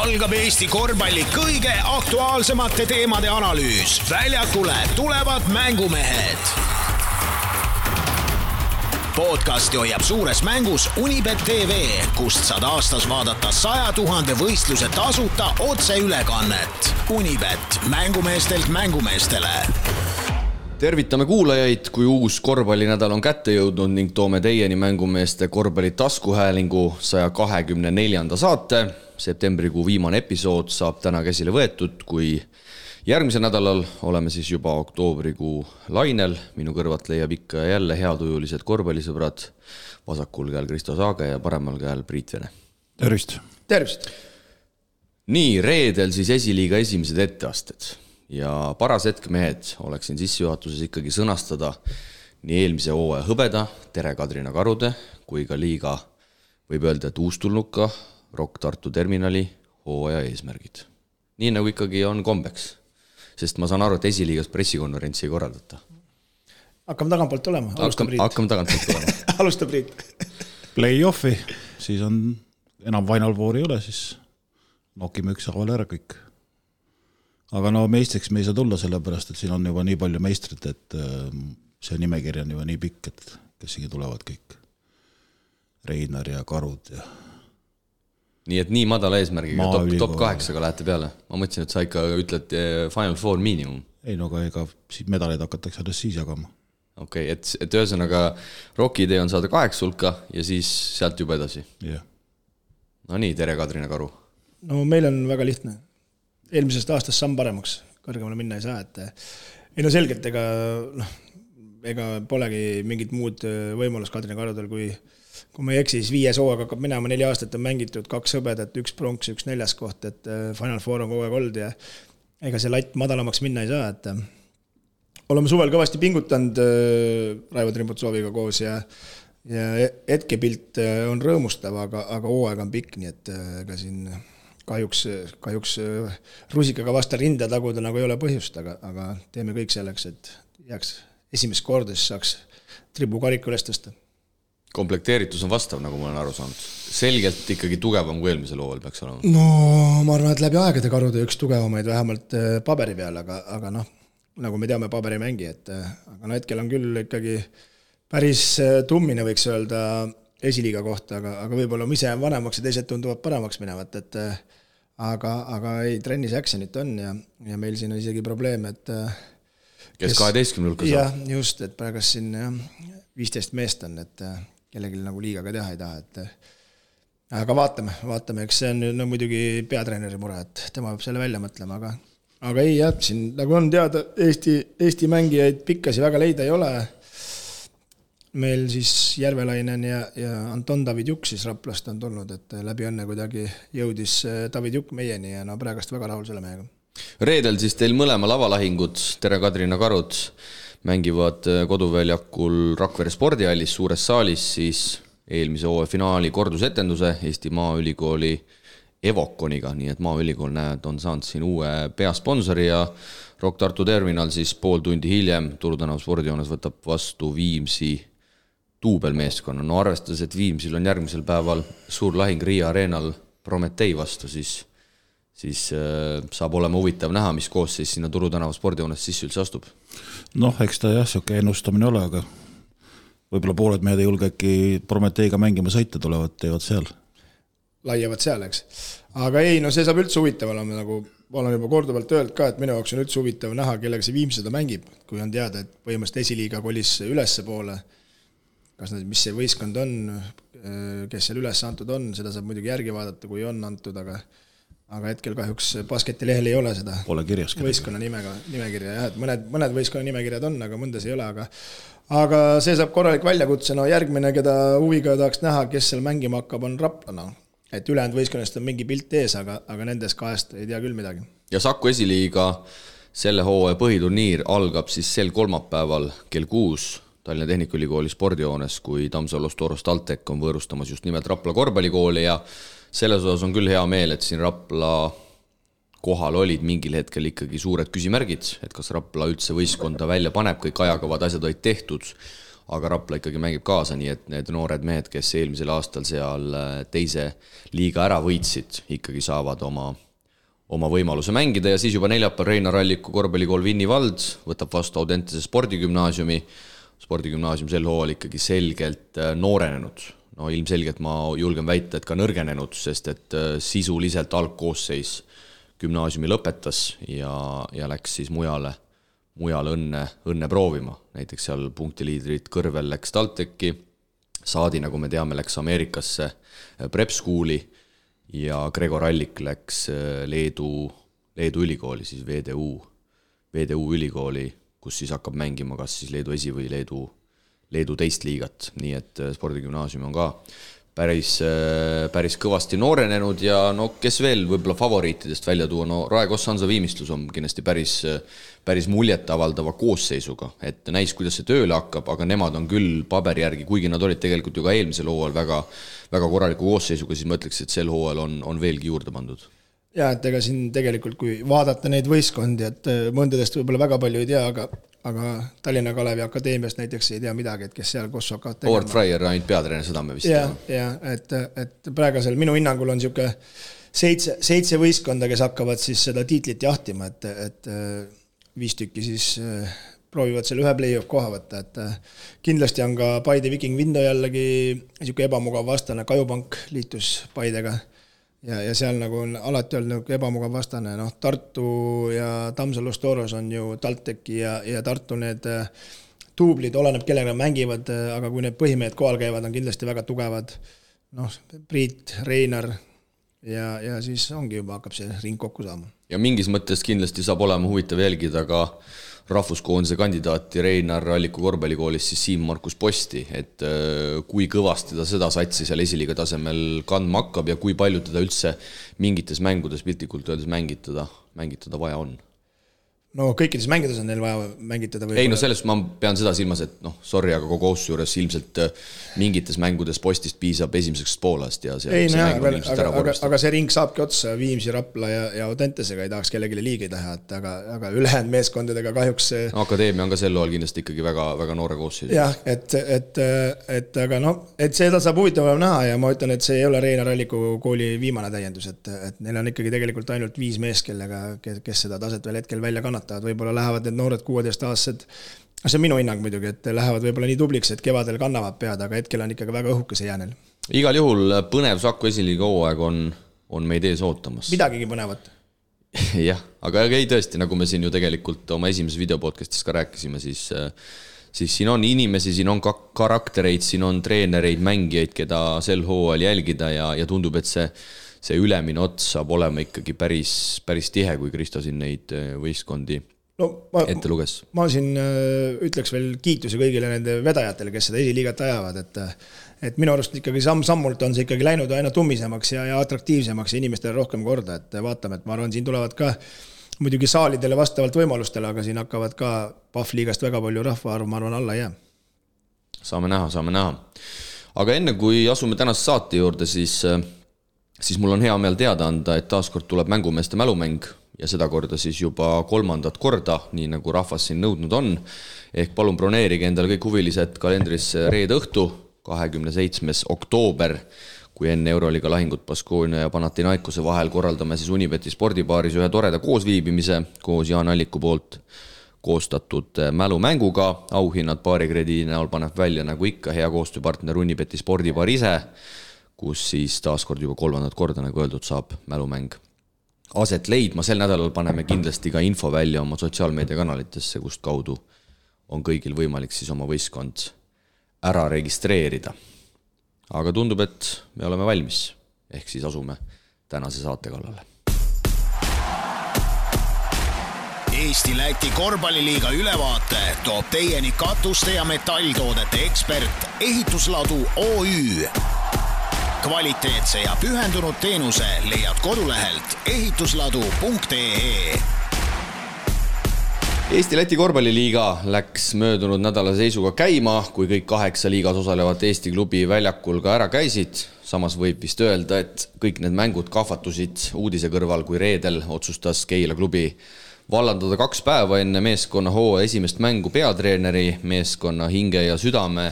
algab Eesti korvpalli kõige aktuaalsemate teemade analüüs. Väljakule tulevad mängumehed. Podcasti hoiab suures mängus Unibet TV, kust saad aastas vaadata 100 000 võistluse tasuta otseülekannet. Unibet, mängumeestelt mängumeestele. Tervitame kuulajaid, kui uus korvpallinädal on kätte jõudnud ning toome teieni mängumeeste korvpalli taskuhäälingu 124. saate. Septembrikuu viimane episood saab täna käsile võetud, kui järgmisel nädalal oleme siis juba oktoobrikuu lainel. Minu kõrvat leiab ikka jälle heatujulised korvpallisõbrad. Vasakul käel Kristo Saage ja paremal käel Priit Vene. Tervist! Tervist! Nii, reedel siis esiliiga esimesed etteasted. Ja paras hetk mehed oleksin sissejuhatuses ikkagi sõnastada nii eelmise hooaja hõbeda, Tere Kadrina Karude, kui ka liiga võib öelda, et uustulnuka Rock Tartu terminali hooaja eesmärgid. Nii nagu ikkagi on kombeks, sest ma saan aru, et esiliigas pressikonverentsi ei korraldata. Hakkame tagantpoolt olema, Hakkame tagantpoolt olema. Alusta Priit. Play-offi, siis on enam Final Four ei ole, siis nokime ükshaaval ära kõik. Aga no meistriks me ei saa tulla sellepärast, et siin on juba nii palju meistrit, et see nimekiri on juba nii pikk, et kes siin tulevad kõik. Reinar ja Karud ja... Nii et nii madala eesmärgiga, top 8-ga lähete peale. Ma mõtlesin, et sa ikka ütled Final Four miinimum. Ei, no ega siis medaleid hakatakse alles siis jagama. Okei, et ühesõnaga Rocki idee on saada 8 hulka ja siis sealt juba edasi. Yeah. No nii, Tere Kadrina Karu. No meil on väga lihtne. Eelmisest aastast samm paremaks, kõrgemale minna ei saa, et no selgelt, ega polegi mingit muud võimalus Kadrina Karudel, kui ma ei eksi, siis 5 hooaeg hakkab minema, 4 aastat on mängitud, 2 hõbedat, 1 pronks, 1 4. koht, et Final Four on kogu aeg olnud ja ega see latt madalamaks minna ei saa, et oleme suvel kõvasti pingutanud Raivo Trimbutsooviga koos ja hetkepilt on rõõmustav, aga hooaeg on pikk, nii et ega siin kahjuks rusikaga vasta rinda taguda nagu ei ole põhjust, aga teeme kõik selleks, et jääks esimest korda, siis saaks tribu kariku üles tõsta. Komplekteeritus on vastav, nagu ma olen aru saanud. Selgelt ikkagi tugevam kui eelmisel hooajal peaks olema. No ma arvan, et läbi aegade Karude üks tugevamaid vähemalt paberi peal, aga nagu me teame paberi mängi, aga hetkel on küll ikkagi päris tummine võiks öelda esiliiga kohta, aga võib-olla ise on vanemaks ja teised tunduvad paremaks minevat, aga ei, trennis actionit on ja meil siin on isegi probleem, et kes 12 hulka saab. Jah, just, et praegast siin 15 meest on, et kellelgi nagu liiga ka teha ei taha, aga vaatame, eks see on muidugi peatreeneri mure, et tema peab selle välja mõtlema, aga ei jah, siin nagu on teada, Eesti mängijaid pikkasi väga leida ei ole. Meil siis Järvelainen ja Anton David Juk siis Raplast on tulnud, et läbi õnne kuidagi jõudis David Juk meieni ja praegast väga rahul selle mehega. Reedel siis teil mõlema lavalahingud, Tere Kadrina Karud, mängivad koduväljakul Rakvere spordihallis suures saalis siis eelmise hooaja finaali kordusetenduse Eesti Maaülikooli Evokoniga, nii et Maaülikool on saanud siin uue peasponsori ja Rock Tartu terminal siis pool tundi hiljem Turu tänav spordijoones võtab vastu Viimsi duubelmeeskonna. No arvestades, et Viimsil on järgmisel päeval suur lahing Riia areenal Prometei vastu, siis saab olema huvitav näha, mis koos siis sinna Turu tänava spordijoones sisse üldse astub. Eks ta jah, siuke ennustamine ole, aga võib-olla pooled mehed ei julge äkki Prometeiga mängima sõita tulevad, teevad seal. Laiavad seal, eks. Aga ei, no see saab üldse huvitav olema, nagu olen juba korduvalt öelnud ka, et minu jaoks on üldse huvitav näha, kellega see Viimsi seda mängib, kui on teada, et põhimõtteliselt esiliiga kolis ülesse poole. Mis see võistkond on, kes seal üles antud on, seda saab muidugi järgi vaadata, kui on antud, aga hetkel kahjuks basketilehel ei ole seda võistkonna nimekirja. Jah, et mõned võistkonna nimekirjad on, aga mõndas ei ole, aga see saab korralik väljakutse. No järgmine, keda huviga tahaks näha, kes seal mängima hakkab, on Rapla. Et ülejäänud võistkonnast on mingi pilt ees, aga nendes 2 ei tea küll midagi. Ja Saku esiliiga selle hooaja põhiturniir algab siis sel kolmapäeval kell 6 Tallinna Tehnikaülikooli spordijoones, kui Tammsalus Toros TalTech on võõrustamas just nimelt Rapla korvpallikooli ja selles osas on küll hea meel, et siin Rapla kohal olid mingil hetkel ikkagi suured küsimärgid, et kas Rapla üldse võistkonda välja paneb, kõik ajakavad asjad olid tehtud, aga Rapla ikkagi mängib kaasa, nii et need noored mehed, kes eelmisel aastal seal teise liiga ära võitsid, ikkagi saavad oma võimaluse mängida ja siis juba neljapäeval Reinar Alliku korvpallikool Vinni vald võtab vastu Audentese spordigümnaasiumi. Spordigümnaasium sel hooajal ikkagi selgelt noorenenud. No ilmselgelt ma julgen väita, et ka nõrgenenud, sest et sisuliselt algkoosseis gümnaasiumi lõpetas ja läks siis mujale õnne proovima. Näiteks seal punktiliidrid Kõrvel läks TalTechi, Saadi, nagu me teame, läks Ameerikasse Prep Schooli ja Gregor Allik läks Leedu ülikooli, siis VDU ülikooli, kus siis hakkab mängima kas siis Leedu esi- või Leedu teist liigat, nii et spordigümnaasium on ka päris kõvasti noorenenud ja no kes veel võib-olla favoriitidest välja tuua, no Rae Koss-Hansa Viimistlus on kindlasti päris muljet avaldava koosseisuga, et näis, kuidas see tööle hakkab, aga nemad on küll paberi järgi, kuigi nad olid tegelikult ju ka eelmisel hooajal väga korraliku koosseisuga, siis ma ütleks, et sel hooajal on veelgi juurde pandud. Ja, et ega siin tegelikult, kui vaadata neid võistkondi, et mõndadest võib-olla väga palju ei tea, aga Tallinna Kalevi Akadeemiast näiteks ei tea midagi, et kes seal Kosso hakkavad tegema. Howard Fryer ainult peatreener, seda me vist ja, et praegusel minu hinnangul on niisugune 7 võistkonda, kes hakkavad siis seda tiitlit jahtima, et 5 tükki siis proovivad selle ühe play-off koha võtta, et kindlasti on ka Paide Viking Vindo jällegi niisugune ebamugav vastane, Kajupank liitus Paidega ja seal nagu on alati olnud ebamugav vastane, noh Tartu ja Tammsalu Storos on ju TalTechi ja Tartu need tuublid, oleneb kellega mängivad, aga kui need põhimehed kohal käivad, on kindlasti väga tugevad, noh Priit, Reinar ja siis ongi juba hakkab see ring kokku saama. Ja mingis mõttes kindlasti saab olema huvitav jälgida ka rahvuskoondise kandidaati Reinar Alliku korvpallikoolis siis Siim-Markus Posti, et kui kõvasti ta seda satsi seal esiliiga tasemel kandma hakkab ja kui palju teda üldse mingites mängudes piltlikult öeldes mängitada vaja on. No kõikides mängides on neil vaja mängitada. Ei, no sellest ma pean seda silmas, et noh, sorry, aga kogu ausse juures ilmselt mingites mängudes Postist piisab esimeseks poolest ja see mäng on ilmselt ära korrastada. Aga see ring saabki otsa Viimsi, Rapla ja Audentesega, ei tahaks kellelegi liigi teha, aga ülejäänud meeskondadega kahjuks Akadeemia on ka sel loal kindlasti ikkagi väga noore koosseis. Jah, et aga noh, et seda saab huvitavam näha ja ma ütlen, et see ei ole Reinar Alliku kooli viimane täiendus, et neil on ikkagi tegelikult ainult 5 mees, kes seda taset veel hetkel välja kannatavad, võib-olla lähevad need noored 16-aastased, see on minu hinnang muidugi, et lähevad võib-olla nii tubliks, et kevadel kannavad pead, aga hetkel on ikkagi väga õhuke see jäänel. Igal juhul põnev Saku esiliiga hooaeg on meid ees ootamas. Midagigi põnevat. Jah, aga ei tõesti, nagu me siin ju tegelikult oma esimeses videopodcastis ka rääkisime, siis siin on inimesi, siin on karaktereid, siin on treenereid, mängijaid, keda sel hooajal jälgida ja tundub, et see ülemine ots saab olema ikkagi päris tihe, kui Kristo siin neid võistkondi ette luges. Ma siin ütleks veel kiituse kõigile nende vedajatele, kes seda esiliigat ajavad, et minu arust ikkagi sammult on see ikkagi läinud aina tummisemaks ja atraktiivsemaks ja inimestele rohkem korda, et vaatame, et ma arvan, siin tulevad ka muidugi saalidele vastavalt võimalustele, aga siin hakkavad ka Pahvliigast väga palju rahvaarv, ma arvan, alla jää. Saame näha. Aga enne kui asume tänase saate juurde, siis mul on hea meel teada anda, et taaskord tuleb mängumeeste mälumäng ja seda korda siis juba 3. korda, nii nagu rahvas siin nõudnud on. Ehk palun broneerige endale kõik huvilised kalendrisse reede õhtu, 27. oktoober, kui enne Euroliiga lahingut Baskonia ja Panathinaikose vahel korraldame siis Unibeti spordibaaris ühe toreda koosviibimise koos Jaan Alliku poolt koostatud mälumänguga. Auhinnad paarikrediidi näol paneb välja nagu ikka hea koostööpartner Unibeti spordibaar ise, kus siis taaskord juba 3. korda, nagu öeldud, saab mälumäng aset leidma. Sel nädalal paneme kindlasti ka info välja oma sotsiaalmeediakanalitesse, kust kaudu on kõigil võimalik siis oma võistkond ära registreerida. Aga tundub, et me oleme valmis, ehk siis asume tänase saate kallale. Eesti-Läti korvpalliliiga ülevaate toob teieni katuste ja metalltoodete ekspert Ehitusladu OÜ. Kvaliteetse ja pühendunud teenuse leiad kodulehelt ehitusladu.ee. Eesti-Läti korvpalliliiga läks möödunud nädala seisuga käima, kui kõik 8 liigas osalevat Eesti klubi väljakul ka ära käisid. Samas võib vist öelda, et kõik need mängud kahvatusid uudise kõrval, kui reedel otsustas Keila klubi vallandada 2 päeva enne meeskonna hooaja esimest mängu peatreeneri, meeskonna hinge ja südame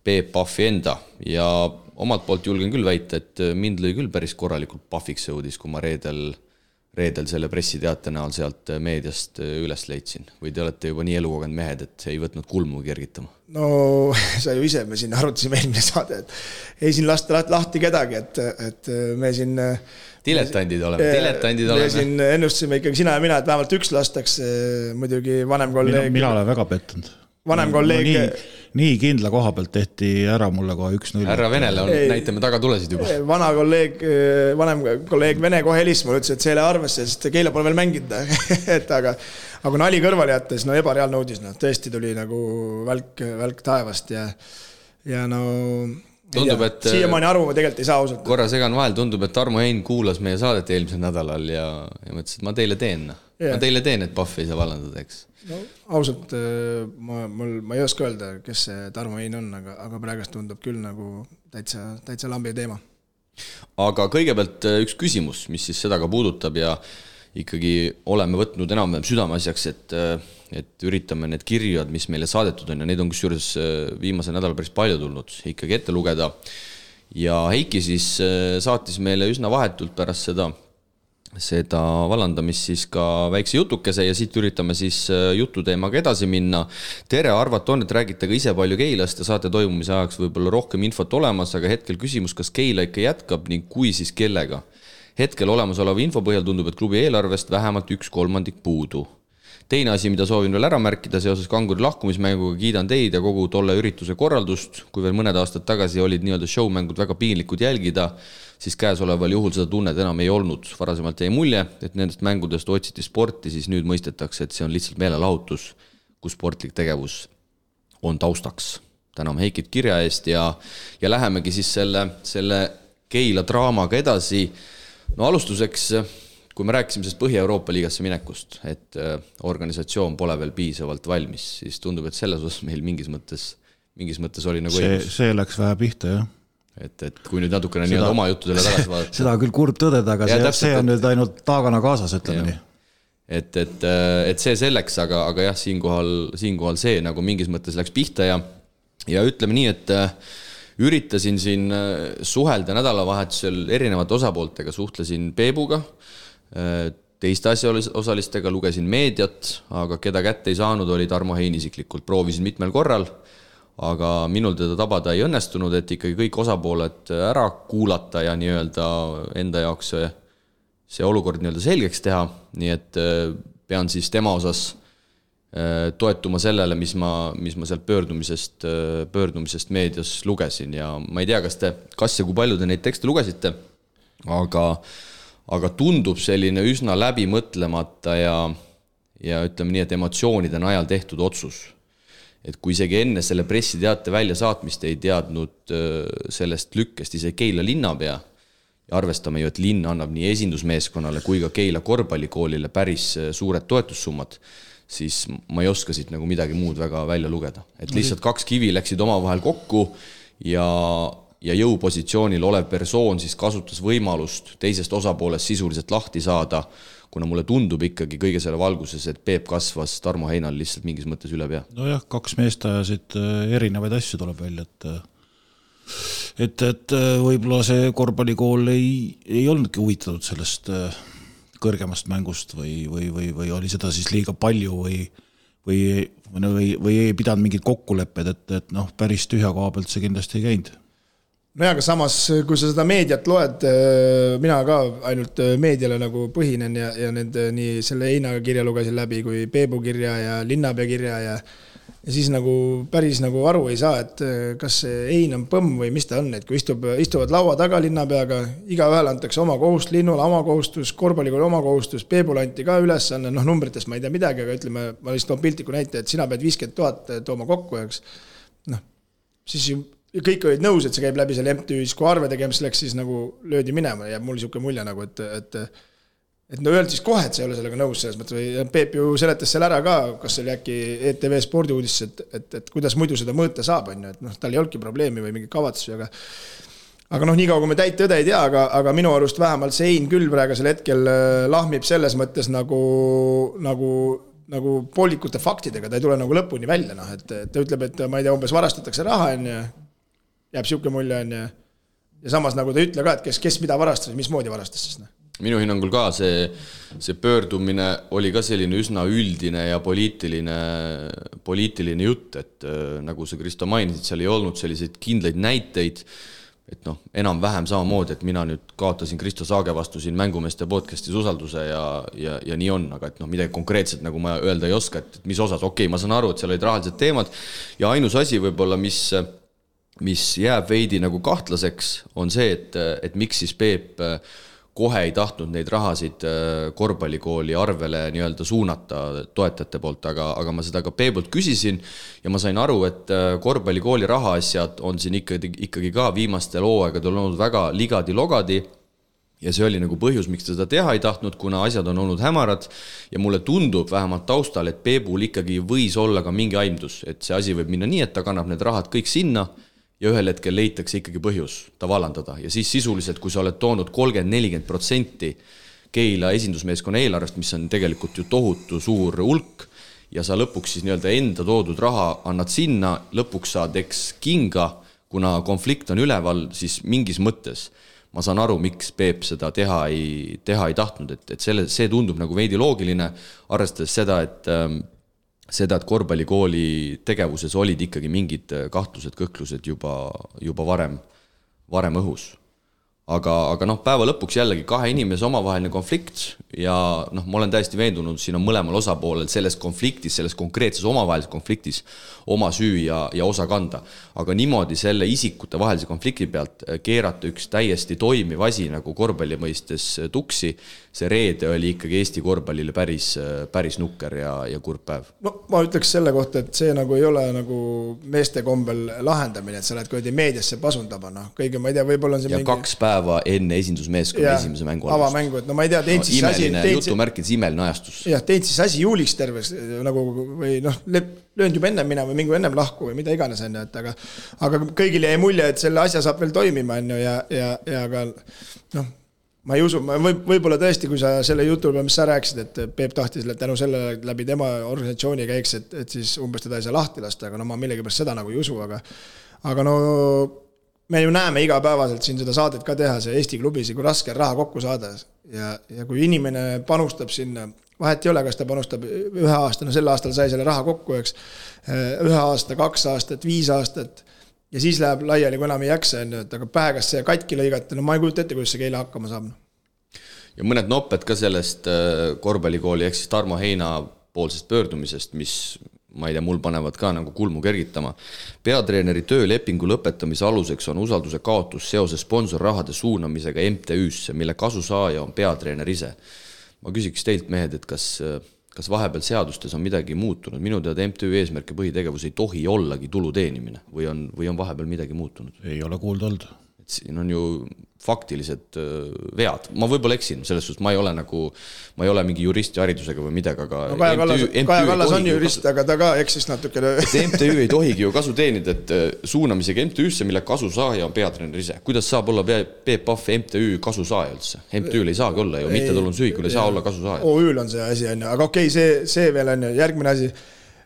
Peep Pahvi enda ja omalt poolt julgen küll väita, et mind lõi küll päris korralikult Pahviks õudis, kui ma reedel selle pressiteate näol sealt meediast üles leidsin. Või te olete juba nii elukogenud mehed, et ei võtnud kulmu kergitama? No sa ju ise, me siin arutasime eelmine saade, et ei siin lasta lahti kedagi, et me siin diletandid oleme. Me siin ennustasime ikkagi sina ja mina, et vähemalt üks lastaks, muidugi vanem kolleeg. Mina olen väga pettunud. Vanem kolleeg. Nii kindla koha pealt tehti ära mulle kohe 1-0. Härra Venele näitame taga tulesid juba. Vanem kolleeg Vene kohe helis, ma ütlesin, et see ei ole arvesse, sest Keila pole veel mänginud. aga nali kõrvale jättes, no ebareaalne uudis, no tõesti tuli nagu välk taevast ja no tundub, et siiamaani aru ma tegelikult ei saa ausalt. Korra segan vahel, tundub, et Tarmo Hein kuulas meie saadet eelmisel nädalal ja mõtlesin, et ma teile teen, et Pahv ei saa vallandada, eks. No, ausalt, ma ei oska öelda, kes see Tarmo Hein on, aga praegust tundub küll nagu täitsa lambi teema. Aga kõigepealt üks küsimus, mis siis seda ka puudutab ja ikkagi oleme võtnud enam-vähem südameasjaks, et üritame need kirjad, mis meile saadetud on ja neid on kusjuures viimase nädala päris palju tulnud ikkagi ette lugeda. Ja Heiki siis saatis meile üsna vahetult pärast seda vallandamist siis ka väikse jutukese ja siit üritame siis jututeemaga edasi minna. Tere, arvat on, et räägite ka ise palju Keilast ja saate toimumise ajaks võib-olla rohkem infot olemas, aga hetkel küsimus, kas Keila ikka jätkab ning kui siis kellega? Hetkel olemasoleva info põhjal tundub, et klubi eelarvest vähemalt 1/3 puudu. Teine asi, mida soovin veel ära märkida seoses Kanguri lahkumismänguga, kiidan teid ja kogu tolle ürituse korraldust. Kui veel mõned aastad tagasi olid nii-öelda showmängud väga piinlikud jälgida, siis käesoleval juhul seda tunnet enam ei olnud. Varasemalt jäi mulje, et nendest mängudest otsiti sporti, siis nüüd mõistetakse, et see on lihtsalt meelelahutus, kus sportlik tegevus on taustaks. Täname Heikit kirja eest ja lähemegi siis selle Keila draamaga edasi. No alustuseks, kui me rääkisime sellest Põhja-Euroopa liigasse minekust, et organisatsioon pole veel piisavalt valmis, siis tundub, et selles osas meil mingis mõttes oli nagu see läks vähe pihta, jah. Et kui nüüd natukene nii oma juttudele tagasi vaadata. Seda küll kurb tõdeda, aga see on nüüd ainult taagana kaasas, ütleme nii. Et see selleks, aga jah, siinkohal see nagu mingis mõttes läks pihta ja ütleme nii, et üritasin siin suhelda nädalavahetusel erinevate osapooltega, suhtlesin Peebuga, teiste asjaosalistega, lugesin meediat, aga keda kätte ei saanud, oli Tarmo Hein isiklikult. Proovisin mitmel korral, aga minul teda tabada ei õnnestunud, et ikkagi kõik osapooled ära kuulata ja nii-öelda enda jaoks see olukord nii-öelda selgeks teha, nii et pean siis tema osas toetuma sellele, mis ma sealt pöördumisest meedias lugesin ja ma ei tea, kas ja kui palju te neid tekste lugesite, aga tundub selline üsna läbi mõtlemata ja ütleme nii, et emotsioonide najal tehtud otsus. Et kui isegi enne selle pressiteate välja saatmist ei teadnud sellest lükkest ise Keila linnapea ja arvestame ju, et linn annab nii esindusmeeskonnale kui ka Keila korvpallikoolile päris suured toetussummad, siis ma ei oska siit nagu midagi muud väga välja lugeda. Et lihtsalt 2 kivi läksid omavahel kokku ja jõupositsioonil olev persoon siis kasutas võimalust teisest osapoolest sisuliselt lahti saada, kuna mulle tundub ikkagi kõige selle valguses, et Peep kasvas Tarmo Heinal lihtsalt mingis mõttes üle pea. No jah, 2 meest ajasid erinevaid asju tuleb välja, et võib-olla see korvpallikool ei olnudki huvitatud sellest kõrgemast mängust või oli seda siis liiga palju või ei pidanud mingid kokkulepped, et päris tühja koha pealt see kindlasti ei käinud. No aga samas, kui sa seda meediat loed, mina ka ainult meediale nagu põhinen ja nii selle Heinaga kirja lugesin läbi kui Peebu kirja ja linnapea kirja ja siis nagu päris nagu aru ei saa, et kas see Hein on põmm või mis ta on, et kui istuvad laua taga linnapeaga, igaühel antakse oma kohustus, linnule oma kohustus, korvpallikooli oma kohustus, Peebule anti ka ülesanne, numbritest ma ei tea midagi, aga ütleme, ma lihtsalt toon piltliku näite, et sina pead 50 000 tooma kokku, eks. Siis kõik olid nõus, et see käib läbi selle MTÜ-s, kui arve tegemis läks, siis nagu löödi minema ja mul niisugune mulje nagu, et öeldi siis kohe, et see ei ole sellega nõus selles mõttes, või Peep ju seletas seal ära ka, kas oli äkki ETV spordiuudis, et kuidas muidu seda mõõta saab, et tal ei olnudki probleemi või mingi kavatsusi, aga noh, nii kaua kui me täit tõde ei tea, aga minu arust vähemalt see Hein küll praegusel hetkel lahmib selles mõttes nagu poolikute faktidega, ta ei tule nagu lõpuni välja, noh, et ta ütleb, et ma ei tea, umbes varastatakse raha, jääb siuke mulje, ja samas nagu ta ütle ka, et kes mida varastas, mismoodi varastas siis, noh. Minu hinnangul ka see pöördumine oli ka selline üsna üldine ja poliitiline jutt, et nagu sa Kristo mainisid, seal ei olnud selliseid kindlaid näiteid, et noh, enam-vähem samamoodi, et mina nüüd kaotasin Kristo Saage vastu siin Mängumeeste podcastis usalduse ja nii on, aga et noh, midagi konkreetselt nagu ma öelda ei oska, et mis osas, okei, ma saan aru, et seal olid rahalised teemad ja ainus asi võib-olla, mis jääb veidi nagu kahtlaseks, on see, et miks siis Peep kohe ei tahtnud neid rahasid korvpallikooli arvele nii-öelda suunata toetajate poolt, aga ma seda ka Peebult küsisin ja ma sain aru, et korvpallikooli rahaasjad on siin ikkagi ka viimastel hooaegadel olnud väga ligadi-logadi ja see oli nagu põhjus, miks ta seda teha ei tahtnud, kuna asjad on olnud hämarad ja mulle tundub vähemalt taustal, et Peebul ikkagi võis olla ka mingi aimdus, et see asi võib minna nii, et ta kannab need rahad kõik sinna ja ühel hetkel leitakse ikkagi põhjus ta vallandada ja siis sisuliselt, kui sa oled toonud 30-40% Keila esindusmeeskonna eelarvest, mis on tegelikult ju tohutu suur hulk ja sa lõpuks siis nii-öelda enda toodud raha annad sinna, lõpuks saad eks kinga, kuna konflikt on üleval, siis mingis mõttes ma saan aru, miks Peep seda teha ei tahtnud, et see tundub nagu veidi loogiline, arvestades seda, et korvpallikooli tegevuses olid ikkagi mingid kahtlused, kõhklused juba varem õhus. Aga noh, päeva lõpuks jällegi kahe inimese omavaheline konflikt ja noh, ma olen täiesti veendunud, siin on mõlemal osapoolel selles konfliktis, selles konkreetses omavahelises konfliktis oma süü ja osa kanda. Aga niimoodi selle isikute vahelise konflikti pealt keerata üks täiesti toimiv asi nagu korvpalli mõistes tuksi, see reede oli ikkagi Eesti korvpallile päris nukker ja kurb päev. No ma ütleks selle kohta, et see nagu ei ole nagu meeste kombel lahendamine, et sa lähed koodi meediasse pasundama, noh, kõige ma ei tea, võib-olla on see ja mingi 2 päeva enne esindusmeeskonna esimese mängu alust. Avamängu, et no ma ei tea, teid siis imeline jutumärkides imeline ajastus. Jah, teid siis asi juuliks terves nagu või noh, löönd juba ennem minema või mingu ennem lahku või mida iganes on, et aga kõigile jäi mulje, et selle asja saab veel toimima on ju ja aga noh, ma ei usu, võib-olla tõesti, kui sa selle jutul, mis sa rääkisid, et Peep tahtis tänu selle läbi tema organisatsiooni käiks, et siis umbes teda ei saa lahti lasta, aga no ma millegipärast seda nagu ei usu, aga no me ju näeme igapäevaselt siin seda saadet ka teha, see Eesti klubis, kui raske raha kokku saada ja kui inimene panustab sinna, vahet ei ole, kas ta panustab 1 aasta, no sel aastal sai selle raha kokku, eks, 1 aasta, 2 aastat, 5 aastat ja siis läheb laiali, kui enam ei jaksa, aga päegas see katki lõigata, no ma ei kujuta ette, kuidas see Keila hakkama saab. Ja mõned nopped ka sellest korvpallikooli ehk siis Tarmo Heina poolsest pöördumisest, mis ma ei tea, mul panevad ka nagu kulmu kergitama. Peatreeneri töölepingu lõpetamise aluseks on usalduse kaotus seoses sponsorrahade suunamisega MTÜ-sse, mille kasusaaja on peatreener ise. Ma küsiks teilt, mehed, et kas vahepeal seadustes on midagi muutunud? Minu teada MTÜ eesmärk ja põhitegevus ei tohi ollagi tulu teenimine või on vahepeal midagi muutunud? Ei ole kuulda olnud. Et siin on ju faktilised vead. Ma võib-olla eksin, selles suhtes ma ei ole mingi juristi haridusega või midagi, aga no, Kaja Kallas on jurist, aga ta ka eksis natukene. Et MTÜ ei tohigi ju kasu teenida, et suunamisega MTÜ-sse, mille kasusaaja on peatreener ise. Kuidas saab olla Peep Pahv MTÜ kasusaaja üldse? MTÜ-l ei saagi olla ju, mittetulundusühingul ei saa olla kasusaaja. OÜ-l on see asi, aga okei, see veel on järgmine asi.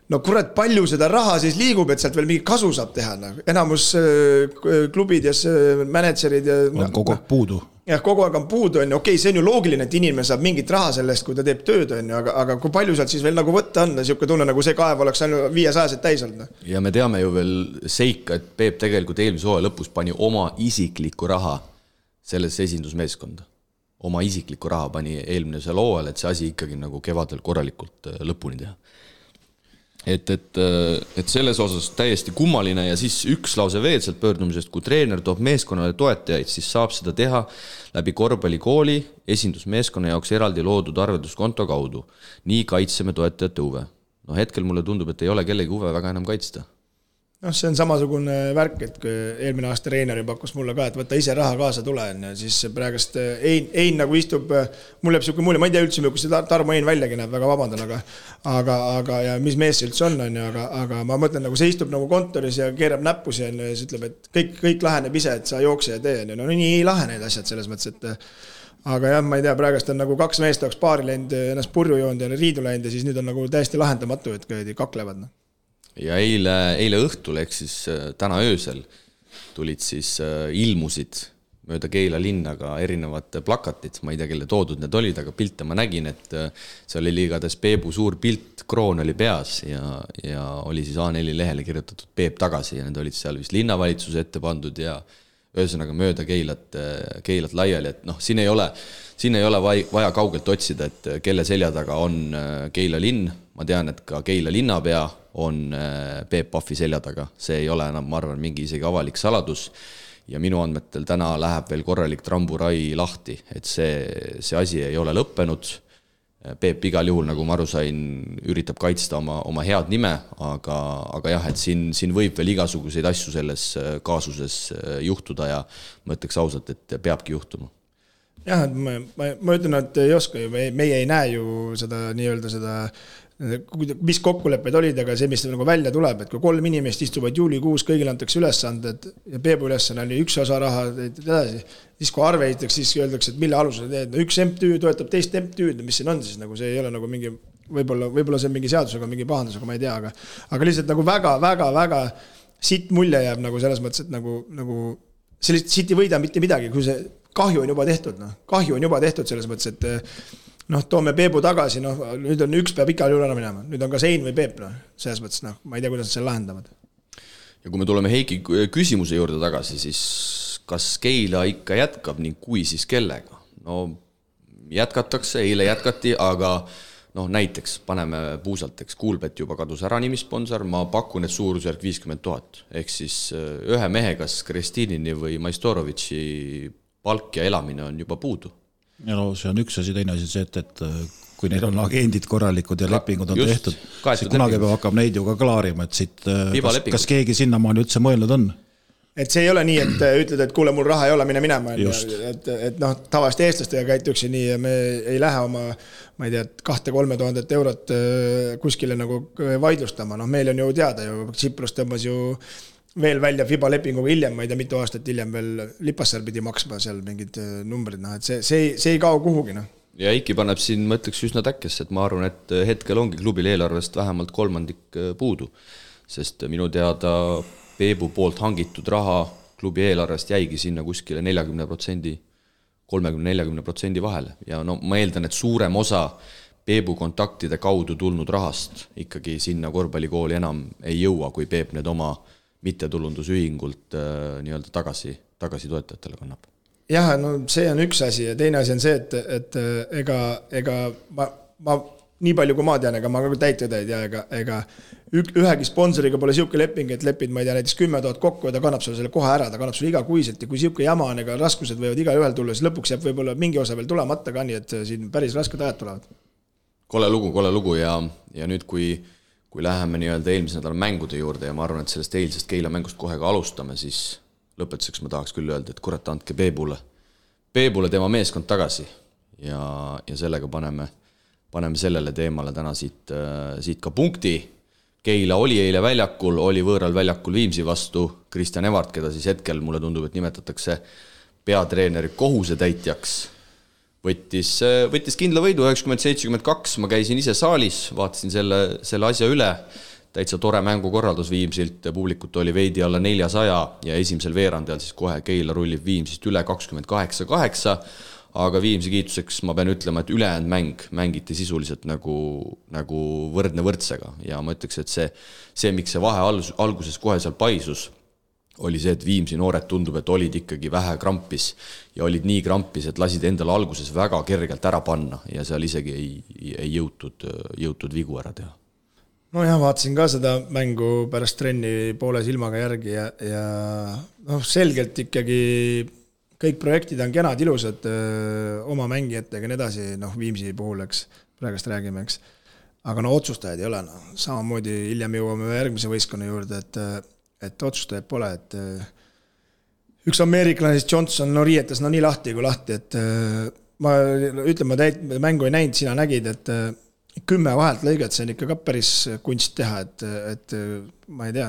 No kurat, palju seda raha siis liigub, et sealt veel mingi kasu saab teha. Enamus klubid ja managerid on kogu aeg puudu. Jah, kogu aeg on puudu. Okei, see on ju loogiline, et inimene saab mingit raha sellest, kui ta teeb tööd, aga kui palju sealt siis veel nagu võtta on, siuke tunne, nagu see kaev oleks ainult 500 täis olnud. Ja me teame ju veel seika, et Peep tegelikult eelmise hooaja lõpus pani oma isiklikku raha sellesse esindusmeeskonda. Oma isiklikku raha pani eelmisel hooajal, et see asi ikkagi nagu kevadel korralikult lõpuni teha. Et selles osas täiesti kummaline ja siis üks lause veel sealt pöördumisest, kui treener toob meeskonnale toetajaid, siis saab seda teha läbi korvpallikooli esindusmeeskonna jaoks eraldi loodud arvelduskonto kaudu. Nii kaitseme toetajate huve. No hetkel mulle tundub, et ei ole kellegi huve väga enam kaitsta. noh, see on samasugune värk, et kui eelmine aasta treeneri pakkus mulle ka, et võtta ise raha kaasa tule, siis praegust Ein nagu istub, mul jääb siuke mulje, ma ei tea üldse, kui see Tarmo Ein väljagi näeb, väga vabandan, aga ja mis mees see üldse on, aga ma mõtlen, nagu see istub nagu kontoris ja keerab näppusi ja siis ütleb, et kõik laheneb ise, et sa jookse ja tee, no nii ei lahe need asjad selles mõttes, et aga jah, ma ei tea, praegust on nagu 2 meest oleks paari läinud, ennast purju joonud ja riidu läinud ja siis nüüd on nagu täiesti lahendamatu, et kaklevad. Ja eile õhtul, ehk siis täna öösel tulid siis ilmusid mööda Keila linnaga erinevad plakatid, ma ei tea, kelle toodud need olid, aga pilte ma nägin, et see oli igatahes Peebu suur pilt, kroon oli peas ja oli siis A4 lehele kirjutatud Peep tagasi ja need olid seal vist linnavalitsuse ette pandud ja ühesõnaga mööda Keilat laiali, et noh, siin ei ole vaja kaugelt otsida, et kelle selja taga on Keila linn, ma tean, et ka Keila linnapea on Peep Pahvi selja taga, see ei ole enam, ma arvan, mingi isegi avalik saladus ja minu andmetel täna läheb veel korralik tramburai lahti, et see asi ei ole lõppenud. Peep igal juhul, nagu ma aru sain, üritab kaitsta oma head nime, aga jah, et siin võib veel igasuguseid asju selles kaasuses juhtuda ja ma ütleks ausalt, et peabki juhtuma. Jah, et ma ütlen, et ei oska ju, meie ei näe ju seda nii-öelda seda, mis kokkulepped olid, aga see, mis nagu välja tuleb, et kui 3 inimest istuvad juulikuus, kõigil antakse ülesanded ja Peebu ülesanne oli üks osa raha edasi, siis kui arve ehitakse, siis öeldakse, et mille alusel teed, no üks MTÜ toetab teist MTÜ-d, mis siin on siis, nagu see ei ole nagu mingi, võib-olla see on mingi seadusega, mingi pahandus, aga ma ei tea, aga lihtsalt nagu väga siit mulje jääb nagu selles mõttes, et nagu sellist siit ei võida mitte midagi, kui see kahju on juba tehtud selles mõttes, et noh, toome Peebu tagasi, noh, nüüd on üks peab igal juhul ära minema. Nüüd on ka Sein või Peep, noh, selles mõttes, noh, ma ei tea, kuidas nad selle lahendavad. Ja kui me tuleme Heiki küsimuse juurde tagasi, siis kas Keila ikka jätkab ning kui siis kellega? No jätkatakse, eile jätkati, aga noh, näiteks paneme puusalteks, Kuulbet juba kadus ära nimisponsor, ma pakun, et suurusjärk 50 000. Ehk siis ühe mehe, kas Kristinini või Maistorovitši palk ja elamine on juba puudu. Ja no see on üks asi, teine asi see, et kui neil on agendid korralikud ja lepingud on tehtud, siis kunagi peab hakkab neid ju ka klaarima, et siit, kas keegi sinnamaani üldse mõelnud on? Et see ei ole nii, et ütled, et kuule, mul raha ei ole, mine minema. Et noh, tavaliselt eestlastega käituksi nii ja me ei lähe oma, ma ei tea, 2-3 000 eurot kuskile nagu vaidlustama. Noh, meil on ju teada ju, Tsiprus tõmbas ju veel välja FIBA lepinguga hiljem, ma ei tea, mitu aastat hiljem veel Lipassar pidi maksma seal mingid numbrid, noh, et see ei kao kuhugi, noh. Ja Eiki paneb siin, ma ütleks üsna täkkesse, et ma arvan, et hetkel ongi klubil eelarvest vähemalt 3% puudu, sest minu teada Peebu poolt hangitud raha klubi eelarvest jäigi sinna kuskile 40%, 30-40% vahele ja no ma eeldan, et suurem osa Peebu kontaktide kaudu tulnud rahast ikkagi sinna korvpallikooli enam ei jõua, kui Peep need oma mittetulundusühingult nii-öelda tagasi toetajatele kannab. Jah, no see on üks asi ja teine asi on see, et ega ma nii palju kui ma tean, ega ma ka täitjad ei tea, ega ühegi sponsoriga pole siuke leping, et lepid, ma ei tea, näiteks 10 000 kokku ja ta kannab sulle selle kohe ära, ta kannab sulle igakuiselt ja kui siuke jama on, ega raskused võivad iga ühel tulla, siis lõpuks jääb võib-olla mingi osa veel tulemata ka nii, et siin päris rasked ajad tulevad. Kole lugu ja nüüd kui läheme nii-öelda eelmise nädala mängude juurde ja ma arvan, et sellest eilsest Keila mängust kohe ka alustame, siis lõpetuseks ma tahaks küll öelda, et kurat, andke Peebule tema meeskond tagasi ja sellega paneme sellele teemale täna siit ka punkti. Keila oli eile väljakul, oli võõral väljakul Viimsi vastu, Kristjan Evart, keda siis hetkel mulle tundub, et nimetatakse peatreeneri kohusetäitjaks. Võttis kindla võidu 90-72, ma käisin ise saalis, vaatasin selle asja üle, täitsa tore mängukorraldus Viimsilt, publikut oli veidi alla 400 ja esimesel veerandajal siis kohe Keila rullib Viimsist üle 28-8, aga Viimsi kiituseks ma pean ütlema, et ülejäänud mängiti sisuliselt nagu võrdne võrdsega ja ma ütleks, et see miks see vahe alguses kohe seal paisus, oli see, et Viimsi noored tundub, et olid ikkagi vähe krampis ja olid nii krampis, et lasid endale alguses väga kergelt ära panna ja seal isegi ei jõutud vigu ära teha. No jah, vaatasin ka seda mängu pärast trenni poole silmaga järgi ja noh, selgelt ikkagi kõik projektid on kenad, ilusad oma mängijatega ja nii edasi, noh Viimsi puhul, eks, praegust räägime, eks. Aga no otsustajad ei ole, no. Samamoodi hiljem jõuame järgmise võistkonna juurde, et otsustajaid pole, et üks ameeriklane siis Johnson riietas nii lahti kui lahti, et ma mängu ei näinud, sina nägid, et 10 vahelt lõiget, see on ikka ka päris kunst teha, et ma ei tea,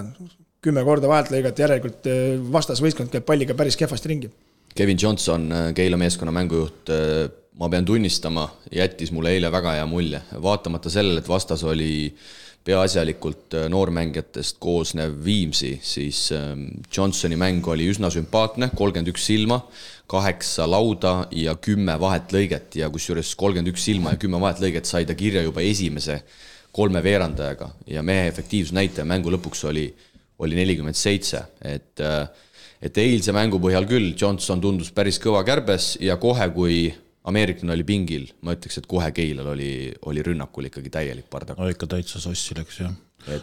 10 korda vahelt lõiget, järelikult vastasvõistkond käib palliga päris kehvasti ringi. Kevin Johnson, Keila meeskonna mängujuht, ma pean tunnistama, jättis mulle eile väga hea mulje. Vaatamata sellele, et vastas oli peaasjalikult noormängijatest koosnev Viimsi, siis Johnsoni mäng oli üsna sümpaatne, 31 silma, 8 lauda ja 10 vahet lõiget ja kusjuures 31 silma ja 10 vahet lõiget sai ta kirja juba esimese 3 veerandajaga ja mehe efektiivsusnäitaja mängu lõpuks oli 47, et eilse mängu põhjal küll Johnson tundus päris kõva kärbes ja kohe, kui ameeriklane oli pingil, ma ütleks, et kohe Keilal oli rünnakul ikkagi täielik pardak. No ikka täitsa sossi läks, jah.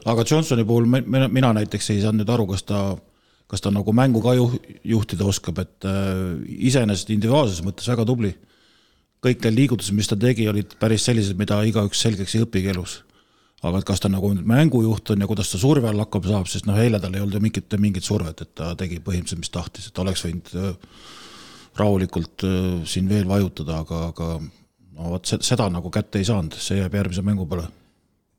Aga Johnsoni puhul mina näiteks ei saanud nüüd aru, kas ta nagu mängu ka juhtida oskab, et iseenesest individuaalses mõttes väga tubli. Kõik need liigutused, mis ta tegi, olid päris sellised, mida igaüks selgeks ei õpigi elus. Aga kas ta nagu mängujuht on ja kuidas ta surve all hakkab saab, sest eile tal ei olnud mingit survet, et ta tegi põhimõtteliselt, mis tahtis, et oleks võinud rahulikult siin veel vajutada, aga no, seda nagu kätte ei saanud, see jääb järgmise mängu peale.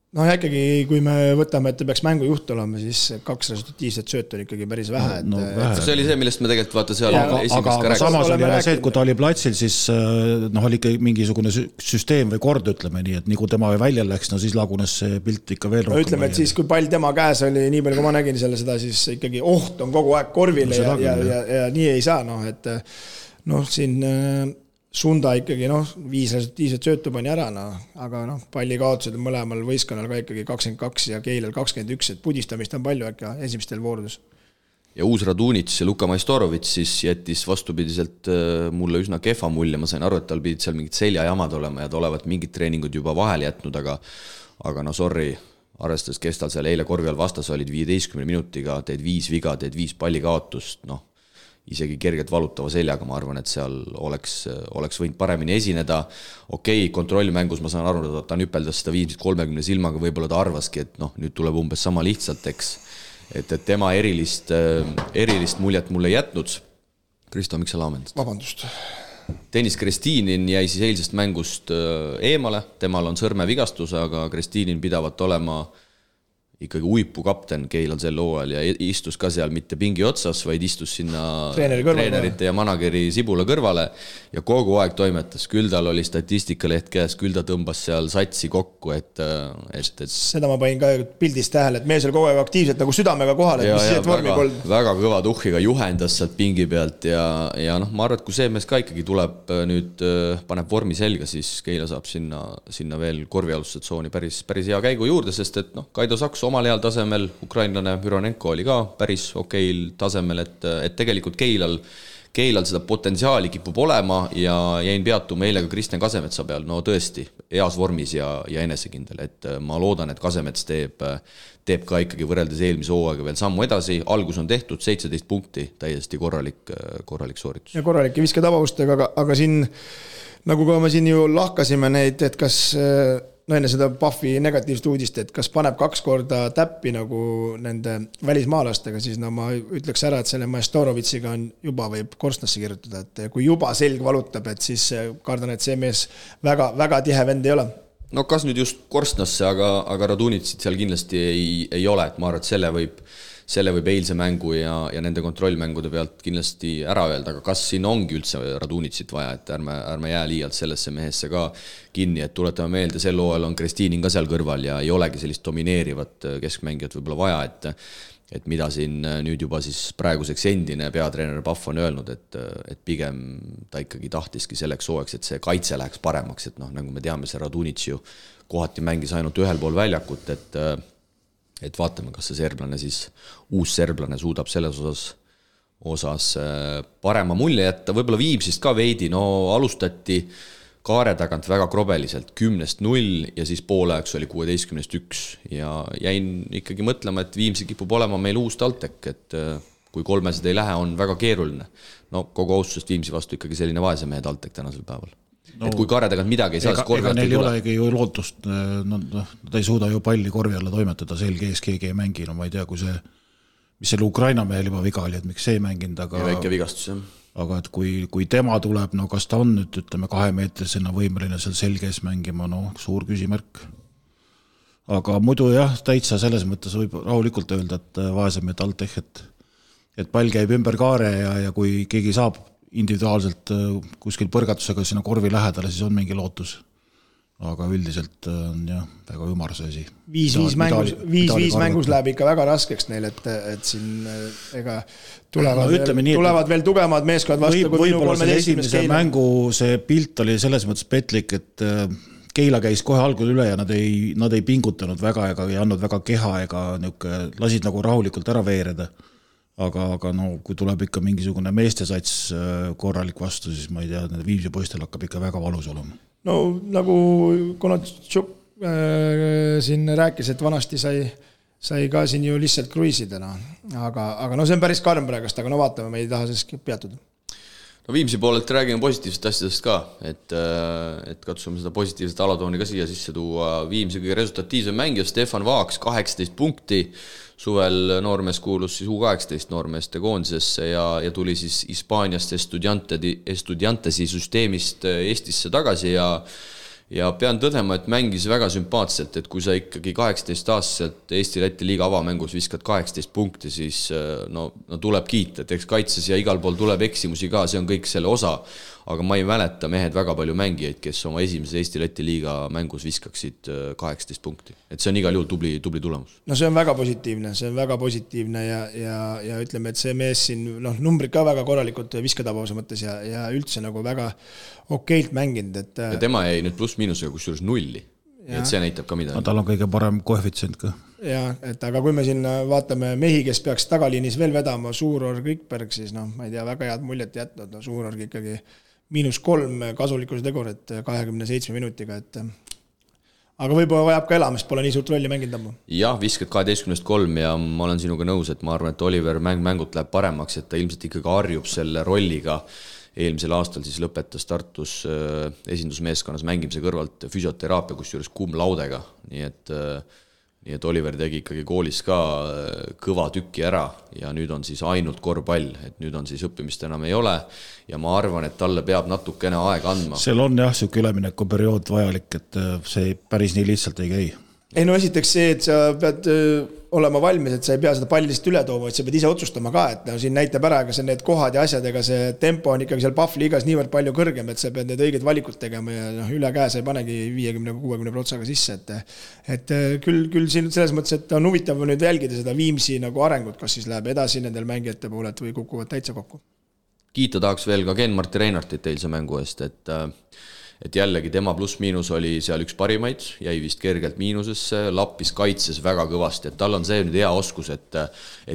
No ja ikkagi, kui me võtame, et ta peaks mängujuht olema, siis 2 resultatiivset sööt on ikkagi päris vähe. See oli see, millest me tegelikult vaata seal aga samas oli jälle see, et kui ta oli platsil, siis oli ikka mingisugune süsteem või kord, ütleme nii, et nii kui tema välja läks, no siis lagunes see pilt ikka veel rohkem. Ütleme, et siis kui pall tema käes oli, nii palju kui ma nägin seda, siis ikkagi oht on kogu aeg korvile ja nii ei saa, et siin Sunda ikkagi 5 resultiivset söötu pani ära, aga palli kaotused on mõlemal võistkonnal ka ikkagi 22 ja Keilal 21, et pudistamist on palju äkki esimestel voorudus. Ja uus Radunits ja Luka Majstorovits siis jättis vastupidiselt mulle üsna kehva mulje, ma sain aru, et tal pidid seal mingid seljajamad olema ja ta olevat mingid treeningud juba vahel jätnud, aga sorry, arvestades, kes tal seal eile korvi all vastas olid 15 minutiga, teed 5 viga, teed 5 palli kaotust, isegi kergelt valutava seljaga, ma arvan, et seal oleks võinud paremini esineda. Okei, kontrollmängus ma saan aru, et ta nüpeldas seda 30 silmaga, võib-olla ta arvaski, et nüüd tuleb umbes sama lihtsalt, eks. Et tema erilist muljet mulle jätnud. Kristo, miks sa laamendad? Vabandust. Dennis Kristinin jäi siis eilsest mängust eemale, temal on sõrmevigastus, aga Kristinin pidavat olema ikkagi uipu kapten Keilal sel hooajal ja istus ka seal mitte pingi otsas, vaid istus sinna treenerite ja manageri Sibula kõrvale ja kogu aeg toimetas. Küll tal oli statistikaleht käes, küll ta tõmbas seal satsi kokku, et seda ma panin ka pildist tähele, et mees oli kogu aeg aktiivselt nagu südamega kohal, et väga kõva tuhhiga juhendas sealt pingi pealt ja ma arvan, et kui see mees ka ikkagi tuleb nüüd, paneb vormi selga, siis Keila saab sinna veel korvialusse tsooni päris hea käigu juurde, sest et Kaido Saks omal heal tasemel, ukrainlane Müronenko oli ka päris okeil tasemel, et tegelikult Keilal seda potentsiaali kipub olema ja jäin peatuma eile ka Kristjan Kasemetsa peal, tõesti, heas vormis ja enesekindel, et ma loodan, et Kasemets teeb ka ikkagi võrreldes eelmise hooaega veel sammu edasi, algus on tehtud, 17 punkti, täiesti korralik sooritus. Ja korralik ja visketabavustega, aga siin, nagu ka me siin ju lahkasime neid, et kas enne seda Puffi negatiivset uudist, et kas paneb 2 korda täppi nagu nende välismaalastega, siis ma ütleks ära, et selle Majstorovitsiga on juba võib korstnasse kirjutada, et kui juba selg valutab, et siis kardan, et see mees väga tihe vend ei ole. Kas nüüd just korstnasse, aga Radunitsit seal kindlasti ei ole, et ma arvan, et selle võib eilse mängu ja nende kontrollmängude pealt kindlasti ära öelda, aga kas siin ongi üldse Radunitsit vaja, et ärme jää liialt sellesse mehesse ka kinni, et tuletame meelde, sel hooajal on Kristinin ka seal kõrval ja ei olegi sellist domineerivat keskmängijat võib-olla vaja, et mida siin nüüd juba siis praeguseks endine peatreener Puff on öelnud, et pigem ta ikkagi tahtiski selleks hooajaks, et see kaitse läheks paremaks, et nagu me teame, see Radunits ju kohati mängis ainult ühel pool väljakut, et vaatame, kas see serblane siis, uus serblane suudab selles osas parema mulje jätta, võib-olla Viimsist ka veidi, alustati kaare tagant väga krobeliselt, 10-0 ja siis poolajaks oli 16-1 ja jäin ikkagi mõtlema, et Viimsi kipub olema meil uus TalTech, et kui 3 ei lähe, on väga keeruline. Kogu austusest Viimsi vastu ikkagi selline vaese mehe TalTech tänasel päeval. Et kui kaare tagant midagi ei saa, siis korvi neil ei olegi ju lootust, ta ei suuda ju palli korvi alla toimetada, selge ees keegi ei mängi, ma ei tea, kui see mis selle Ukraina mehel juba viga oli, et miks see ei mänginud, aga väike vigastus, jah. Aga et kui tema tuleb, no kas ta on nüüd, ütleme, 2-meetrisena võimeline seal selges mängima, no suur küsimärk. Aga muidu jah, täitsa selles mõttes võib rahulikult öelda, et vaesemehed Altech, et pall käib ümber kaare ja kui keegi saab individuaalselt kuskil põrgatusega sinna korvi lähedale, siis on mingi lootus. Aga üldiselt on jah, väga ümar see asi. 5-5 mängus läheb ikka väga raskeks neil, et siin ega tulevad veel tugevamad meeskonnad vastu kui minu 13. esimese mängu see pilt oli selles mõttes petlik, et Keila käis kohe algul üle ja nad ei pingutanud väga ega ei andnud väga keha ega lasid nagu rahulikult ära veereda. Aga no, kui tuleb ikka mingisugune meestesats korralik vastu, siis ma ei tea, need Viimsi poistel hakkab ikka väga valus olema. No nagu Konatšuk siin rääkis, et vanasti sai ka siin ju lihtsalt kruiisidena, aga no see on päris karm praegast, aga no vaatame, me ei taha sellest peatuda. No Viimsi poolelt räägime positiivsest asjadest ka, et katsume seda positiivset alatooni ka siia sisse tuua. Viimsi kõige resultatiivsem mängija Stefan Vaaks, 18 punkti, suvel noormees kuulus siis U18 noormeeste koondisesse ja tuli siis Hispaaniast Estudiantesi süsteemist Eestisse tagasi ja pean tõdema, et mängis väga sümpaatselt, et kui sa ikkagi 18-aastaselt Eesti-Läti liiga avamängus viskad 18 punkti, siis no tuleb kiita, et eks kaitses ja igal pool tuleb eksimusi ka, see on kõik selle osa, aga ma ei mäleta mehed väga palju mängijaid, kes oma esimeses Eesti-Läti liiga mängus viskaksid 18 punkti. Et see on igal juhul tubli tulemus. No see on väga positiivne ja ütleme, et see mees siin numbrid ka väga korralikult viskatabavuse mõttes ja üldse nagu väga okeilt mänginud. Ja tema jäi nüüd pluss-miinusega kusjuures 0. Et see näitab ka midagi. Tal on kõige parem koefitsient ka. Ja, et aga kui me siin vaatame mehi, kes peaks tagaliinis veel vedama, Suurorg, Rikberg, siis ma ei tea, väga head muljet jätnud. Suurorg ikkagi -3 kasulikkuse tegurit 27 minutiga, et aga võib-olla vajab ka elamist, pole nii suurt rolli mänginud ammu. Jah, viskad 12-3 ja ma olen sinuga nõus, et ma arvan, et Oliver mängult läheb paremaks, et ta ilmselt ikkagi harjub selle rolliga. Eelmisel aastal siis lõpetas Tartus esindusmeeskonnas mängimise kõrvalt füsioteraapia, kusjuures laudega, nii et Oliver tegi ikkagi koolis ka kõva tükki ära ja nüüd on siis ainult korvpall, et nüüd on siis õppimist enam ei ole ja ma arvan, et talle peab natukene aega andma. Seal on jah, siuke ülemineku periood vajalik, et see päris nii lihtsalt ei käi. Ei no esiteks see, et sa pead olema valmis, et sa ei pea seda pallist üle tooma, et sa pead ise otsustama ka, et siin näitab ära, aga see need kohad ja asjadega, see tempo on ikkagi seal Pahvliigas niivõrd palju kõrgem, et sa pead need õiged valikud tegema ja üle käe sa ei panegi 50-60 protsaga sisse, et küll siin selles mõttes, et on huvitav nüüd jälgida seda Viimsi nagu arengut, kas siis läheb edasi nendel mängijate pooled või kukuvad täitsa kokku. Kiita tahaks veel ka Ken-Marti Reinartit eilse mängu eest, et jällegi tema pluss-miinus oli seal üks parimaid, jäi vist kergelt miinusesse, lappis kaitses väga kõvasti, et tal on see nüüd hea oskus, et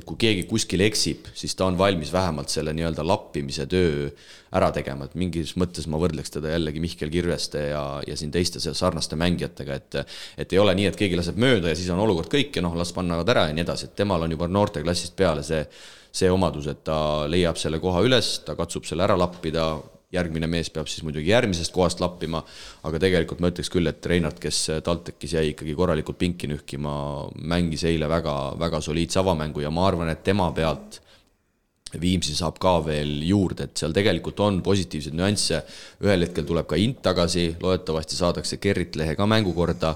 kui keegi kuskil eksib, siis ta on valmis vähemalt selle nii-öelda lappimise töö ära tegema, et mingis mõttes ma võrdleks teda jällegi Mihkel Kirveste ja siin teiste sarnaste mängijatega, et ei ole nii, et keegi laseb mööda ja siis on olukord kõik ja las pannavad ära ja nii edasi, et temal on juba noorteklassist peale see omadus, et ta leiab selle koha üles, ta katsub selle ära lappida, järgmine mees peab siis muidugi järgmisest kohast lappima, aga tegelikult ma ütleks küll, et Reinart, kes TalTechis jäi ikkagi korralikult pinki nühkima, mängis eile väga, väga soliidse avamängu ja ma arvan, et tema pealt Viimsi saab ka veel juurde, et seal tegelikult on positiivsed nüansse, ühel hetkel tuleb ka Int tagasi, loodetavasti saadakse Gerrit Lehe ka mängukorda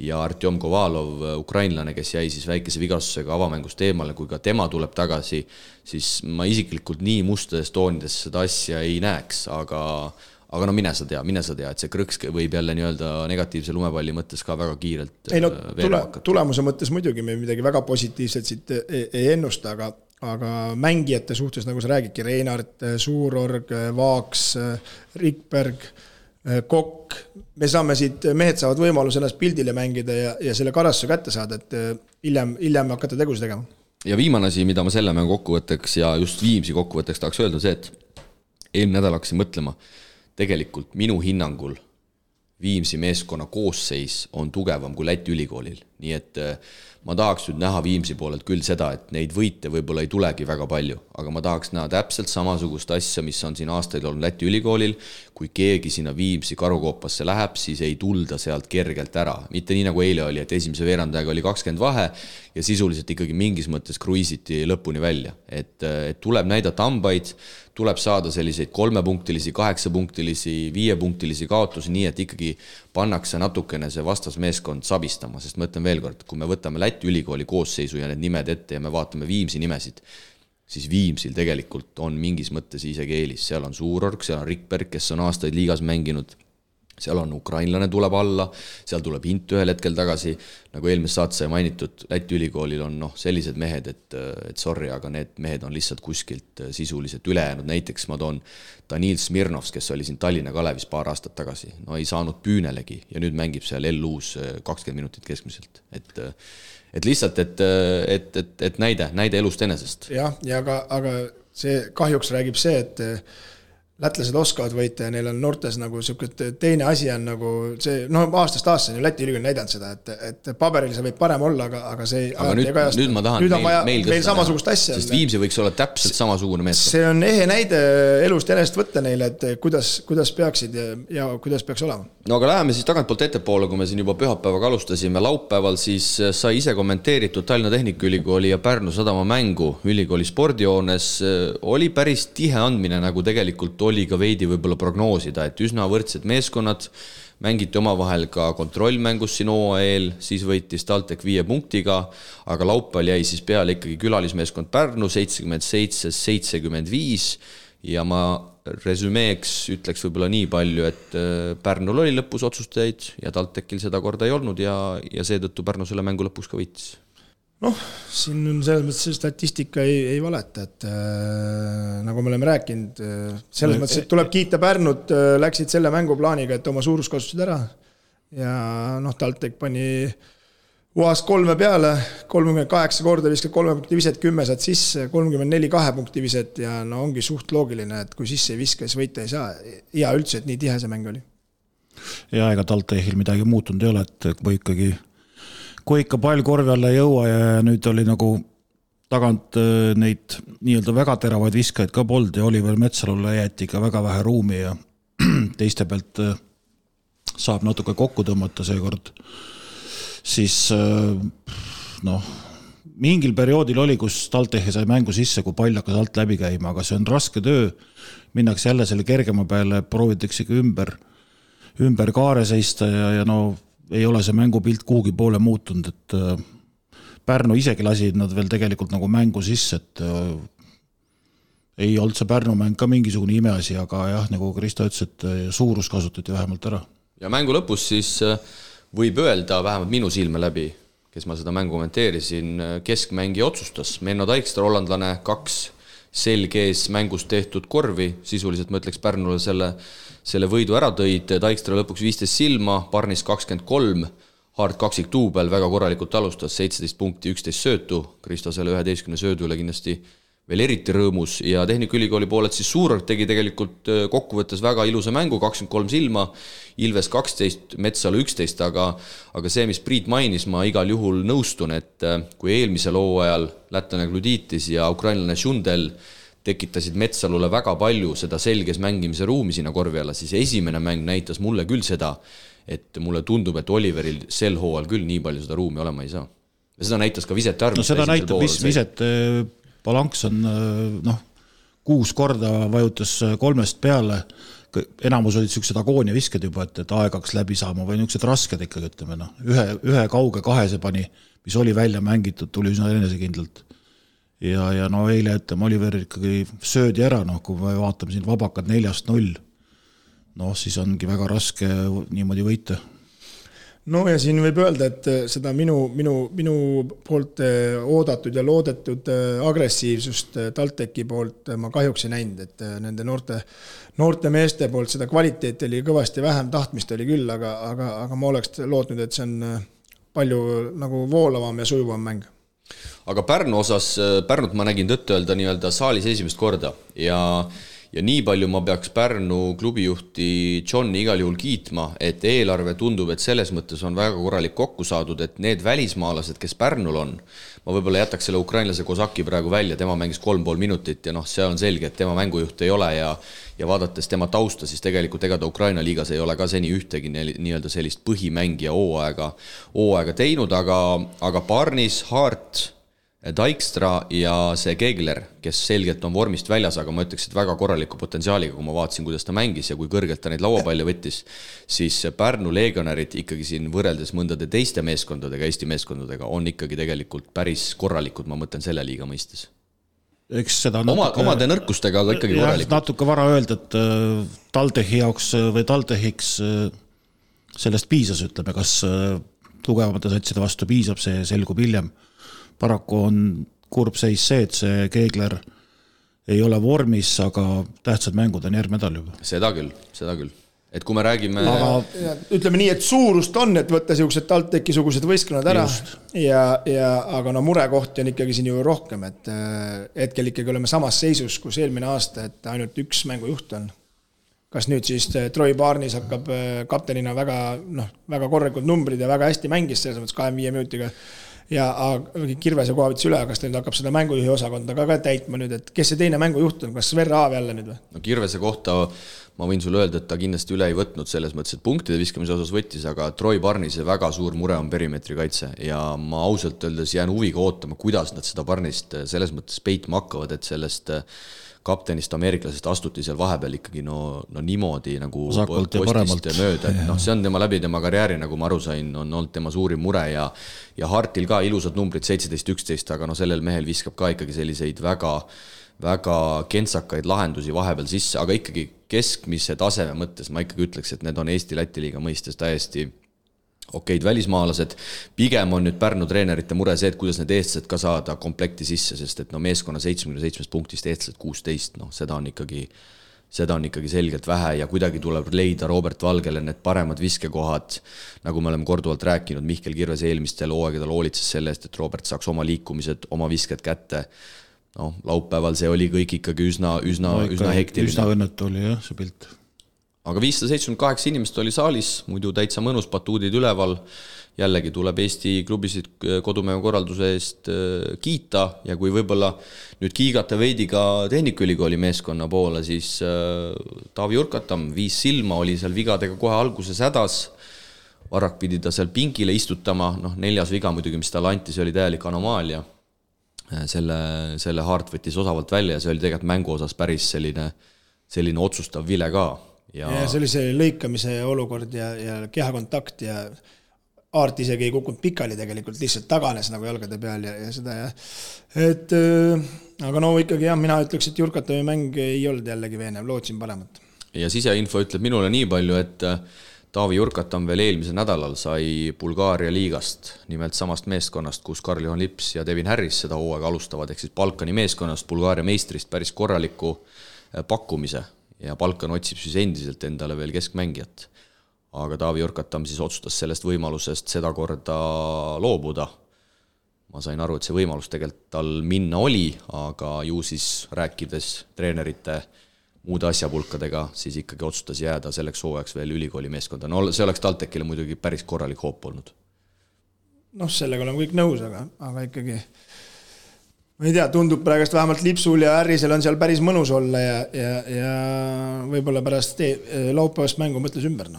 ja Artjom Kovalov, ukrainlane, kes jäi siis väikese vigastusega avamängust eemale, kui ka tema tuleb tagasi, siis ma isiklikult nii mustades toonides seda asja ei näeks, aga no mine sa tea, et see krõks võib jälle nii-öelda negatiivse lumepalli mõttes ka väga kiirelt tulemuse mõttes muidugi me midagi väga positiivset siit ei ennusta, aga mängijate suhtes, nagu sa räägidki, Reinart, Suurorg, Vaaks, Rikberg, Kokk, me saame siit, mehed saavad võimaluse ennast pildile mängida ja selle karastuse kätte saada, et hiljem hakata tegusid tegema. Ja viimane asi, mida ma selle mängu kokkuvõtteks ja just Viimsi kokkuvõtteks tahaks öelda see, et eelmine nädal hakkasin mõtlema, tegelikult minu hinnangul Viimsi meeskonna koosseis on tugevam kui Läti ülikoolil, nii et ma tahaks nüüd näha Viimsi poolelt küll seda, et neid võite võib-olla ei tulegi väga palju, aga ma tahaks näha täpselt samasugust asja, mis on siin aastaid olnud Läti ülikoolil, kui keegi sinna Viimsi karukoopasse läheb, siis ei tulda sealt kergelt ära. Mitte nii nagu eile oli, et esimese veerandajaga oli 20 vahe ja sisuliselt ikkagi mingis mõttes kruiisiti lõpuni välja. Et tuleb näidata hambaid, tuleb saada selliseid 3-punktilisi, 8-punktilisi, 5-punktilisi kaotusi, nii et ikkagi pannakse natukene see vastasmeeskond sabistama, sest ma ütlen veel kord, kui me võtame Läti ülikooli koosseisu ja need nimed ette ja me vaatame Viimsi nimesid, siis Viimsil tegelikult on mingis mõttes isegi eelis. Seal on Suurorg, seal on Rikberg, kes on aastaid liigas mänginud, seal on ukrainlane tuleb alla, seal tuleb Hint ühel hetkel tagasi, nagu eelmise saate sai mainitud, Läti ülikoolil on sellised mehed, et sorry, aga need mehed on lihtsalt kuskilt sisuliselt ülejäänud. Näiteks ma toon Danil Smirnovs, kes oli siin Tallinna Kalevis paar aastat tagasi, ei saanud püünelegi ja nüüd mängib seal LU-s 20 minutit keskmiselt. Et lihtsalt, et näide elust enesest. Jah, ja aga see kahjuks räägib see, et lätlased oskavad võita ja neil on noortes nagu teine asi on nagu see, aastast aastas on ju Läti ülikool näidanud seda, et paberil see võib parem olla, aga see aga nüüd ma tahan meil samasugust asja. Sest Viimsi võiks olla täpselt samasugune meeskond. See on ehe näide elust enest võtta neile, et kuidas peaksid ja kuidas peaks olema. No aga läheme siis tagantpoolt ettepoole, kui me siin juba pühapäevaga alustasime. Laupäeval siis sai ise kommenteeritud Tallinna Tehnikaülikooli ja Pärnu Sadama mängu ülikooli spordijoones. Oli päris tihe andmine, nagu tegelikult oli ka veidi võib-olla prognoosida, et üsna võrdsed meeskonnad mängiti omavahel ka kontrollmängus siin OAL, siis võitis TalTech 5 punktiga, aga laupäeval jäi siis peale ikkagi külalismeeskond Pärnu 77-75 ja ma resümeeks ütleks võib-olla nii palju, et Pärnul oli lõpus otsustajaid ja TalTechil seda korda ei olnud ja seetõttu Pärnu selle mängu lõpuks ka võitis. Siin on selles mõttes statistika ei valeta, et nagu me oleme rääkinud, selles mõttes, et tuleb kiita Pärnut, läksid selle mänguplaaniga, et oma suurus kasutasid ära ja TalTech pani UAS 3 peale, 38 korda viskad 3 punkti viset, 10 saad sisse, 34 2 punkti viset ja ongi suht loogiline, et kui sisse ei viska, siis võita ei saa. Ja üldse, et nii tihe see mäng oli. Ja ega TalTechil midagi muutunud ei ole, et kui ikka pall korvi alla ei jõua ja nüüd oli nagu tagant neid nii-öelda väga teravaid viskajaid ka polnud ja Oliver Metsalule jäeti ikka väga vähe ruumi ja teiste pealt saab natuke kokku tõmmata seekord. Siis mingil perioodil oli, kus TalTech sai mängu sisse, kui pall hakkas alt läbi käima, aga see on raske töö. Minnakse jälle selle kergema peale, proovitakse ümber kaare seista ja ei ole see mängupilt kuhugi poole muutunud, et Pärnu isegi lasi nad veel tegelikult nagu mängu sisse, et ei olnud see Pärnu mäng ka mingisugune imeasi, aga jah, nagu Kristo ütles, et suurus kasutati vähemalt ära. Ja mängu lõpus siis võib öelda, vähemalt minu silme läbi, kes ma seda mängu kommenteerisin, keskmängi otsustas. Menno Taikstra, hollandlane, 2 selgees mängus tehtud korvi, sisuliselt ma ütleks Pärnule selle võidu ära tõid, Taikstra lõpuks 15 silma, Parnis 23, Hard kaksik duubel väga korralikult alustas, 17 punkti, 11 söötu, Kristo selle 11 söödule kindlasti veel eriti rõõmus ja Tehnikaülikooli poolelt siis Suurorg tegi tegelikult kokkuvõttes väga ilusa mängu, 23 silma, Ilves 12, Metsalu 11, aga see, mis Priit mainis, ma igal juhul nõustun, et kui eelmisel hooajal lätlane Gluditis ja ukrainlane Šundel tekitasid Metsalule väga palju seda selges mängimise ruumi sinna korvi alla, siis esimene mäng näitas mulle küll seda, et mulle tundub, et Oliveril sel hooajal küll nii palju seda ruumi olema ei saa. Ja seda näitas ka Visete arv. Seda näitab Visete Palanks on 6 korda vajutas 3 peale, enamus olid sellised agoonia visked juba, et aegaks läbi saama või niisugused rasked ikkagi, ütleme. Ühe kauge 2 pani, mis oli välja mängitud, tuli üsna enesekindlalt. Ja eile ütleme, Oliver ikkagi söödi ära, kui me vaatame siin vabakad 4-0, siis ongi väga raske niimoodi võita. Ja siin võib öelda, et seda minu poolt oodatud ja loodetud agressiivsust TalTechi poolt ma kahjuks ei näinud, et nende noorte meeste poolt seda kvaliteeti oli kõvasti vähem, tahtmist oli küll, aga ma oleks lootnud, et see on palju nagu voolavam ja sujuvam mäng. Aga Pärnu osas, Pärnut ma nägin tõtt öelda nii-öelda saalis esimest korda ja ja nii palju ma peaks Pärnu klubijuhti Johni igal juhul kiitma, et eelarve tundub, et selles mõttes on väga korralik kokku saadud, et need välismaalased, kes Pärnul on, ma võib-olla jätaks selle ukrainlase Kozaki praegu välja, tema mängis 3,5 minutit ja see on selge, et tema mängujuht ei ole ja vaadates tema tausta, siis tegelikult ega ta Ukraina liigas ei ole ka seni ühtegi nii-öelda sellist põhimängija hooaega teinud, aga Barnis, Hart, Dijkstra ja see Kegler, kes selgelt on vormist väljas, aga ma ütleks, et väga korraliku potentsiaaliga, kui ma vaatasin, kuidas ta mängis ja kui kõrgelt ta neid lauapalle võttis, siis Pärnu legionärid ikkagi siin võrreldes mõndade teiste meeskondadega, Eesti meeskondadega on ikkagi tegelikult päris korralikud, ma mõtlen selle liiga mõistes. Eks seda omade nõrkustega, aga ikkagi korralikud. Natuke vara öelda, et TalTechi jaoks või TalTechiks sellest piisas, ütleme, kas tugevamate satside vastu piisab, see selgub hiljem. Paraku on kurb seis see, et see Kegler ei ole vormis, aga tähtsad mängud on järgmine nädal juba. Seda küll. Et kui me räägime... Ütleme nii, et suurust on, et võtta siuksed TalTechi-sugused võistkonnad ära, aga murekohti on ikkagi siin ju rohkem, et hetkel ikkagi oleme samas seisus, kus eelmine aasta, et ainult üks mängujuht on. Kas nüüd siis Troy Barnis hakkab kaptenina väga korralikud numbrid ja väga hästi mängis selles mõttes 25 minutiga ja Kirvese koha võttis üle, kas teil hakkab seda mängujuhi osakonda ka täitma nüüd, et kes see teine mängujuht on, kas Sver Aav jälle nüüd või? No Kirvese kohta ma võin sulle öelda, et ta kindlasti üle ei võtnud selles mõttes, et punktide viskamise osas võttis, aga Troy Barnise väga suur mure on perimeetri kaitse ja ma ausalt öeldes jään huviga ootama, kuidas nad seda Barnist selles mõttes peitma hakkavad, et sellest kaptenist ameeriklasest astuti seal vahepeal ikkagi niimoodi nagu postist mööda, et see on tema läbi tema karjääri, nagu ma aru sain, on olnud tema suurim mure ja Hartil ka ilusad numbrid 17-11, aga sellel mehel viskab ka ikkagi selliseid väga kentsakaid lahendusi vahepeal sisse, aga ikkagi keskmise taseme mõttes ma ikkagi ütleks, et need on Eesti-Läti liiga mõistes täiesti okeid välismaalased. Pigem on nüüd Pärnu treenerite mure see, et kuidas need eestlased ka saada komplekti sisse, sest et meeskonna 77 punktist eestlased 16, seda on ikkagi selgelt vähe ja kuidagi tuleb leida Robert Valgele need paremad viskekohad, nagu me oleme korduvalt rääkinud, Mihkel Kirves eelmistel hooaegadel hoolitses selle eest, et Robert saaks oma liikumised, oma visked kätte. Laupäeval see oli kõik ikkagi üsna hektiline. Üsna õnnetu oli jah, see pilt. Aga 578 inimest oli saalis, muidu täitsa mõnus, batuudid üleval. Jällegi tuleb Eesti klubisid kodumäe korralduse eest kiita ja kui võib-olla nüüd kiigata veidi ka Tehnikaülikooli meeskonna poole, siis Taavi Urkatam 5 silma oli seal vigadega kohe alguses hädas. Varrak pidi ta seal pingile istutama, 4. viga muidugi, mis talle anti, see oli täielik anomaalia. Selle Hart võttis osavalt välja ja see oli tegelikult mängu osas päris selline otsustav vile ka. Ja see oli see lõikamise olukord ja kehakontakt ja Aart isegi ei kukkunud pikali tegelikult, lihtsalt taganes nagu jalgade peal ja seda ja aga ikkagi mina ütleks, et Jurkatami mäng ei olnud jällegi veenev, lootsin paremat. Ja siseinfo ütleb minule nii palju, et Taavi Jurkatam veel eelmisel nädalal sai Bulgaaria liigast, nimelt samast meeskonnast, kus Karl-Johan Lips ja Devin Harris seda hooaega alustavad, ehk siis Balkani meeskonnast, Bulgaaria meistrist päris korraliku pakkumise. Ja Balkan otsib siis endiselt endale veel keskmängijat. Aga Taavi Jurkatam siis otsustas sellest võimalusest seda korda loobuda. Ma sain aru, et see võimalus tegelikult tal minna oli, aga ju siis rääkides treenerite muude asjapulkadega, siis ikkagi otsustas jääda selleks hooajaks veel ülikooli meeskonda. See oleks TalTechile muidugi päris korralik hoop olnud. Sellega oleme kõik nõus, aga ikkagi ma ei tea, tundub praegust vähemalt Lipsul ja Harrisel on seal päris mõnus olla ja võib-olla pärast laupäevast mängu mõtles ümber.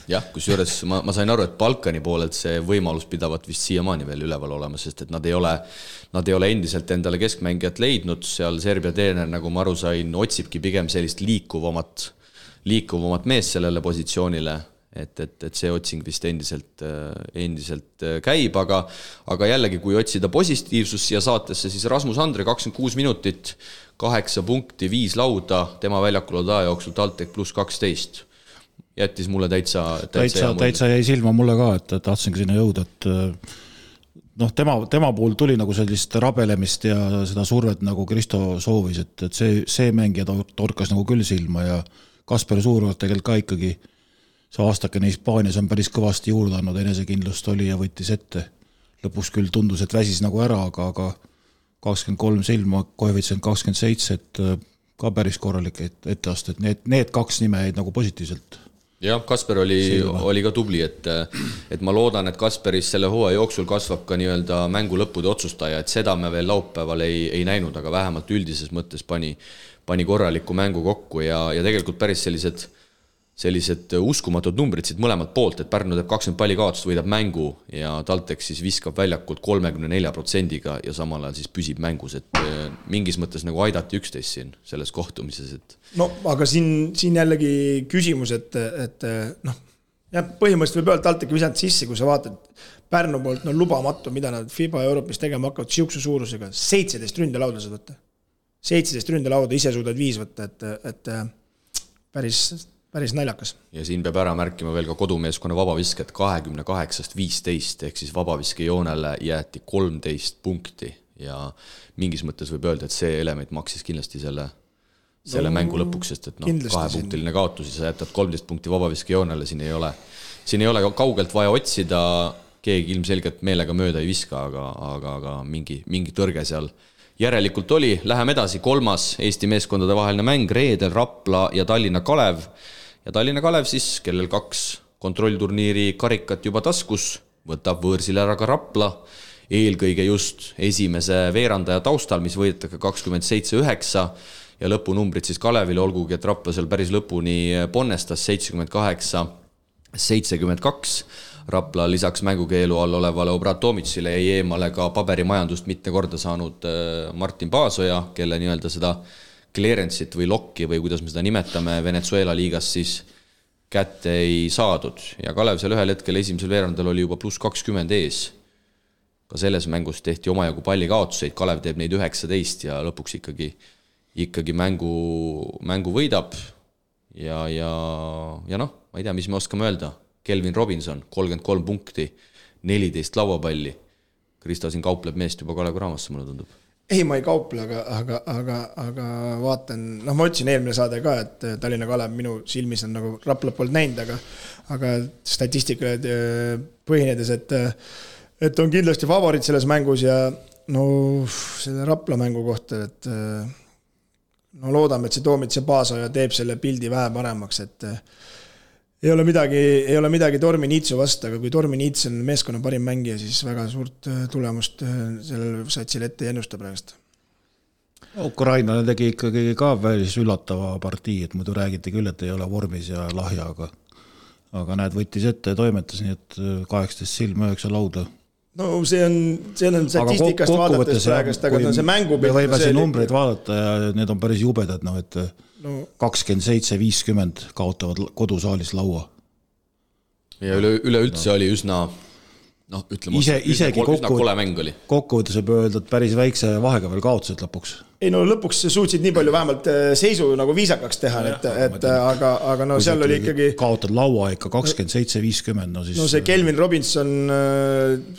Jah, kusjuures ma sain aru, et Balkani poolelt see võimalus pidavat vist siiamaani veel üleval olema, sest et nad ei ole endiselt endale keskmängijat leidnud, seal Serbia treener, nagu ma aru sain, otsibki pigem sellist liikuvamat mees sellele positsioonile, et see otsing vist endiselt käib, aga jällegi, kui otsida positiivsus siia saatesse, siis Rasmus Andre 26 minutit, 8 punkti, 5 lauda, tema väljakul aja jooksul TalTech pluss 12. Jättis mulle täitsa jäi silma mulle ka, et tahtsingi sinna jõuda, et tema puhul tuli nagu sellist rabelemist ja seda survet nagu Kristo soovis, et see mängija torkas nagu küll silma ja Kasper Suurvart tegelikult ka ikkagi see aastakene Hispaanias on päris kõvasti juurde andnud, enesekindlust oli ja võttis ette. Lõpuks küll tundus, et väsis nagu ära, aga 23 silma, koefitsient 27, et ka päris korralik etteaste, et need kaks nime jäid nagu positiivselt. Jah, Kasper oli ka tubli, et ma loodan, et Kasperis selle hooaja jooksul kasvab ka nii-öelda mängu lõppude otsustaja, et seda me veel laupäeval ei näinud, aga vähemalt üldises mõttes pani korraliku mängu kokku ja tegelikult päris sellised uskumatud numbrid siit mõlemalt poolt, et Pärnu teeb 20 palli kaotust, võidab mängu ja TalTech siis viskab väljakult 34% ja samal ajal siis püsib mängus, et mingis mõttes nagu aidati üksteist siin selles kohtumises. Et... No aga siin jällegi küsimus, et noh, jah, põhimõtteliselt võib öelda TalTech visanud sisse, kui sa vaatad Pärnu poolt, no lubamatu, mida nad FIBA Euroopis tegema hakkavad siukse suurusega, 17 ründelaudasid võtta. 17 ründelauda, ise suudad 5 võtta, et päris naljakas. Ja siin peab ära märkima veel ka kodumeeskonna vabavisket 28-15 ehk siis vabaviske joonele jäeti 13 punkti ja mingis mõttes võib öelda, et see element maksis kindlasti selle mängu lõpuks, sest et 2-punktiline kaotus ja sa jätad 13 punkti vabaviske joonele, siin ei ole kaugelt vaja otsida, keegi ilmselgelt meelega mööda ei viska, aga mingi tõrge seal järelikult oli. Läheme edasi, 3. Eesti meeskondade vaheline mäng, reedel Rapla ja Tallinna Kalev. Ja Tallinna Kalev siis, kellel 2 kontrollturniiri karikat juba taskus, võtab võõrsile ära ka Rapla, eelkõige just esimese veerandaja taustal, mis võidetake 27-9 ja lõpunumbrid siis Kalevile, olgugi, et Rapla seal päris lõpuni ponnestas 78-72. Rapla lisaks mängukeelu all olevale Obrat Tomicile jäi eemale ka paberimajandust mitme korda saanud Martin Paasoja, kelle nii-öelda seda clearance'it või lokki või kuidas me seda nimetame Venezuela liigas siis kätte ei saadud. Ja Kalev seal ühel hetkel esimesel veerandal oli juba +20 ees. Ka selles mängus tehti omajagu palli kaotuseid, Kalev teeb neid 19 ja lõpuks ikkagi mängu võidab. Ja noh, ma ei tea, mis me oskame öelda. Kelvin Robinson, 33 punkti, 14 lauapalli. Krista siin kaupleb meest juba Kalev Kraamasse, mulle tundub. Ei, ma ei kauple, aga vaatan, noh, ma ütlesin eelmine saade ka, et Tallinna Kalev minu silmis on nagu Rapla poolt näinud, aga statistikale põhinedes, et on kindlasti favoriit selles mängus ja no selle Rapla mängu kohta, et no loodame, et see Toomits ja Paasoja teeb selle pildi vähe paremaks, et ei ole midagi Tormi Niitsu vastu, aga kui Tormi Niits on meeskonna parim mängija, siis väga suurt tulemust sellel satsile ette ei ennusta praegust. Ukrainale tegi ikkagi ka välis üllatava partii, et muidu räägiti küll, et ei ole vormis ja lahja, aga näed, võttis ette ja toimetas, nii et 18 silma 9 lauda. No see on statistikast vaadates praegust, aga see mängu... Me võime siin numbreid vaadata ja need on päris jubedad, et 27-50 kaotavad kodusaalis laua. Ja üleüldse oli üsna, noh, ütleme, üsna kole mäng oli. Kokkuvõttes võib öelda, et päris väikse vahega veel kaotused lõpuks. Ei no lõpuks suutsid nii palju vähemalt seisu nagu viisakaks teha, aga no seal oli ikkagi... Kaotad laua ikka 27-50, no siis... No see Kelvin Robinson,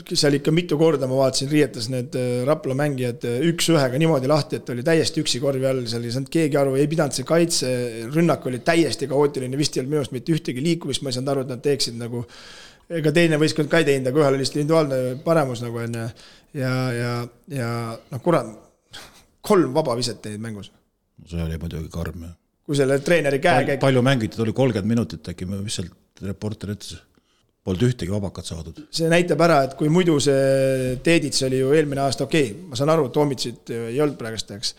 seal ikka mitu korda ma vaatasin, riietas need Rapla mängijad 1-1 niimoodi lahti, et oli täiesti üksi korvi all, seal ei saanud keegi aru, ei pidanud see kaitse, rünnak oli täiesti kaootiline, vist ei olnud minust mitte ühtegi liikumist, ma ei saanud aru, et nad teeksid nagu... Ega teine võistkond ka ei teinud, aga ühel oli individuaalne paremus nagu enne ja noh, kurat, 3 vabaviset teid mängus. See oli muidugi karm. Kui selle treeneri käe... Palju mängiti, oli 30 minutit äkki, mis sealt reporter ütles. Polnud ühtegi vabakat saadud. See näitab ära, et kui muidu see Teedits oli ju eelmine aasta okei. Ma saan aru, Tomitsit ei olnud praegusteks.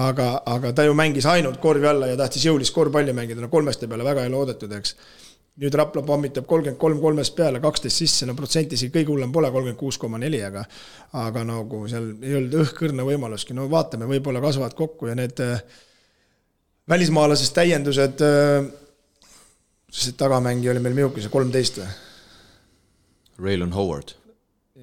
Aga ta ju mängis ainult korvi alla ja tahtis jõulist korvpalli mängida. No 3 peale väga ei loodetud, eks. Nüüd Rapla pommitab 33 peale, 12 sisse, no protsentisi kõige hullem pole 36,4, aga nagu seal ei olnud õhkõrna võimaluski. No vaatame, võib-olla kasvavad kokku ja need välismaalasest täiendused, see tagamängi oli meil miuki, see 13 või? Raylon Howard.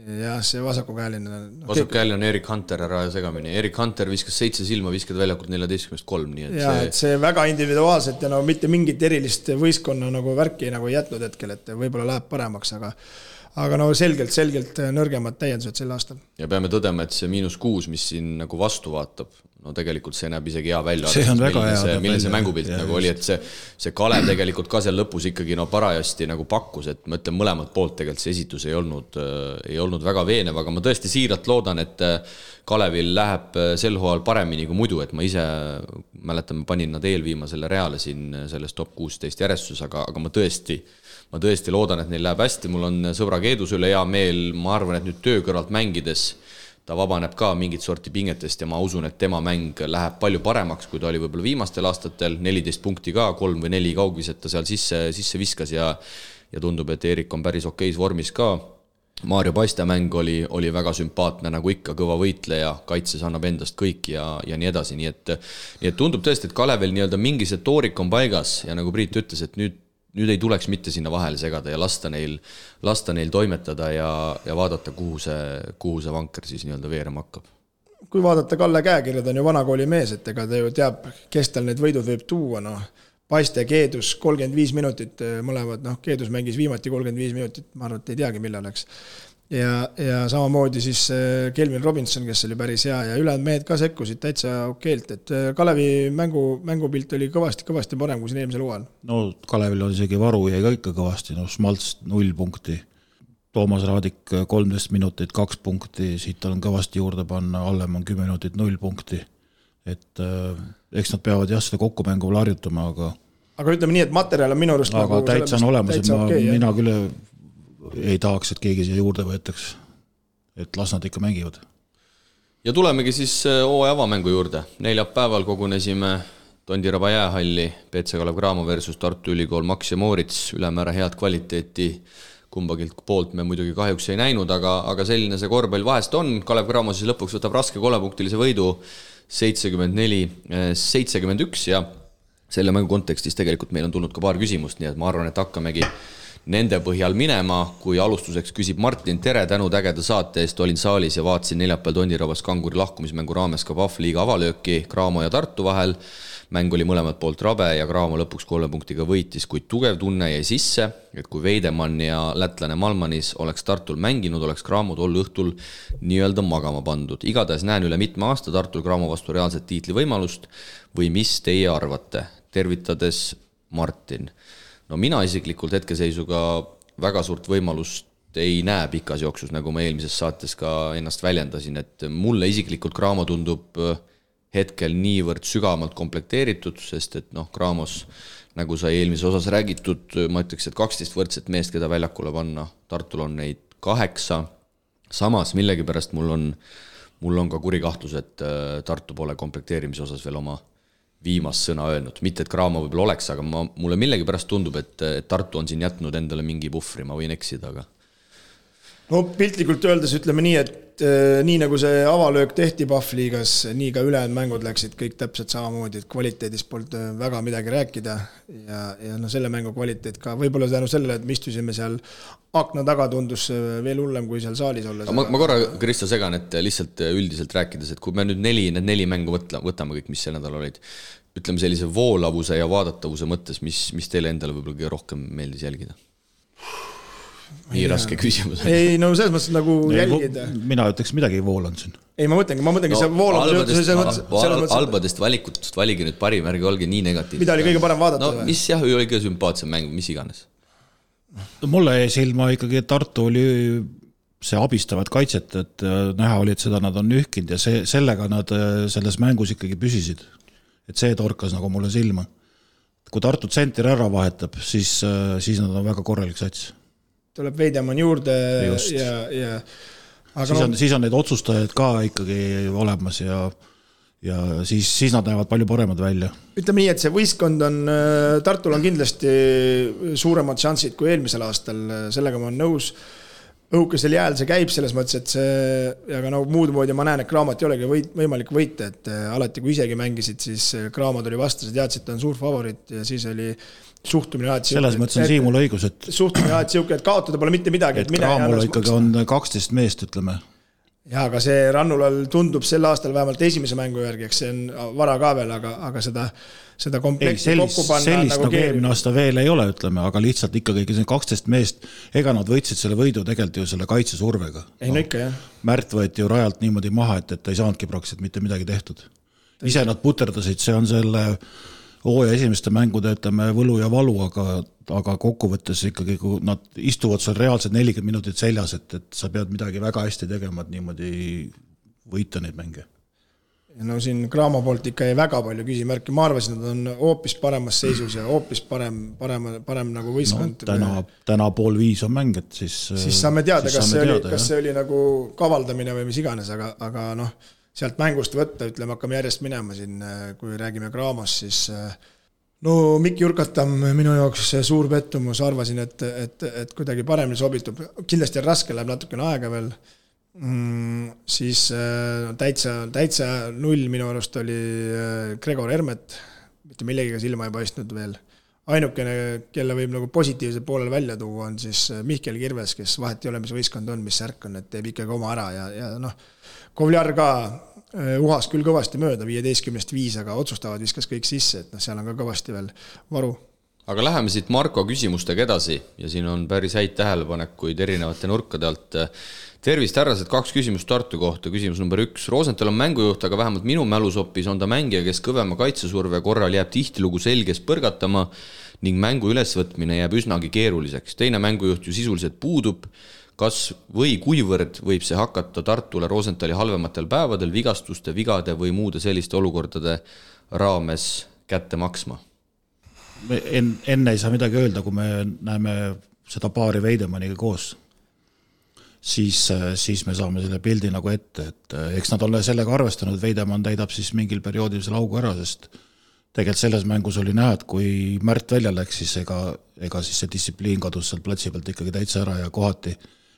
Jah, see vasakukäeline. Vasakukäeline on Erik Hunter ära segamini. Erik Hunter viskas 7 silma, viskad väljakult 14-3. Nii et ja, et see väga individuaalselt ja no mitte mingit erilist võistkonna nagu värki nagu jätnud hetkel, et võib-olla läheb paremaks, aga no selgelt nõrgemad täiendused sel aastal. Ja peame tõdema, et see -6, mis siin nagu vastu vaatab, no tegelikult see näeb isegi hea välja. See on väga hea. Milline see mängupilt nagu oli, et see Kalev tegelikult ka seal lõpus ikkagi parajasti nagu pakkus, et ma ütlen mõlemad poolt tegelikult see esitus ei olnud väga veenev, aga ma tõesti siiralt loodan, et Kalevil läheb sel hooajal paremini kui muidu, et ma ise mäletan, ma panin nad eelviimasele reale siin selles top 16 järjestus, aga ma tõesti loodan, et neil läheb hästi, mul on sõbra Keedus üle hea meel, ma arvan, et nüüd töö kõrvalt mängides ta vabaneb ka mingit sorti pingetest ja ma usun, et tema mäng läheb palju paremaks, kui ta oli võib-olla viimastel aastatel, 14 punkti ka, 3 või 4 kaugviset ta seal sisse viskas ja tundub, et Erik on päris okeis vormis ka. Maarjo Paiste mäng oli väga sümpaatne, nagu ikka kõva võitleja, kaitses annab endast kõik ja nii edasi, nii et tundub tõesti, et Kalevel nii-öelda mingi see toorik on paigas ja nagu Priit ütles, et nüüd ei tuleks mitte sinna vahele segada ja lasta neil toimetada ja vaadata, kuhu see vanker siis nii-öelda veerema hakkab. Kui vaadata Kalle käekirja, ta on ju vanakooli mees, et ega ta ju teab, kes tal need võidud võib tuua, Paiste Keedus 35 minutit mõlemad, Keedus mängis viimati 35 minutit, ma arvan, et ei teagi, millal läks. Ja samamoodi siis Kelvin Robinson, kes oli päris hea ja ülejäänud mehed ka sekkusid täitsa okeilt, et Kalevi mängupilt oli kõvasti parem kui siin eelmisel hooajal. No Kalevil on isegi varu jäi ka ikka kõvasti, Schmalz 0 punkti, Toomas Raadik 13 minutit 2 punkti, siit on kõvasti juurde panna, Allem on 10 minutit 0 punkti, et eks nad peavad seda kokkumängu harjutama, aga ütleme nii, et materjal on minu arust aga täitsa on olemas, et mina küll ei tahaks, et keegi siia juurde võetaks, et las nad ikka mängivad. Ja tulemegi siis hooaja avamängu juurde. Neljapäeval kogunesime Tondiraba jäähalli, PC Kalev Cramo versus Tartu Ülikool Max ja Moorits, ülemäära head kvaliteeti kumbagilt poolt me muidugi kahjuks ei näinud, aga selline see korvpall vahest on. Kalev Cramo siis lõpuks võtab raske 3-punktilise võidu 74-71 ja selle mängu kontekstis tegelikult meil on tulnud ka paar küsimust, nii et ma arvan, et hakkamegi nende põhjal minema, kui alustuseks küsib Martin, tere, tänud ägeda saate eest, olin saalis ja vaatasin neljapäeval Tondirabas Kanguri lahkumismängu raames ka Pahvliiga avalööki Cramo ja Tartu vahel. Mäng oli mõlemad poolt rabe ja Cramo lõpuks 3 punktiga võitis, kuid tugev tunne jäi sisse, et kui Veidemann ja lätlane Malmanis oleks Tartul mänginud, oleks Cramo tol õhtul nii-öelda magama pandud. Igatahes näen üle mitme aasta Tartul Cramo vastu reaalset tiitlivõimalust või mis teie arvate? Tervitades Martin. No mina isiklikult hetkeseisuga väga suurt võimalust ei näe pikas jooksus, nagu ma eelmises saates ka ennast väljendasin, et mulle isiklikult Cramo tundub hetkel niivõrd sügavalt komplekteeritud, sest et Cramos, nagu sai eelmises osas räägitud, ma ütleks, et 12 võrdset meest, keda väljakule panna, Tartul on neid 8, samas millegipärast mul on ka kuri kahtlus, et Tartu pole komplekteerimise osas veel oma viimast sõna öelnud, mitte et Cramo võib-olla oleks, aga mulle millegipärast tundub, et Tartu on siin jätnud endale mingi puhvri, ma võin eksida, aga no piltlikult öeldes ütleme nii, et nii nagu see avalöök tehti Pahvliigas, nii ka ülejäänud mängud läksid kõik täpselt samamoodi, et kvaliteedist polnud väga midagi rääkida ja selle mängu kvaliteet ka võib-olla tänu sellele, et me istusime seal akna taga, tundus veel hullem kui seal saalis olla. Ma korra, Kristo, segan, et lihtsalt üldiselt rääkides, et kui me nüüd need neli mängu võtame kõik, mis see nädal olid, ütleme sellise voolavuse ja vaadatavuse mõttes, mis teile endale võib-olla kõige rohkem meeldis jälgida? Nii raske küsimus. Ei, no selles mõttes nagu jälgida. Mina ütleks midagi voolanud siin. Ei, ma mõtlengi, see voolavus albadest valikut valigi nüüd parim, ärge olge nii negatiivsed. Mida oli kõige parem vaadata? No mis jah, oli kõige sümpaatsem mäng, mis iganes? Mulle jäi silma ikkagi, et Tartu oli see abistavad kaitset, et näha oli, et seda nad on nühkinud ja sellega nad selles mängus ikkagi püsisid. Et see torkas nagu mulle silma. Kui Tartu tsenter ära vahetab, siis nad on väga korralik sats. Tuleb Veidemann juurde ja siis on need otsustajad ka ikkagi olemas ja siis nad näevad palju paremad välja. Ütleme nii, et see võistkond on, Tartul on kindlasti suuremad šansid kui eelmisel aastal, sellega ma olen nõus. Õhukesel jääl see käib selles mõttes, et see, aga muud moodi ma näen, et Cramot ei olegi võimalik võita, et alati kui isegi mängisid, siis Cramot oli vastas, teadsid, et ta on suur favorit ja siis oli suhtumine alati selles mõttes on Siimul õigus, et suhtumine alati siuke, et kaotada pole mitte midagi, et Cramol ikkagi on 12 meest, ütleme. Ja, aga see Rannulal tundub sel aastal vähemalt esimese mängu järgi, eks see on vara ka veel, aga seda komplekti kokku panna sellist nagu eelmine aasta veel ei ole, ütleme, aga lihtsalt ikkagi 12 meest, ega nad võitsid selle võidu tegelikult ju selle kaitsesurvega. Ei, no ikka, jah. Märt võeti ju rajalt niimoodi maha, et ta ei saanudki praktiliselt mitte midagi tehtud. ise nad puterdasid, see on selle hooaja esimeste mängude, ütleme, võlu ja valu, aga kokkuvõttes ikkagi, kui nad istuvad seal reaalselt 40 minutit seljas, et sa pead midagi väga hästi tegema, et niimoodi võita neid mänge. No siin Cramo poolt ikka jäi väga palju küsimärki, ma arvasin, et nad on hoopis paremas seisus ja hoopis parem nagu võistkond. No, täna 4:30 on mäng, et siis saame teada, kas see oli nagu kavaldamine või mis iganes, aga noh, sealt mängust võtta, ütleme, hakkame järjest minema siin, kui räägime Cramos, siis no Mikk Jurkatam minu jaoks suur pettumus, arvasin, et kuidagi paremini sobitub, kindlasti raske, läheb natukene aega veel, siis täitsa null minu arust oli Gregor Hermet, mitte millegiga silma ei paistnud veel. Ainukene, kelle võib nagu positiivse poolel välja tuua, on siis Mihkel Kirves, kes vahet ei ole, mis võistkond on, mis särk on, et teeb ikkagi oma ära ja noh, Kovliar ka uhas küll kõvasti mööda, 15-5, aga otsustavad viskas kõik sisse, et noh, seal on ka kõvasti veel varu. Aga läheme siit Marko küsimustega edasi ja siin on päris häid tähelepanekuid erinevate nurkade alt. Tervist, härrased, 2 küsimust Tartu kohta. Küsimus number 1. Rosenthal on mängujuht, aga vähemalt minu mälusopis on ta mängija, kes kõvema kaitsesurve korral jääb tihtilugu selges põrgatama ning mängu ülesvõtmine jääb üsnagi keeruliseks. Teine mängujuht ju sisuliselt puudub. Kas või kuivõrd võib see hakata Tartule Rosenthali halvematel päevadel vigastuste, vigade või muude selliste olukordade raames kätte maksma? Enne ei saa midagi öelda, kui me näeme seda paari Veidemaniga koos. Siis me saame selle pildi nagu ette, et eks nad ole sellega arvestanud, Veidemann täidab siis mingil perioodil selle augu ära, sest tegelikult selles mängus oli näha, et kui Märt välja läks, siis ega siis see distsipliin kadus seal platsi pealt ikkagi täitsa ära ja kohati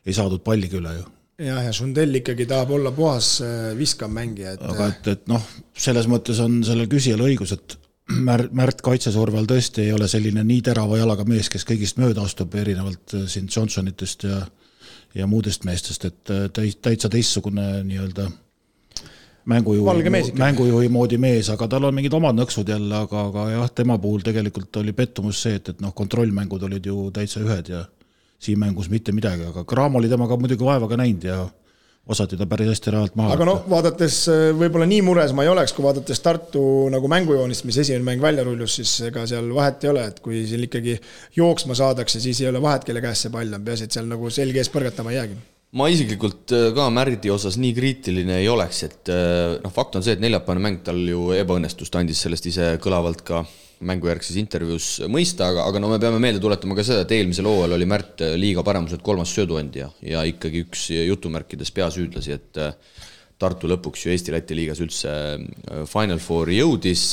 ei saadud palligi üle ju. Ja Sundell ikkagi tahab olla puhas viskam mängija. Aga et noh, selles mõttes on sellel küsijal õigus, et Märt kaitsesurvel tõesti ei ole selline nii terava jalaga mees, kes kõigist mööda astub erinevalt siin Johnsonitest ja muudest meestest, et täitsa teissugune nii-öelda mängujuhi moodi mees, aga tal on mingid omad nõksud jälle, aga jah, tema puhul tegelikult oli pettumus see, et noh, kontrollmängud olid ju täitsa ühed ja siin mängus mitte midagi, aga Cramo oli temaga muidugi vaevaga näinud ja osati ta päris hästi rahalt maha. Aga noh, vaadates võib-olla nii mures ma ei oleks, kui vaadates Tartu nagu mängujoonist, mis esimene mäng välja rullus, siis ega seal vahet ei ole, et kui siin ikkagi jooksma saadakse, siis ei ole vahet, kelle käes see pall on, peas, et seal nagu selge ees põrgatama ei jäägi. Ma isiklikult ka Märdi osas nii kriitiline ei oleks, et noh, fakt on see, et neljapäevane mäng tal ju ebaõnnestust andis sellest ise kõlavalt ka mängujärgses intervjuus mõista, aga no me peame meelde tuletama ka seda, et eelmisel hooajal oli Märt liiga paremuselt 3. sööduandja ja ikkagi üks jutumärkides peasüüdlasi, et Tartu lõpuks ju Eesti-Läti liigas üldse Final Fouri jõudis,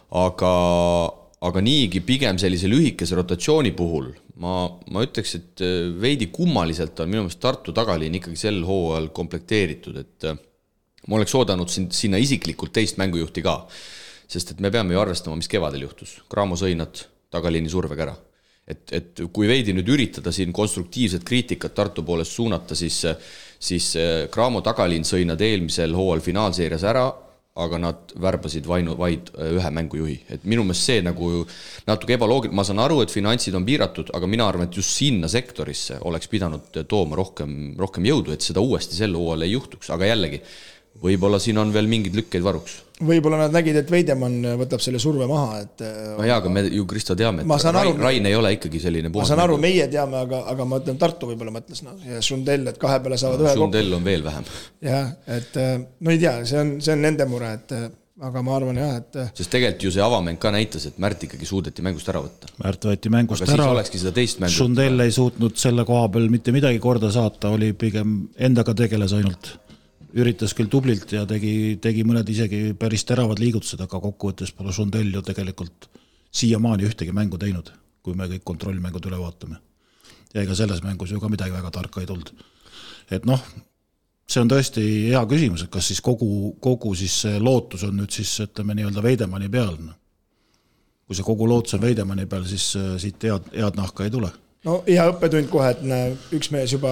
aga niigi pigem sellise lühikese rotatsiooni puhul ma ütleks, et veidi kummaliselt on minu meelest Tartu tagaliin ikkagi sel hooajal komplekteeritud, et ma oleks oodanud sinna isiklikult teist mängujuhti ka, sest et me peame ju arvestama, mis kevadel juhtus. Cramo sõi nad tagaliini survega ära. Et kui veidi nüüd üritada siin konstruktiivset kriitikat Tartu poolest suunata, siis Cramo tagaliin sõi nad eelmisel hooajal finaalseerias ära, aga nad värbasid vaid ühe mängujuhi. Et minu meelest see nagu natuke ebaloogiline. Ma saan aru, et finantsid on piiratud, aga mina arvan, et just sinna sektorisse oleks pidanud tooma rohkem jõudu, et seda uuesti sel hooajal ei juhtuks. Aga jällegi, võib-olla siin on veel mingid lükkeid varuks. Võib-olla nad nägid, et Veidemann võtab selle surve maha. Et no jaa, aga me ju Kristo teame, et Rain ei ole ikkagi selline puhas. Ma saan aru, meie teame, aga ma ütlen, Tartu võib-olla mõtles. No, ja Sundell, et kahe peale saavad ühe kokku. Sundell on veel vähem. Jah, et no ei tea, see on nende mure, aga ma arvan jah, et sest tegelikult ju see avamäng ka näitas, et Märt ikkagi suudeti mängust ära võtta. Märt võeti mängust aga ära. Siis olekski seda teist mängu. Sundell ei suutnud selle koha peal mitte midagi korda saata, oli pigem endaga tegeles ainult. Üritas küll tublilt ja tegi mõned isegi päris teravad liigutused, aga kokkuvõttes pole Sundell ju tegelikult siiamaani ühtegi mängu teinud, kui me kõik kontrollmängud üle vaatame. Ja ega selles mängus ju ka midagi väga tarka ei tulnud. Et noh, see on tõesti hea küsimus, et kas siis kogu siis lootus on nüüd siis, ütleme nii-öelda Veidemanni peal. Kui see kogu lootus on Veidemanni peal, siis siit head nahka ei tule. No hea õppetund kohe, et üks mees juba,